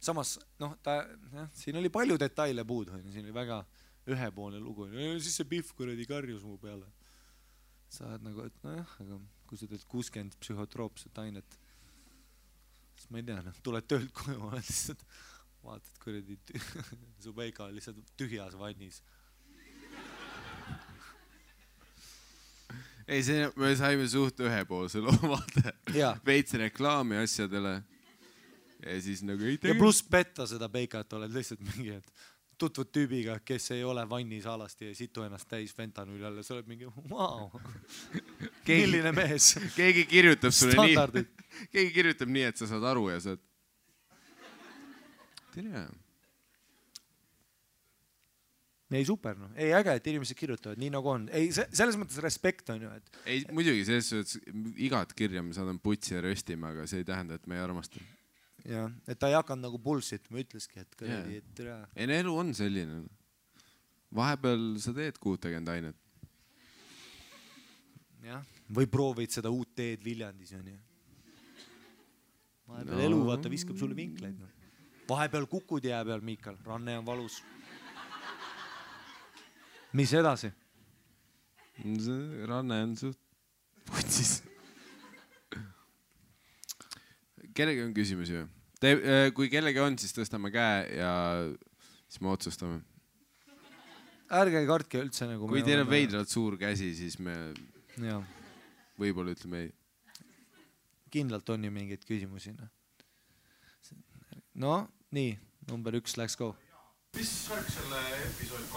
Samas, siin oli palju detaile puudu. Siin oli väga... ühepoolne lugu, siis see Biff kuradi karjus mu peale. Sa oled nagu, et aga kui sa teed 60 psühhotroopset ainet, siis ma ei tea, tuled töölt koju, oled lihtsalt, vaatad kuradi su peika lihtsalt tühjas vannis. ei, see, me saime suht ühepoolse loo, vaata. Jaa. Veits reklaami asjadele. Ja siis nagu ei ja pluss petta seda peikat, oled lihtsalt mingi, et tutvud tüübiga, kes ei ole vannis alasti ja situ ennast täis fentanüüli alla, sa oled mingi, vau, milline mees. Keegi kirjutab sulle Standardid. nii, keegi kirjutab nii, et sa saad aru ja saad. Tere. Ei, super, no. Ei, äge, et inimesed kirjutavad nii nagu on. Ei, selles mõttes respekt on ju, et... Ei, muidugi, selles suhtes igat kirja me saadame putsi ja röstima, aga see ei tähenda, et me ei armasta. Ja, et ta ei hakanud nagu bullshit, ma ütleski, et kõredi, et tere. Ei, elu on selline. Vahepeal sa teed 60 ainet. Jah, või proovid seda uut teed Viljandis, on ju. Vahepeal elu, vaata, viskab sulle vinkleid. No. Vahepeal kukud jää peal, Miikal. Ranne on valus. Mis edasi? Ranne on suht putsis. Kellegi on küsimusi või? Kui kellegi on, siis tõstame käe ja siis me otsustame. Ärge kartke üldse nagu... Kui teil on veidralt suur käsi, siis me võib-olla ütleme ei. Kindlalt on ju mingeid küsimusi. No, nii, number 1, let's go. Mis värk selle episoodi 32?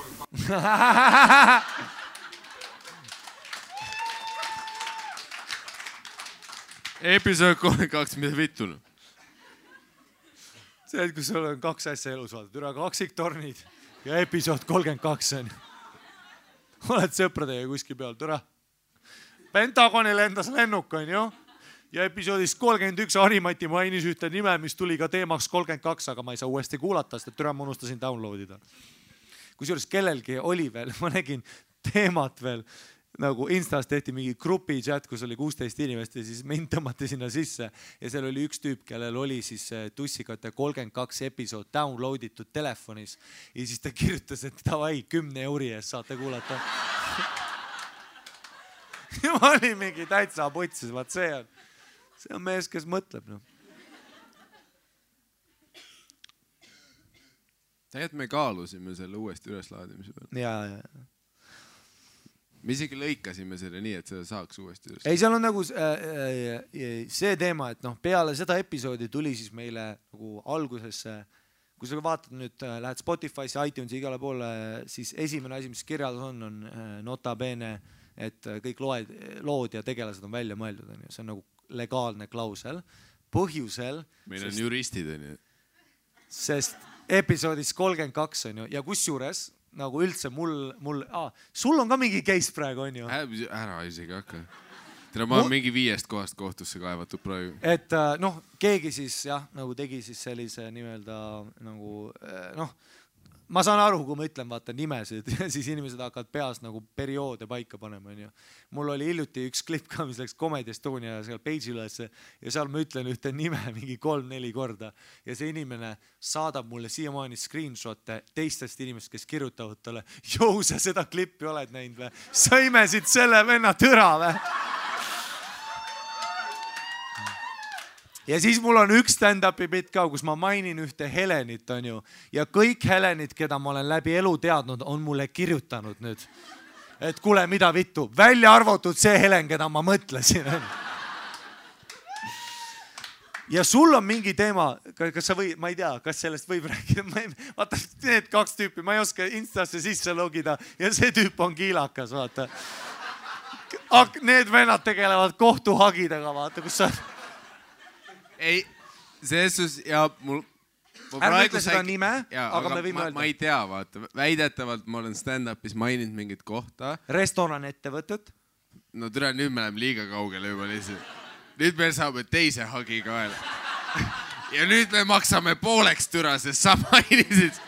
Episood 32, mida vittu? See, et kui sul on 2 asja elus vaadata, üle kaksiktornid ja episood 32 on. Oled sõpradega kuskil peal, türa. Pentagoni lendas lennuk on ju. Ja episoodis 31 Harimati mainis ühte nime, mis tuli ka teemaks 32, aga ma ei saa uuesti kuulata, sest türa ma unustasin downloadida. Kusjuures kellelgi oli veel, ma nägin teemat veel, nagu Instas tehti mingi grupi chat, kus oli 16 inimest ja siis mind tõmmati sinna sisse ja seal oli üks tüüp, kellel oli siis Tussikate 32 episood downloaditud telefonis ja siis ta kirjutas, et davai, 10 euri eest saate kuulata. Ja ma olin mingi täitsa putsis, vaat see on mees, kes mõtleb. No. Tegelikult me kaalusime selle uuesti üleslaadimise peal. Ja. Me isegi lõikasime selle nii, et seda saaks uuesti üles. Ei, seal on nagu see teema, et peale seda episoodi tuli siis meile nagu algusesse, kui sa vaatad nüüd, lähed Spotify'sse, iTunesi igale poole, siis esimene asi, mis kirjas on nota bene, et kõik lood ja tegelased on välja mõeldud. See on nagu legaalne klausel. Põhjusel... Meil on juristid, on ju. Sest episoodis 32 on ju, ja kus juures, nagu üldse sul on ka mingi case praegu, on ju? Ära isegi hakka. Ma olen mingi 5 kohast kohtusse kaevatud praegu. Et keegi siis nagu tegi siis sellise nimelda nagu ma saan aru, kui ma ütlen, vaata nimesid ja siis inimesed hakkavad peas nagu perioode paika panema. Mul oli hiljuti üks klipp ka, mis läks Comedy Estonia seal page ülesse ja seal ma ütlen ühte nime mingi 3-4 korda ja see inimene saadab mulle siiamaani screenshotte teistest inimest, kes kirjutavad talle, jõu, sa seda klippi oled näinud või? Sa imesid selle venna tõra või? Ja siis mul on üks stand-upi bit ka, kus ma mainin ühte Helenit, on ju. Ja kõik Helenid, keda ma olen läbi elu teadnud, on mulle kirjutanud nüüd. Et kuule, mida vittu, välja arvatud see Helen, keda ma mõtlesin. Ja sul on mingi teema, kas sa või, ma ei tea, kas sellest võib rääkida. Vaata, need 2 tüüpi, ma ei oska Instasse sisse logida ja see tüüp on kiilakas, vaata. Need vennad tegelevad kohtuhagidega, vaata, kus sa... Ei, selles ja mul... Ärme ütle seda nime, aga me võime öelda. Ma ei tea, vaata. Väidetavalt ma olen stand-upis maininud mingit kohta. Restoran ettevõtted. No türa, nüüd me läheme liiga kaugele juba lihtsalt. Nüüd me saame teise hagi kaela. Ja nüüd me maksame pooleks türa, sest sa mainisid.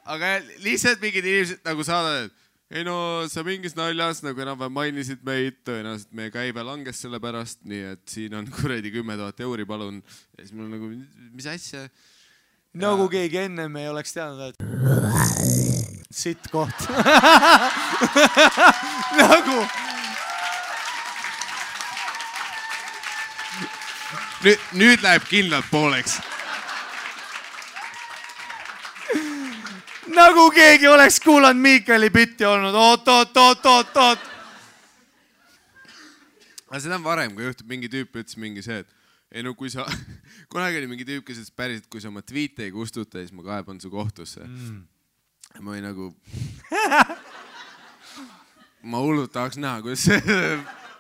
Aga lihtsalt mingid inimesed nagu saadavad, ei no sa mingis naljas nagu enam mainisid meid, tõenäoliselt meie käive langes selle pärast, nii et siin on kuredi 10 000 euri, palun. Ja siis mul nagu, mis asja? Nagu keegi ennem ei oleks teadnud, et sitt koht. Nagu... Nüüd läheb kindlalt pooleks. Nagu keegi oleks kuulanud Miikali bitti olnud. Oot. aga seda on varem, kui juhtub mingi tüüp ütles mingi see, et ei no kui sa, kunagi oli mingi tüüp, kes ütles päriselt, kui sa oma tweet'e ei kustuta, siis ma kaeban su kohtusse. Ma olin nagu... ma hullult tahaks näha, kuidas see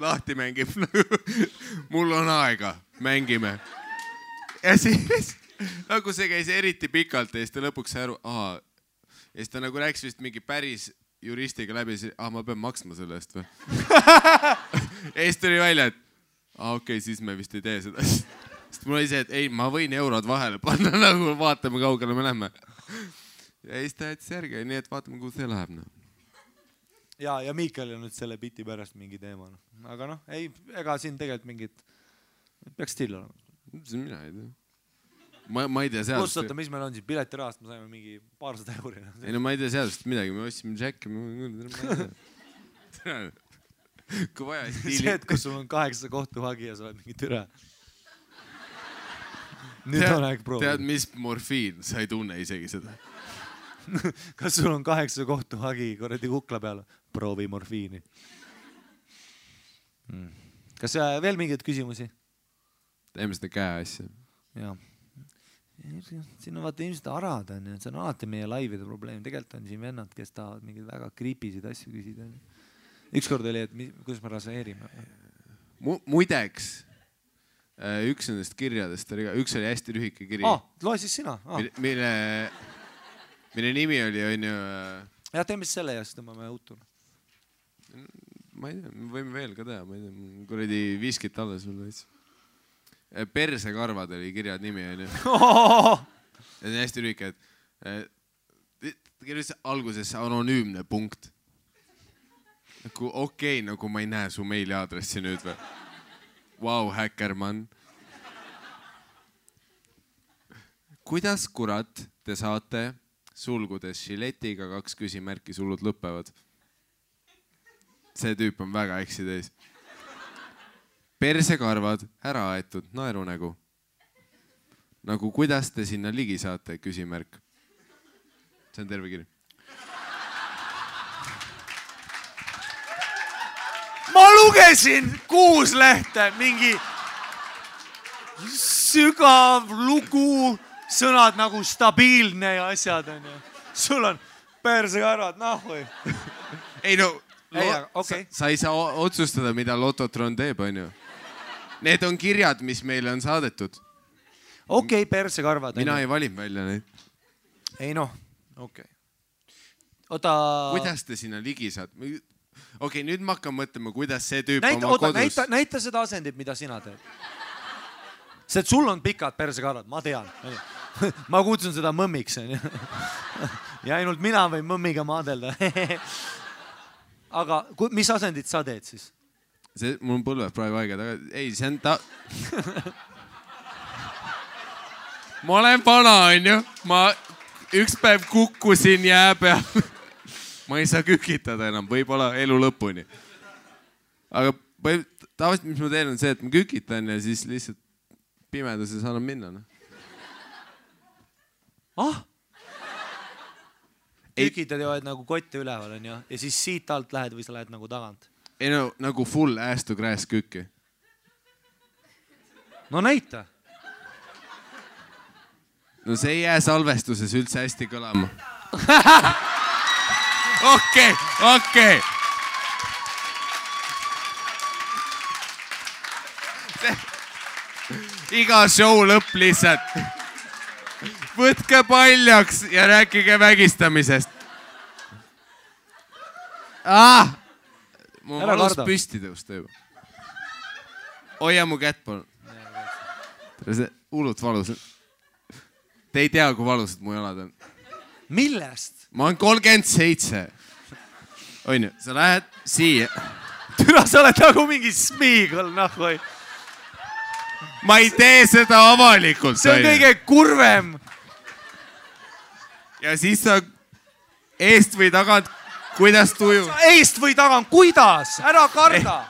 lahti mängib. Mul on aega, mängime. Ja siis nagu see käis eriti pikalt ja siis ta lõpuks sai aru, ja siis ta nagu rääkis vist mingi päris juristiga läbi, ma pean maksma selle eest või? Ja siis tuli välja, et okei, siis me vist ei tee seda. Sest mul oli see, et ei, ma võin eurod vahele panna, nagu vaatame, kaugele me lähme. Ja siis ta jättis järgi, nii et vaatame, kuhu see läheb. Ja Miikal on nüüd selle biti pärast mingi teema. Aga noh, ei, ega siin tegelikult mingid... Peaks still olema. Mina ei tea. Ma ei tea seadust. Plussota, mis meil on siin? Piletirahast me saime mingi 200 €. Ei no ma ei tea seadust midagi, me ostsime Jacki. Kui vaja, stiili. See, et kus sul on 8 kohtuhagi ja sa oled mingi türa. Nüüd on aeg proovida. Tead, mis morfiin? Sa ei tunne isegi seda. Kas sul on 8 kohtuhagi korrati kukla peal? Proovi morfiini. Kas veel mingeid küsimusi? Teeme seda käe asja. Jaa. Siin on vaata ilmselt arad on ja see on alati meie laivide probleem. Tegelikult on siin vennad, kes tahavad mingeid väga kriipisid asju küsida. Ükskord oli, et kuidas me raseerime. Muideks, üks nendest kirjadest, üks oli hästi lühike kiri. Loe siis sina. Mille nimi oli, on ju... Ja teeme selle ja siis tõmbame uutuna. Ma ei tea, me võime veel ka teha, ma ei tea, kuradi viskit alla sulle. Persekarvad oli kirjad nimi, on ju. See on hästi lühike, et kirjas alguses anonüümne punkt. Okei, nagu ma ei näe su meiliaadressi nüüd või. Vau, häkkermann. Kuidas kurat te saate sulgudes šiletiga 2 küsimärki sulud lõpevad? See tüüp on väga eksi teis. Persekarvad, ära aetud, naerunägu. Nagu kuidas te sinna ligi saate, küsimärk. See on terve kiri. Ma lugesin 6 lehte, mingi sügav lugu, sõnad nagu stabiilne ja asjad on ju. Sul on persekarvad, või? Ei no, okay. Sa ei saa otsustada, mida Lototron teeb, on ju. Need on kirjad, mis meile on saadetud. Okei, persekarvad. Mina ei valin välja neid. Ei noh, okei. Kuidas te sinna ligi saad? Okei, nüüd ma hakkan mõtlema, kuidas see tüüp oma kodus... Näita seda asendit, mida sina teed. See, et sul on pikad persekarvad, ma tean. Ma kutsun seda mõmmiks. Ja ainult mina võin mõmmiga maadelda. Aga mis asendit sa teed siis? Mul on põlved praegu aega taga. Ei, see on Ma olen vana, on ju. Ma üks päev kukkusin jää peal. Ma ei saa kükitada enam, võib-olla elu lõpuni. Aga tavaliselt, mis ma teen, on see, et ma kükitan ja siis lihtsalt pimeduses annan minna. Kükitad ja oled nagu kotte üleval, on ju? Ja siis siit alt lähed või sa lähed nagu tagant? Ei no, nagu full ass to grass kükki. No näita. No see ei jää salvestuses üldse hästi kõlama. Okei. Iga show lõpp lihtsalt. Võtke paljaks ja rääkige vägistamisest. Ma valus püsti tõusta juba. Hoia mu kätt, palun. See hullult valus. Te ei tea, kui valusad mu jalad on. Millest? Ma olen 37. On ju, sa lähed siia. Türa, sa oled nagu mingi smiigel, nahvoi. Ma ei tee seda avalikult. See on kõige kurvem. Ja siis sa eest või tagant, kuidas tuju? Eest või tagant, kuidas? Ära karda.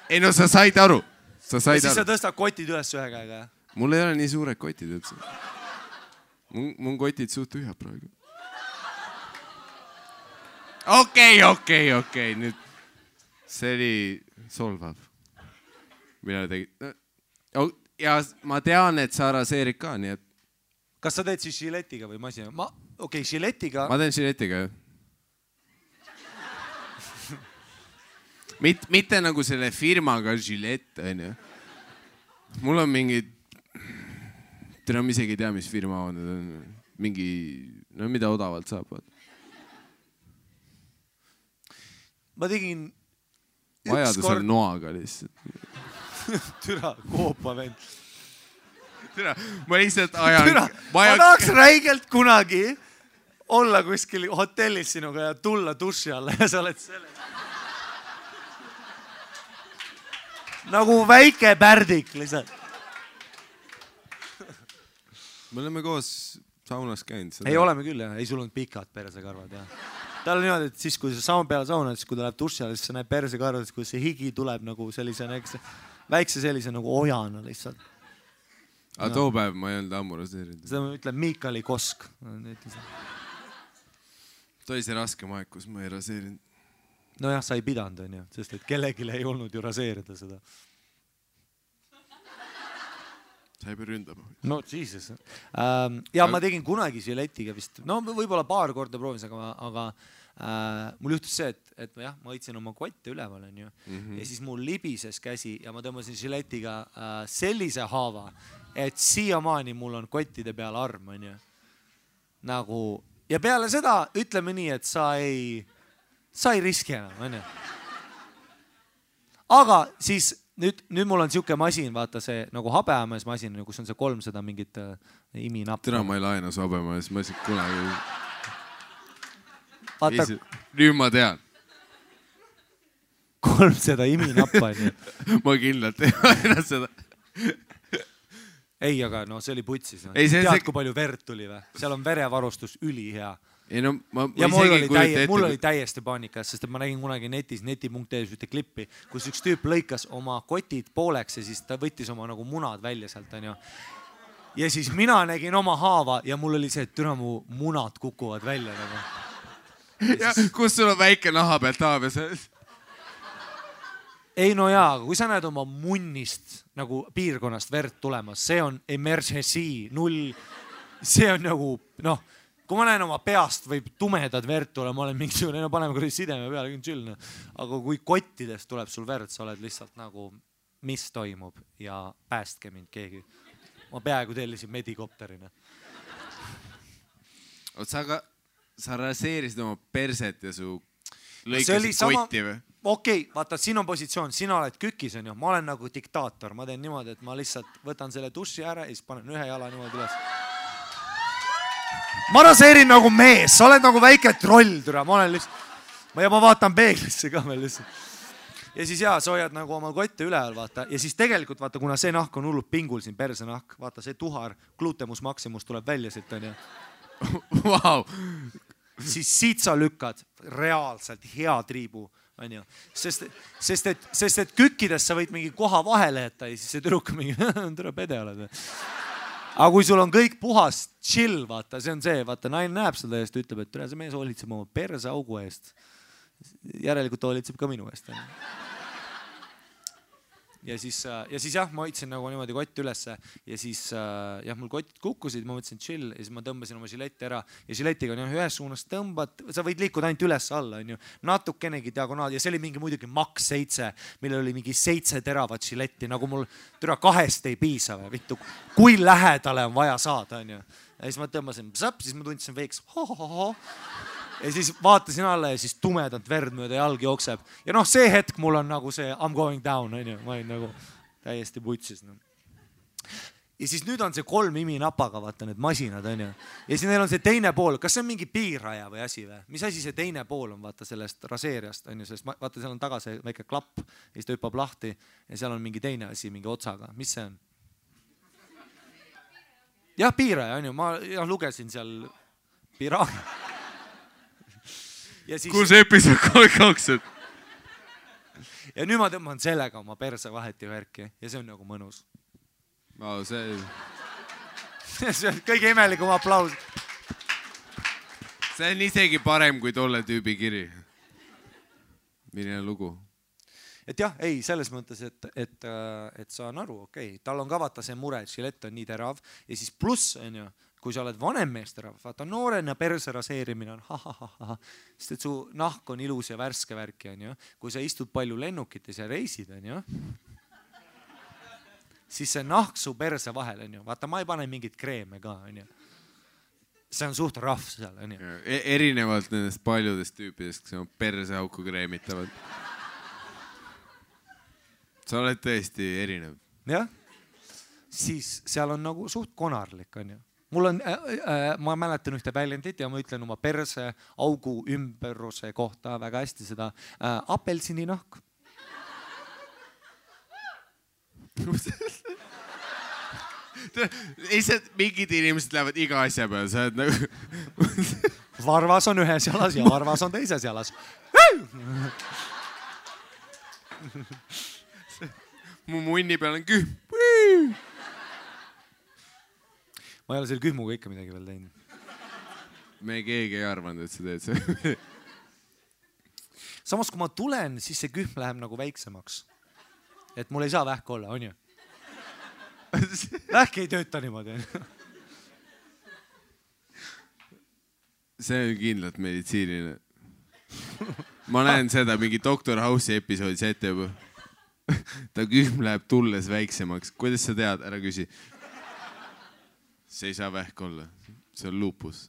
Ei no sa said aru. Ja siis sa tõstad kotid üles ühe käega. Mul ei ole nii suured kotid üldse. Mun kotid suht tühjad praegu. Okei. Nüüd see oli solvav. Mina tegin. Ja ma tean, et sa raseerid ka, nii et... Kas sa teed siis žiletiga või masina? Okei, žiletiga... Ma teen žiletiga, jah. Mitte nagu selle firmaga žilett, on ju. Mul on mingi... Täna ma isegi ei tea, mis firma on. Mingi... No mida odavalt saab. Ma tegin... Vajadus on noaga lihtsalt. Türa, koopa vend. Türa, ma lihtsalt ajan... Türa, ma tahaks räigelt kunagi olla kuskil hotellis sinuga ja tulla duši alla ja sa oled selles. Nagu väike pärdik lihtsalt. Me oleme koos saunas käinud. Ei, oleme küll, jah. Ei, sul on pikad persekarvad, jah. Tal on niimoodi, et siis, kui sa peale saunad, siis kui ta läheb duši alla, siis sa näed persekarvad, kui see higi tuleb nagu sellise väikse sellise nagu ojana lihtsalt. Aga too päev ma ei olnud ammu raseerinud. Seda ma ütlen Miikali Kosk. Toi see raske maeg, kus ma ei raseerinud. No jah, sa ei pidanud, on ju, sest et kellegile ei olnud ju raseerida seda. Sa ei pea ründama. No, Jesus. Ja ma tegin kunagi žiletiga vist. No võib-olla paar korda proovis, aga mul juhtus see, et jah, ma võtsin oma kotte üleval, on ju. Ja siis mul libises käsi ja ma tõmbasin žiletiga sellise haava, et siiamaani mul on kottide peal arm, on ju. Nagu, ja peale seda ütleme nii, et sa ei riski enam, on ju. Aga siis nüüd mul on siuke masin, vaata see nagu habeamees masin, kus on see 300 mingit iminappa. Täna ma ei laena su habeamees masin kunagi. Vaata, nüüd ma tean. 300 iminappa on ju. Ma kindlalt ei laena seda. Ei, aga no see oli putsis. Ei, tead, kui palju verd tuli või? Seal on verevarustus ülihea. Ei, no, ja mul oli täiesti paanikas, sest ma nägin kunagi netis, neti.ee ühte klippi, kus üks tüüp lõikas oma kotid pooleks ja siis ta võttis oma nagu munad välja sealt, on ju. Ja siis mina nägin oma haava ja mul oli see, et türa mu munad kukuvad välja nagu. Ja kus sul on väike naha pealt haabes? Ei, no jaa, aga kui sa näed oma munnist nagu piirkonnast verd tulemas, see on emergency, 0, see on nagu, noh, kui ma näen oma peast võib tumedad verd tule, ma olen mingisugune, no paneme kuradi sideme peale, küll chill. Aga kui kottidest tuleb sul verd, sa oled lihtsalt nagu, mis toimub ja päästke mind keegi. Ma peaaegu tellisin medikopterina. Sa raseerisid oma perset ja su lõikasid kotti või? Okei, vaata, siin on positsioon, sina oled kükis, on ju. Ma olen nagu diktaator, ma teen niimoodi, et ma lihtsalt võtan selle duši ära ja siis panen ühe jala niimoodi üles. Ma raseerin nagu mees, sa oled nagu väike troll, türa, ma olen lihtsalt, ja ma vaatan peeglisse ka veel lihtsalt. Ja siis jaa, sa hoiad nagu oma kotte üleval, vaata, ja siis tegelikult vaata, kuna see nahk on hullult pingul siin, perse nahk, vaata see tuhar, glutemus maximus tuleb välja siit, on ju. Wow. Siis siit sa lükkad reaalselt hea triibu, on ju. Sest et kükkides sa võid mingi koha vahele jätta ja siis see tüdruk mingi, tere pede oled. Aga kui sul on kõik puhas chill, vaata, see on see, vaata, naine näeb seda eest, ütleb, et tere, see mees hoolitseb oma perse augu eest. Järelikult hoolitseb ka minu eest. Ja siis jah, ma hoidsin nagu niimoodi kotti ülesse ja siis jah, mul kotid kukkusid, ma mõtlesin chill ja siis ma tõmbasin oma žiletti ära ja žiletiga on ühes suunas tõmbad, sa võid liikuda ainult üles alla, on ju, natukenegi diagonaal ja see oli mingi muidugi Max 7, millel oli mingi 7 teravat žiletti, nagu mul türa 2 ei piisa või, vittu, kui lähedale on vaja saada, on ju. Ja siis ma tõmbasin, siis ma tundsin veiks, ja siis vaatasin alla ja siis tumedalt verd mööda jalg jookseb. Ja noh, see hetk mul on nagu see I'm going down, on ju. Ma olin nagu täiesti putsis. No. Ja siis nüüd on see 3 iminapaga, vaata need masinad, on ju. Ja siis neil on see teine pool. Kas see on mingi piiraja või asi või? Mis asi see teine pool on, vaata sellest raseeriast, on ju. Sest vaata, seal on taga see väike klapp ja siis ta hüppab lahti ja seal on mingi teine asi, mingi otsaga. Mis see on? Jah, piiraja, on ju. Ma lugesin seal piiraja. Siis... Kus episood 32? Ja nüüd ma tõmban sellega oma perse vaheti värki ja see on nagu mõnus. See on kõige imelikum aplaus. See on isegi parem kui tolle tüübi kiri. Milline lugu? et jah, ei, selles mõttes, et saan aru, okei, tal on ka vaata see mure, et žilett on nii terav ja siis pluss on ju, kui sa oled vanem meesterahv, vaata noorena perse raseerimine on ha-ha-ha-ha, sest et su nahk on ilus ja värske värki on ju, kui sa istud palju lennukites ja reisid on ju, siis see nahk su perse vahel on ju, vaata ma ei pane mingit kreeme ka on ju. See on suht rahv seal, on ju. Erinevalt nendest paljudest tüüpidest, kes on perseauku kreemitavad. Sa oled tõesti erinev. Jah, siis seal on nagu suht konarlik, on ju. Mul on, ma mäletan ühte väljendit ja ma ütlen oma perse augu ümberuse kohta väga hästi seda apelsini nahk. Lihtsalt mingid inimesed lähevad iga asja peale, sa oled nagu... Varvas on ühes jalas ja varvas on teises jalas. Mu munni peal on kühm. Ma ei ole selle kühmuga ikka midagi veel teinud. Me keegi ei arvanud, et sa teed see. Samas kui ma tulen, siis see kühm läheb nagu väiksemaks. Et mul ei saa vähk olla, on ju? Vähk ei tööta niimoodi. See on kindlalt meditsiiniline. Ma näen seda mingi Dr. House'i episoodis ette juba. Ta kühm läheb tulles väiksemaks. Kuidas sa tead? Ära küsi. See ei saa vähk olla. See on lupus.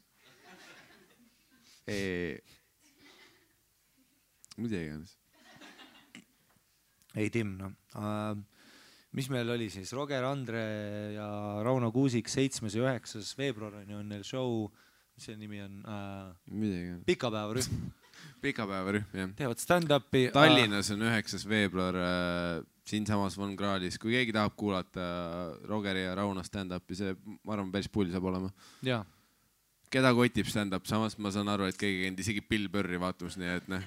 Mida iganes. Ei, Tim, no. Mis meil oli siis? Roger Andre ja Rauno Kuusik 7. ja 9. veebruar on neil show, mis see nimi on? Pikapäevarühm. Pikapäevarühm, jah. Teevad stand-upi. Tallinnas on 9. veebruar siinsamas Von Krahlis. Kui keegi tahab kuulata Rogeri ja Rauno stand-upi, see, ma arvan, päris pull saab olema. Jaa. Keda kotib stand-up? Samas ma saan aru, et keegi käinud isegi Bill Burri vaatamas, nii et noh.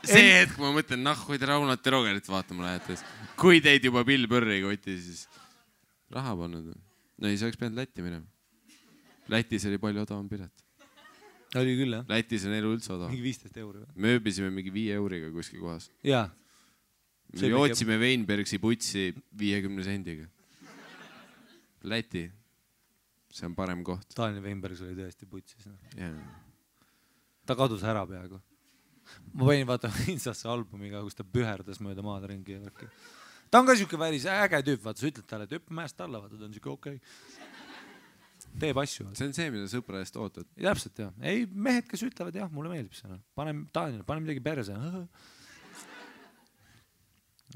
See hetk ma mõtlen, hoid Raunat ja Rogerit vaatama lähetes. Kui teid juba Bill Burri koti, siis raha pannud. No ei, sa oleks pidanud Lätti minema. Lätis oli palju odavam pilet. Oli küll, jah? Lätis on elu üldse odavam. Mingi 15 euro. Me ööbisime mingi 5 euriga kuskil kohas. Jaa. Me jootsime Weinbergsi putsi 50 sendiga. Läti. See on parem koht. Daniel Weinbergs oli tõesti putsis. Yeah. Ta kadus ära peaaegu. Ma panin vaatama Instasse albumiga, kus ta püherdas mööda maad ringi. Ta on ka siuke väris äge tüüp, vaata, sa ütled talle, et hüppe mäest alla, vaata, ta on siuke okei. Teeb asju. See on see, mida sõpra eest ootad. Täpselt, jah. Ei, mehed, kes ütlevad, jah, mulle meeldib see. Pane midagi perse.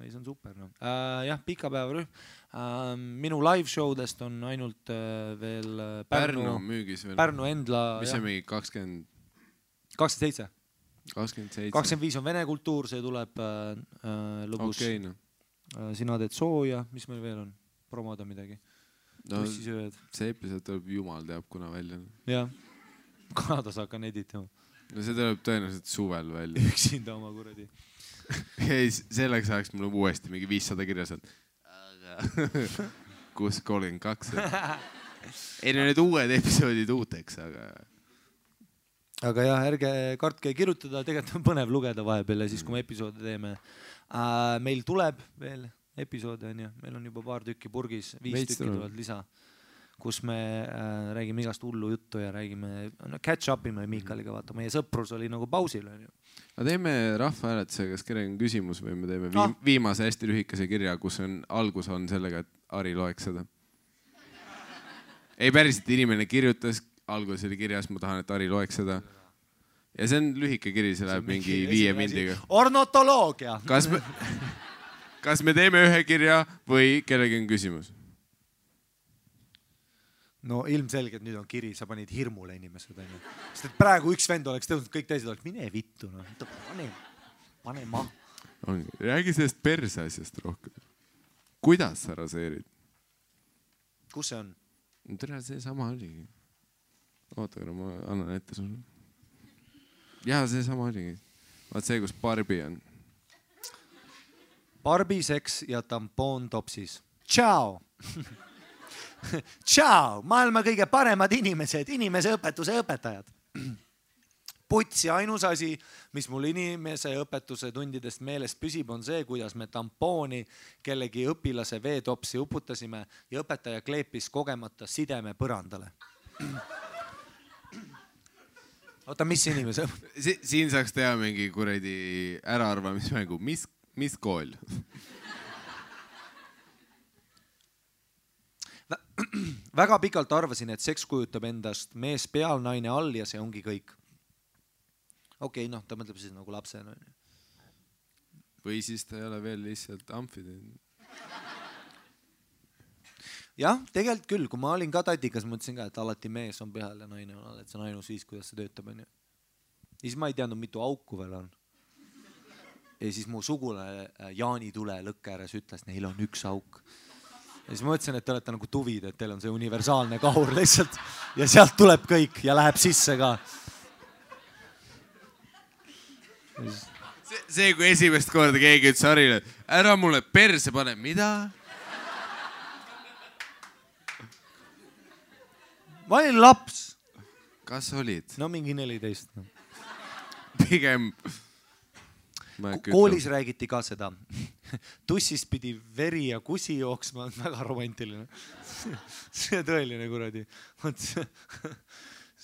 Ei, see on super. No. Jah, pikapäevarühm. Minu live showdest on ainult veel Pärnu müügis veel. Pärnu Endla. Mis on mingi 27? 25 on vene kultuur, see tuleb lõbus. Okei, no. Sina teed sooja, mis meil veel on? Promoda midagi. No, see episood tuleb jumal teab kuna välja. Jah, Kanadas hakkan editama. No see tuleb tõenäoliselt suvel välja. Üksinda oma kuradi. Ei, selleks ajaks mul uuesti mingi 500 kirjas on. 632. Ei, need uued episoodid uuteks, Aga jah, ärge kartke kirjutada, tegelikult on põnev lugeda vahepeal ja siis, kui me episoode teeme. Meil tuleb veel episoode, on ju. Meil on juba paar tükki purgis, 5 tükki tulevad lisa, kus me räägime igast hullu juttu ja räägime, catch up'ime Miikaliga, vaata. Meie sõprus oli nagu pausil, on ju. Aga teeme rahvahääletuse, kas kellegi on küsimus või me teeme viimase hästi lühikese kirja, kus on algus on sellega, et Ari loeks seda. Ei päriselt, inimene kirjutas, algus oli kirjas, ma tahan, et Ari loeks seda. Ja see on lühike kiri, see läheb mingi 5 mindiga. Ornotoloogia! Kas me teeme ühe kirja või kellegi on küsimus? No ilmselgelt nüüd on kiri, sa panid hirmule inimesed. Sest et praegu üks vend oleks tõusnud, kõik teised oleks, mine vittu. Pane ma. Räägi sellest perse asjast rohkem. Kuidas sa raseerid? Kus see on? Tere, see sama oligi. Oota, ma annan ette sulle. Jaa, see sama oligi. Vaat see, kus Barbi on. Barbi, seks ja tampoon topsis. Tšau! Tšau! Maailma kõige paremad inimesed, inimese õpetuse õpetajad. putsi, ainus asi, mis mul inimese õpetuse tundidest meelest püsib, on see, kuidas me tampooni kellegi õpilase veetopsi uputasime ja õpetaja kleepis kogemata sideme põrandale. Oota, mis inimese? Siin saaks teha mingi kuradi äraarvamismängu. Mis kool? Väga pikalt arvasin, et seks kujutab endast mees peal, naine all ja see ongi kõik. Okei, noh, ta mõtleb siis nagu lapsena. Või siis ta ei ole veel lihtsalt amfid. Jah, tegelikult küll, kui ma olin ka tatikas, mõtlesin ka, et alati mees on peal ja naine on all, et see on ainus viis, kuidas see töötab. Ja siis ma ei teadnud, mitu auku veel on. Ja siis mu sugule Jaani Tule lõkke ääres ütles, neil on üks auk. Ja siis ma mõtlesin, et te olete nagu tuvid, et teil on see universaalne kahur lihtsalt ja sealt tuleb kõik ja läheb sisse ka. See, kui esimest korda keegi ütles Harile, ära mulle perse pane, mida? Ma olin laps. Kas olid? No mingi 14. Pigem... Koolis räägiti ka seda. Tussist pidi veri ja kusi jooksma, väga romantiline. See tõeline kuradi.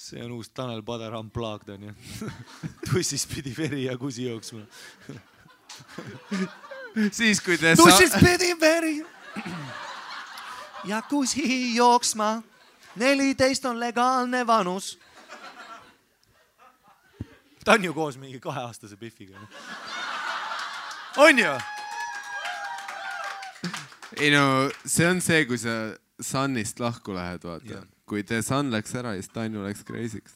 See on uus Tanel Padar unplugged on ju. Tussist pidi veri ja kusi jooksma. Siis kui te... Tussist pidi veri ja kusi jooksma. 14 on legaalne vanus. Ta on ju koos mingi 2-aastase Biffiga. On ju? Ei no, see on see, kui sa Sunist lahku lähed, vaata. Kui te Sun läks ära, siis Tanju läks crazy'ks.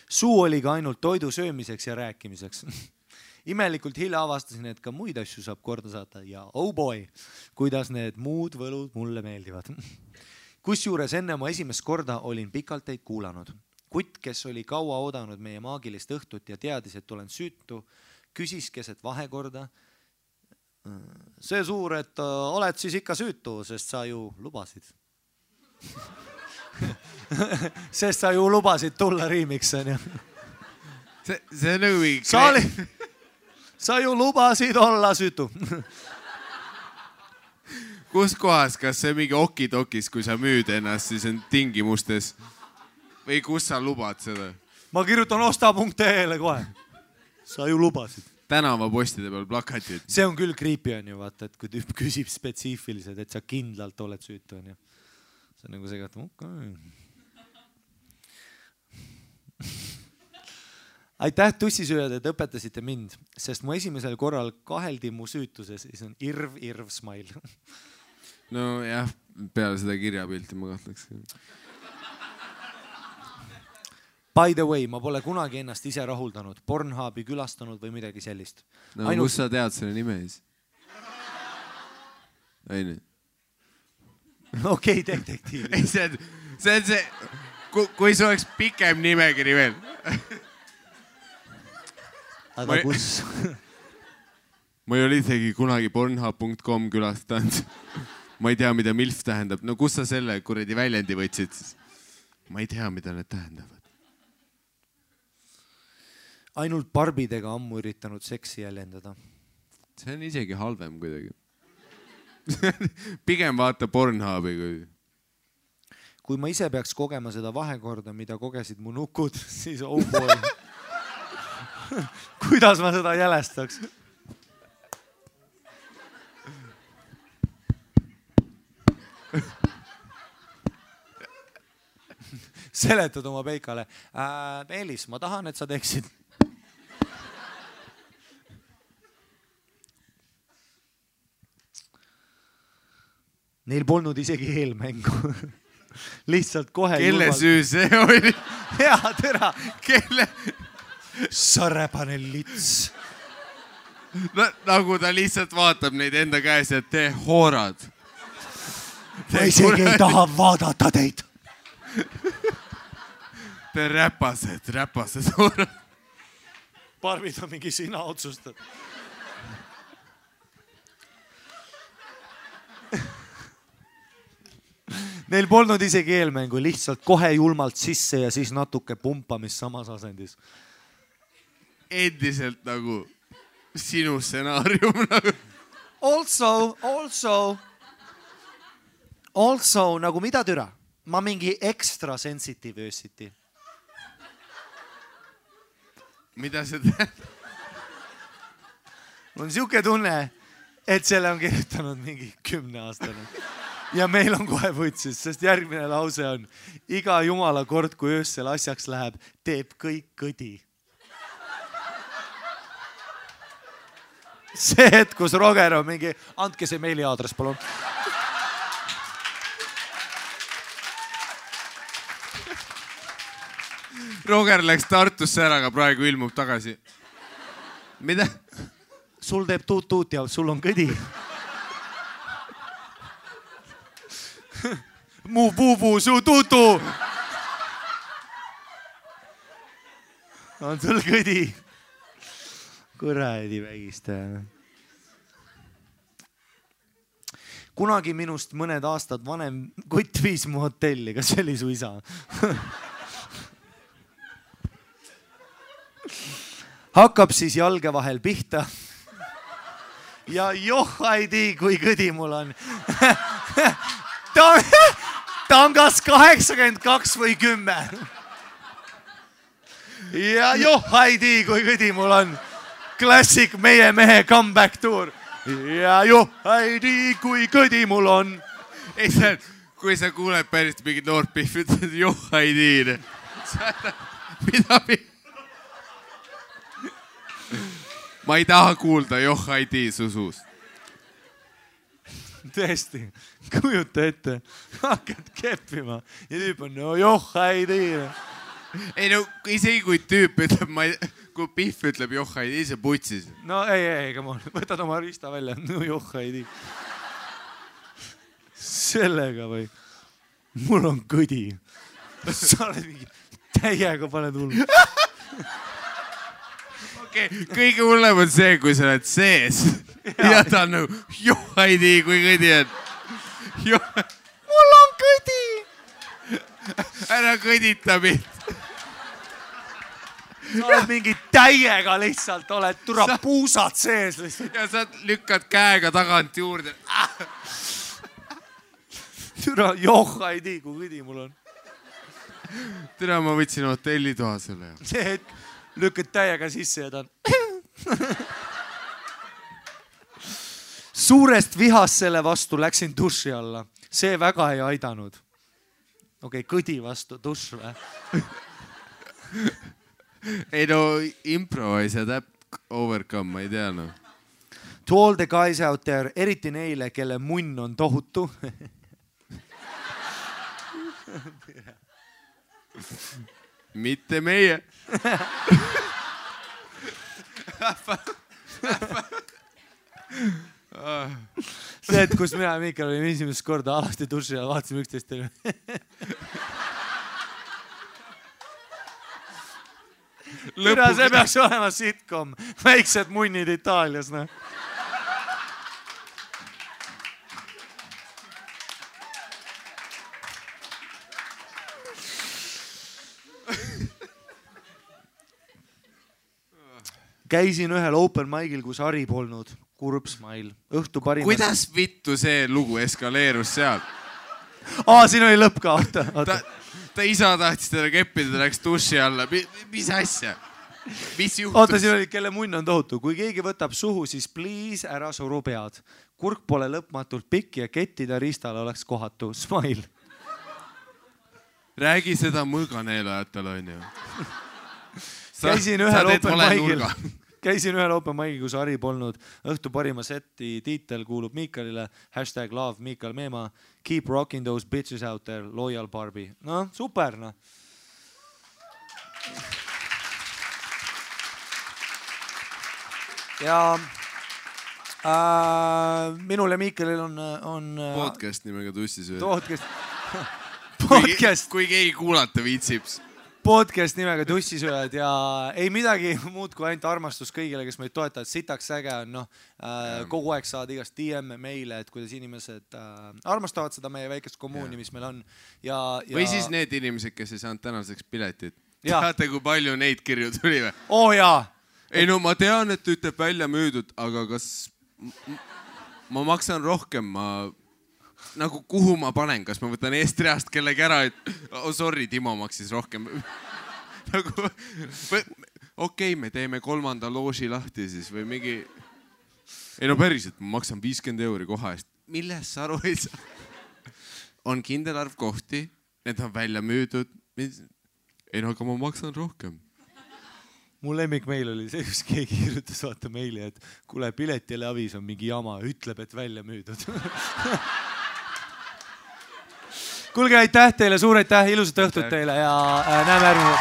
Suu oli ka ainult toidu söömiseks ja rääkimiseks. Imelikult hilja avastasin, et ka muid asju saab korda saata ja oh boy, kuidas need muud võlud mulle meeldivad. Kusjuures enne mu esimest korda olin pikalt teid kuulanud. Kutt, kes oli kaua oodanud meie maagilist õhtut ja teadis, et olen süütu, küsis keset vahekorda. See suur, et oled siis ikka süütu, sest sa ju lubasid. Sest sa ju lubasid tulla riimiks. See on nagu... Sa ju lubasid olla süütu. Kus kohas, kas see mingi okidokis, kui sa müüd ennast, siis on tingimustes? Või kus sa lubad seda? Ma kirjutan osta.ee-le kohe. Sa ju lubasid. Tänavapostide peal plakatid. See on küll creepy on ju, vaata, et kui tüüp küsib spetsiifiliselt, et sa kindlalt oled süütu on ju. See on nagu see, et Aitäh tussisööjad, et õpetasite mind, sest mu esimesel korral kaheldi mu süütuses, siis on irv smile. No jah, peale seda kirjapilti ma kahtleks. By the way, ma pole kunagi ennast ise rahuldanud, Pornhubi külastanud või midagi sellist. No kus sa tead selle nime siis? Aine. Okei, detektiiv. See on see, kui see oleks pikem nimekiri veel. Aga kus? Ma ei ole isegi kunagi pornhub.com külastanud. Ma ei tea, mida MILF tähendab. No kus sa selle kuradi väljendi võtsid siis? Ma ei tea, mida need tähendavad. Ainult barbidega ammu üritanud seksi jäljendada. See on isegi halvem kuidagi. Pigem vaata Pornhubi kui... Kui ma ise peaks kogema seda vahekorda, mida kogesid mu nukud, siis oh boy. Kuidas ma seda jälestaks? Seletad oma peikale. Meelis, ma tahan, et sa teeksid. Neil polnud isegi eelmängu. Lihtsalt kohe... Kelle süü see oli? Hea tera. Kelle... Sarepane lits. No, nagu ta lihtsalt vaatab neid enda käes, et te hoorad. Ma isegi ei taha vaadata teid. Te räpased hoorad. Barbid on mingi sina otsustad. Neil polnud isegi eelmängu, lihtsalt kohe julmalt sisse ja siis natuke pumpamist samas asendis. Endiselt nagu sinu stsenaarium nagu. Also, nagu mida türa? Ma mingi extra sensitive öösiti. Mida see tähendab? Mul on siuke tunne, et selle on kirjutanud mingi 10-aastane. Ja meil on kohe võtsis, sest järgmine lause on iga jumala kord, kui öössel asjaks läheb, teeb kõik kõdi. See hetk, kus Roger on mingi, andke see meiliaadress, palun. Roger läks Tartusse ära, aga praegu ilmub tagasi. Mida? Sul teeb tuut ja sul on kõdi. Mu puu, su tutu. On sul kõdi? Kuradi vägistaja. Kunagi minust mõned aastad vanem kutt viis mu hotelli, kas see oli su isa? Hakkab siis jalge vahel pihta. Ja ei tea, kui kõdi mul on. Ta on kas 82 või 10. Ja ei tea, kui kõdi mul on. Klassik meie mehe comeback tour. Ja ei tea, kui kõdi mul on. Ei, kui sa kuuled päris mingid noort pihvi, ütled ei tea. Mida? Ma ei taha kuulda ei tea su suust. Tõesti, kujuta ette, hakkad keppima ja tüüp on ei tea. Ei no, isegi kui tüüp ütleb, kui pihv ütleb ei tea, see putsis. No ei, come on, võtad oma riista välja, ei tea. Sellega või? Mul on kõdi. Sa oled mingi täiega paned hullu. Kõige hullem on see, kui sa oled sees ja ta on nagu ei tea, kui kõdi on. Mul on kõdi! Ära kõdita mind. Sa oled mingi täiega lihtsalt, oled puusad sees lihtsalt. Ja sa lükkad käega tagant juurde. Ei tea, kui kõdi mul on. Tere, ma võtsin hotellitoa sulle. See hetk lükkad täiega sisse ja ta on. Suurest vihast selle vastu läksin duši alla. See väga ei aidanud. Okei, kõdi vastu duš või? Ei no, improvise that overcome, ma ei tea no. To all the guys out there, eriti neile, kelle munn on tohutu. Mitte meie. See, et kus mina ja Miikal olime esimest korda alasti duši ja vaatasime üksteist. See peaks olema sitcom. Väiksed munnid Itaalias. Käisin ühel open mic'il, kus Ari polnud. Kurb smile. Õhtu parimas. Kuidas vittu see lugu eskaleerus seal? Siin oli lõpp ka. Ta isa tahtis teda keppida, ta läks duši alla. Mis asja? Mis juhtus? Oota, siin oli, kelle munn on tohutu. Kui keegi võtab suhu, siis please ära suru pead. Kurk pole lõpmatult pikk ja kettida riistale oleks kohatu. Smile. Räägi seda mõõganeelajatel, on ju. Käisin ühel open mic'il, kus Ari polnud. Õhtu parima seti tiitel kuulub Miikalile. #love Miikal Meema. Keep rocking those bitches out there. Loyal Barbie. No, super, no. Ja minul ja Miikalil on podcast nimega Tussisööd. Podcast. Kui keegi kuulata viitsib. podcast nimega Tussisööjad ja ei midagi muud kui ainult armastus kõigile, kes meid toetavad. Sitaks äge on, kogu aeg saad igast DM-e meile, et kuidas inimesed armastavad seda meie väikest kommuuni, mis meil on. Või siis need inimesed, kes ei saanud tänaseks piletit. Teate, kui palju neid kirju tuli või? Jaa. Ei no ma tean, et ütleb välja müüdud, aga kas ma maksan rohkem, nagu kuhu ma panen, kas ma võtan Eestreast kellegi ära, et sorry, Timo maksis rohkem. Nagu, okei, me teeme 3. looži lahti siis või mingi... Ei no päriselt, ma maksan 50 € koha eest. Milles sa aru ei saa? On kindel arv kohti, need on välja müüdud. Ei no, aga ma maksan rohkem. Mu lemmik meil oli see, kus keegi kirjutas vaata meili, et kuule, piletile avis on mingi jama, ütleb, et välja müüdud. Kuulge, aitäh teile, suur aitäh, ilusat õhtut teile ja näeme järgmine.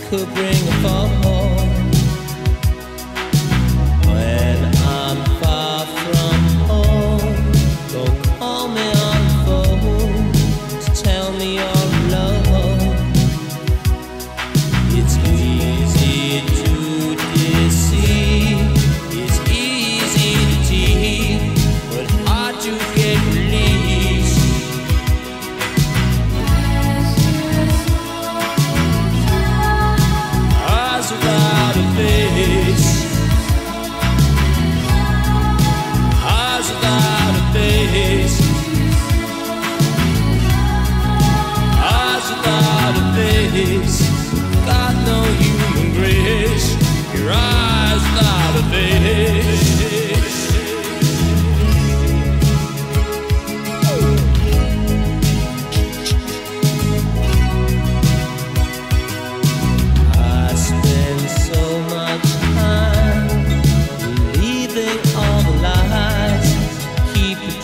Could bring a fall when I'm far from home. Don't call me on the phone to tell me your love. It's easy to deceive, it's easy to tease, but hard to get released. Without a face, eyes without a face, eyes without a face, got no human grace, your eyes without a face.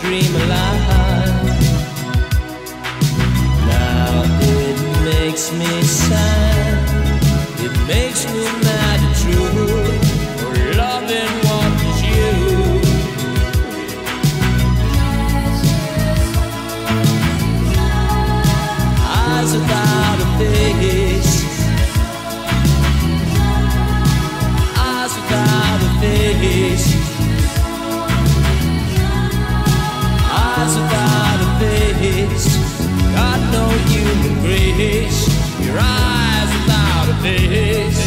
Dream alive. Now it makes me sad, it makes me mad and true, for loving what is you. Eyes without a face, eyes without a face, eyes without a face, got no human grace, your eyes without a face.